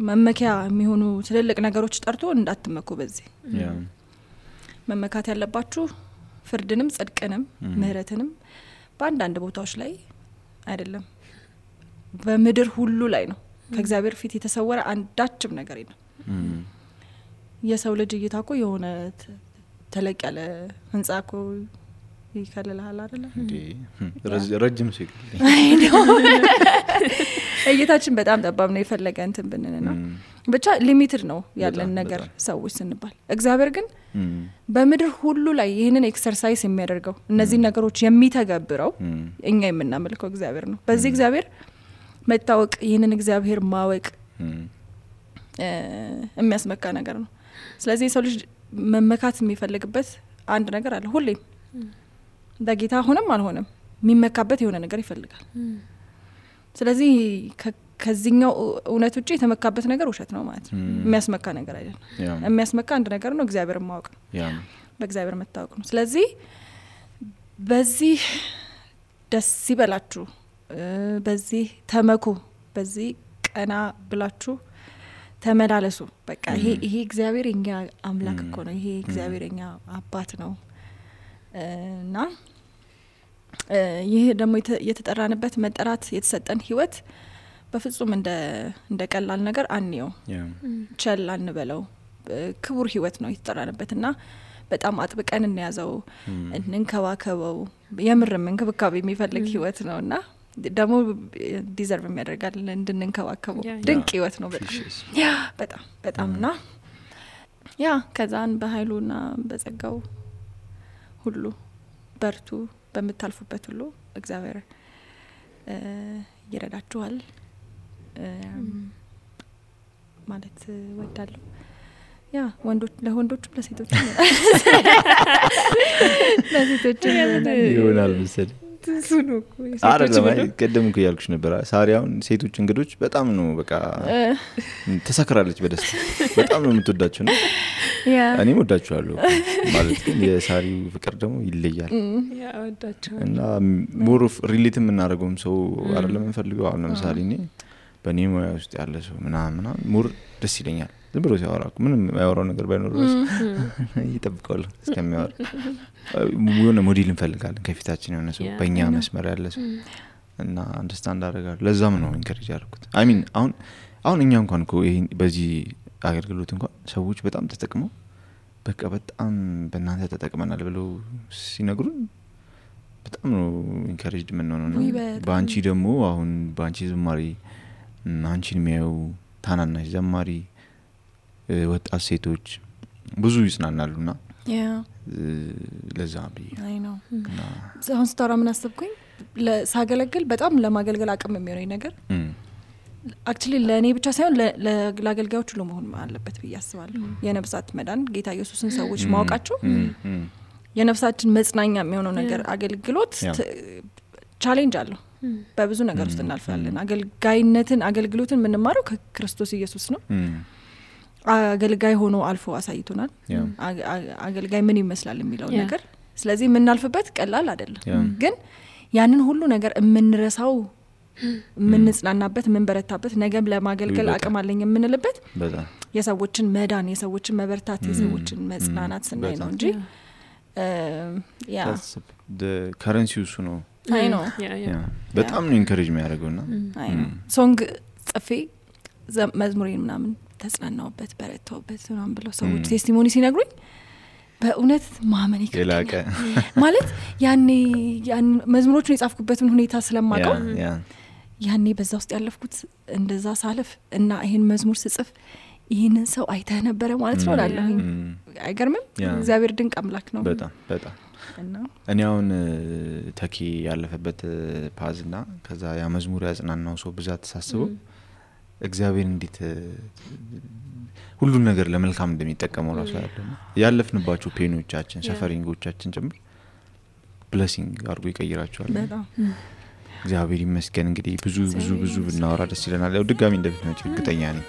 መመኪያ የሚሆኑ ትልልቅ ነገሮች ጠርቶ እንዳትመኩ በዚህ መመካት ያለባችሁ ፍርድንም ጽድቅንም ምህረትንም በአንዳንድ ቦታዎች ላይ አይደለም በምድር ሁሉ ላይ ነው ከእግዚአብሔር ፊት የተሰወረ አንዳችም ነገር የለም የሰው ልጅ እይታኮ የሆነ ተለቅ ያለ ህንጻኮ ይከለላል አይደል እንዴ ረጅም ሲል እይታችን በጣም ጠባብ ነው የፈለገ እንትን ብንነና ብቻ ሊሚትድ ነው ያለን ነገር ሰዎች ስንባል እግዚአብሔር ግን በምድር ሁሉ ላይ ይሄንን ኤክሰርሳይዝ የሚያደርገው እነዚህ ነገሮች የሚተገብረው እኛ የምናመልከው እግዚአብሔር ነው በዚህ እግዚአብሔር መታወቅ ይሄንን እግዚአብሔር ማወቅ የሚያስመካ ነገር ነው ስለዚህ ሰው ልጅ መመካት የሚፈልግበት አንድ ነገር አለ ሁሌም በጌታ ሆነም አልሆነም የሚመካበት የሆነ ነገር ይፈልጋል ስለዚህ ከዚህኛው እውነት ውጪ የተመካበት ነገር ውሸት ነው ማለት ነው የሚያስመካ ነገር አይደለም የሚያስመካ አንድ ነገር ነው እግዚአብሔርን ማወቅ ነው በእግዚአብሔር መታወቅ ነው ስለዚህ በዚህ ደስ ይበላችሁ በዚህ ተመኩ በዚህ ቀና ብላችሁ ተመላለሱ በቃ ይሄ እግዚአብሔር የኛ አምላክ እኮ ነው ይሄ እግዚአብሔር የኛ አባት ነው እና ይሄ ደግሞ የተጠራንበት መጠራት የተሰጠን ህይወት በፍጹም እንደ ቀላል ነገር አንየው ቸል አንበለው ክቡር ህይወት ነው የተጠራንበትና በጣም አጥብቀን እንያዘው እንንከባከበው የምርም እንክብካቤ የሚፈልግ ህይወት ነውና ደግሞ ዲዘርቭ የሚያደርጋል እንድንንከባከበው ድንቅ ህይወት ነው በጣም በጣምና ያ ከዛን በኃይሉና በጸጋው ሁሉ በርቱ በመታልፉበት ሁሉ እግዚአብሔር ይረዳችኋል ማለት ወዳለሁ ያ ወንዶች ለወንዶችም ለሴቶችም ይሆናል መሰለኝ አይደለም ቀደም እኮ ያልኩሽ ነበር ሳሪያውን ሴቶች እንግዶች በጣም ነው በቃ ተሰክራለች በደስታ በጣም ነው የምትወዳቸው ነው እኔም ወዳቸዋለሁ ማለት ግን የሳሪው ፍቅር ደግሞ ይለያል ያ ወዳቸው እና ሞር ኦፍ ሪሌት የምናደርገውም ሰው አይደለም እንፈልገው አሁን ለምሳሌ እኔ በኔ ሙያ ውስጥ ያለ ሰው ምናምን ሞር ደስ ይለኛል ዝም ብሎ ሲያወራ ምንም ያወራው ነገር ባይኖር ይጠብቃል እስከሚያወራ የሆነ ሞዴል እንፈልጋለን ከፊታችን የሆነ ሰው በእኛ መስመር ያለ ሰው እና አንደርስታንድ አደርጋለሁ ለዛም ነው ኢንከሬጅ ያደረኩት አይ ሚን አሁን እኛ እንኳን እኮ ይሄ በዚህ አገልግሎት እንኳን ሰዎች በጣም ተጠቅመው በቃ በጣም በእናንተ ተጠቅመናል ብለው ሲነግሩን በጣም ነው ኢንከሬጅድ የምንሆነው በአንቺ ደግሞ አሁን በአንቺ ዝማሬ አንቺን የሚያዩ ታናናሽ ዘማሪ ወጣት ሴቶች ብዙ ይጽናናሉና ለዛ ቢ አይ ነው አሁን ስታራ ምን አሰብኩኝ ለሳገለግል በጣም ለማገልገል አቅም የሚሆነኝ ነገር አክቹሊ ለኔ ብቻ ሳይሆን ለአገልጋዮች ሁሉ መሆን አለበት ብዬ አስባለሁ የነፍሳት መዳን ጌታ ኢየሱስን ሰዎች ማወቃቸው የነፍሳችን መጽናኛ የሚሆነው ነገር አገልግሎት ቻሌንጅ አለው በብዙ ነገር ውስጥ እናልፋለን አገልግሎትን ምንማረው ከክርስቶስ ኢየሱስ ነው አገልጋይ ሆኖ አልፎ አሳይቶናል አገልጋይ ምን ይመስላል የሚለው ነገር ስለዚህ የምናልፍበት ቀላል አይደለም ግን ያንን ሁሉ ነገር የምንረሳው ምንጽናናበት ምንበረታበት ነገም ለማገልገል አቅም አለኝ የምንልበት የሰዎችን መዳን የሰዎችን መበርታት የሰዎችን መጽናናት ስናይ ነው እንጂ ያ the currency እሱ ነው አይ ነው በጣም ነው ኢንከሬጅ የሚያደርገውና አይ ነው ሶንግ ጽፌ መዝሙሬን ምናምን ተጽናናውበት በረታውበት ምናምን ብለው ሰዎች ቴስቲሞኒ ሲነግሩኝ በእውነት ማመን ይከብዳል ማለት ያኔ መዝሙሮቹን የጻፍኩበትን ሁኔታ ስለማውቀው ያኔ በዛ ውስጥ ያለፍኩት እንደዛ ሳልፍ እና ይሄን መዝሙር ስጽፍ ይሄንን ሰው አይተህ ነበር ማለት ነው አላለሁኝ አይገርምም እግዚአብሔር ድንቅ አምላክ ነው በጣም እና እኔ አሁን ተኪ ያለፈበት ፓዝና ከዛ ያ መዝሙር ያጽናናው ሰው ብዛት ተሳስበው እግዚአብሔር እንዴት ሁሉን ነገር ለመልካም እንደሚጠቀመው ራሱ ያለፍንባቸው ፔኖቻችን ሰፈሪንጎቻችን ጭምር ብሌሲንግ አድርጎ ይቀይራቸዋል በጣም እግዚአብሔር ይመስገን እንግዲህ ብዙ ብናወራ ደስ ይለናል ያው ድጋሚ እንደምትመጪ እርግጠኛ ነኝ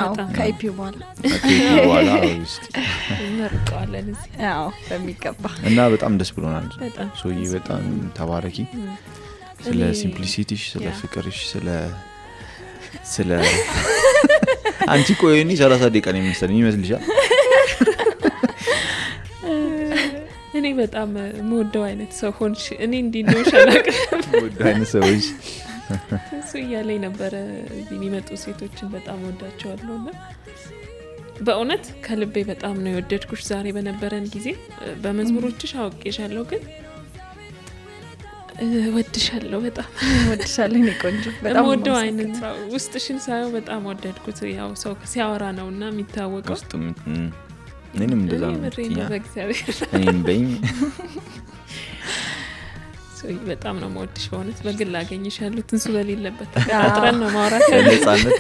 አዎ ከኢፒዩ በኋላ እስቲ እንርቀዋለን እዚህ አዎ በሚገባ እና በጣም ደስ ብሎናል ሶይ በጣም ተባረኪ ስለ ሲምፕሊሲቲሽ ስለ ፍቅርሽ ስለ አንቺ ቆይኒ 30 ደቂቃ ነው የሚመስለኝ ይመስልሻል እኔ በጣም ሞደው አይነት ሰው ሆንሽ እኔ እንዲነው ሻላቅ ሞደው አይነት ሰዎች እሱ ያለኝ ነበር የሚመጡ ሴቶችን በጣም ወዳቸዋለሁና በእውነት ከልቤ በጣም ነው የወደድኩሽ ዛሬ በነበረን ጊዜ በመዝሙሮችሽ አውቄሻለሁ ግን ወድሻለሁ በጣም ወድሻለሁ እኔ ቆንጆ በጣም ወደው አይነት ውስጥሽን ሳይው በጣም ወደድኩት ያው ሰው ሲያወራ ነውና የሚታወቀው እኔም እንደዛ ነው በእግዚአብሔር እኔም በኝ ሶይ በጣም ነው ወድሽ በእውነት በግል አገኝሻለሁ ትንሱ በሌለበት ተቀጣጥረን ነው ማውራት ነፃነት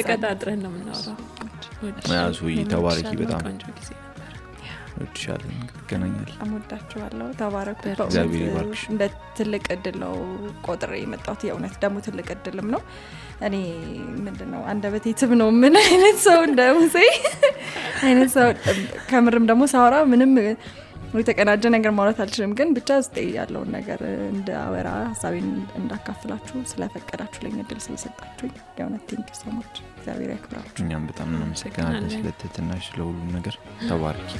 ተቀጣጥረን ነው የምናወራው ሶይ ተባረኪ በጣም ወድሻለሁ ገናኛል አሞዳችኋለሁ ተባረኩ እግዚአብሔር ይባርክሽ እንደ ትልቅ እድል ነው ቆጥሬ የመጣሁት የእውነት ደግሞ ትልቅ እድልም ነው እኔ ምንድነው አንደበቴ ትብ ነው ምን አይነት ሰው እንደሙሴ አይነት ሰው ከምርም ደግሞ ሳወራ ምንም የተቀናጀ ነገር ማውራት አልችልም ግን ብቻ ውስጥ ያለውን ነገር እንደ አወራ ሀሳቤን እንዳካፍላችሁ ስለፈቀዳችሁ ለኛ እድል ስለሰጣችሁኝ የእውነት ቴንክ ዩ ሶ ማች እግዚአብሔር ያክብራችሁ እኛም በጣም እናመሰግናለን ስለተተናሽ ለሁሉም ነገር ተባረኪ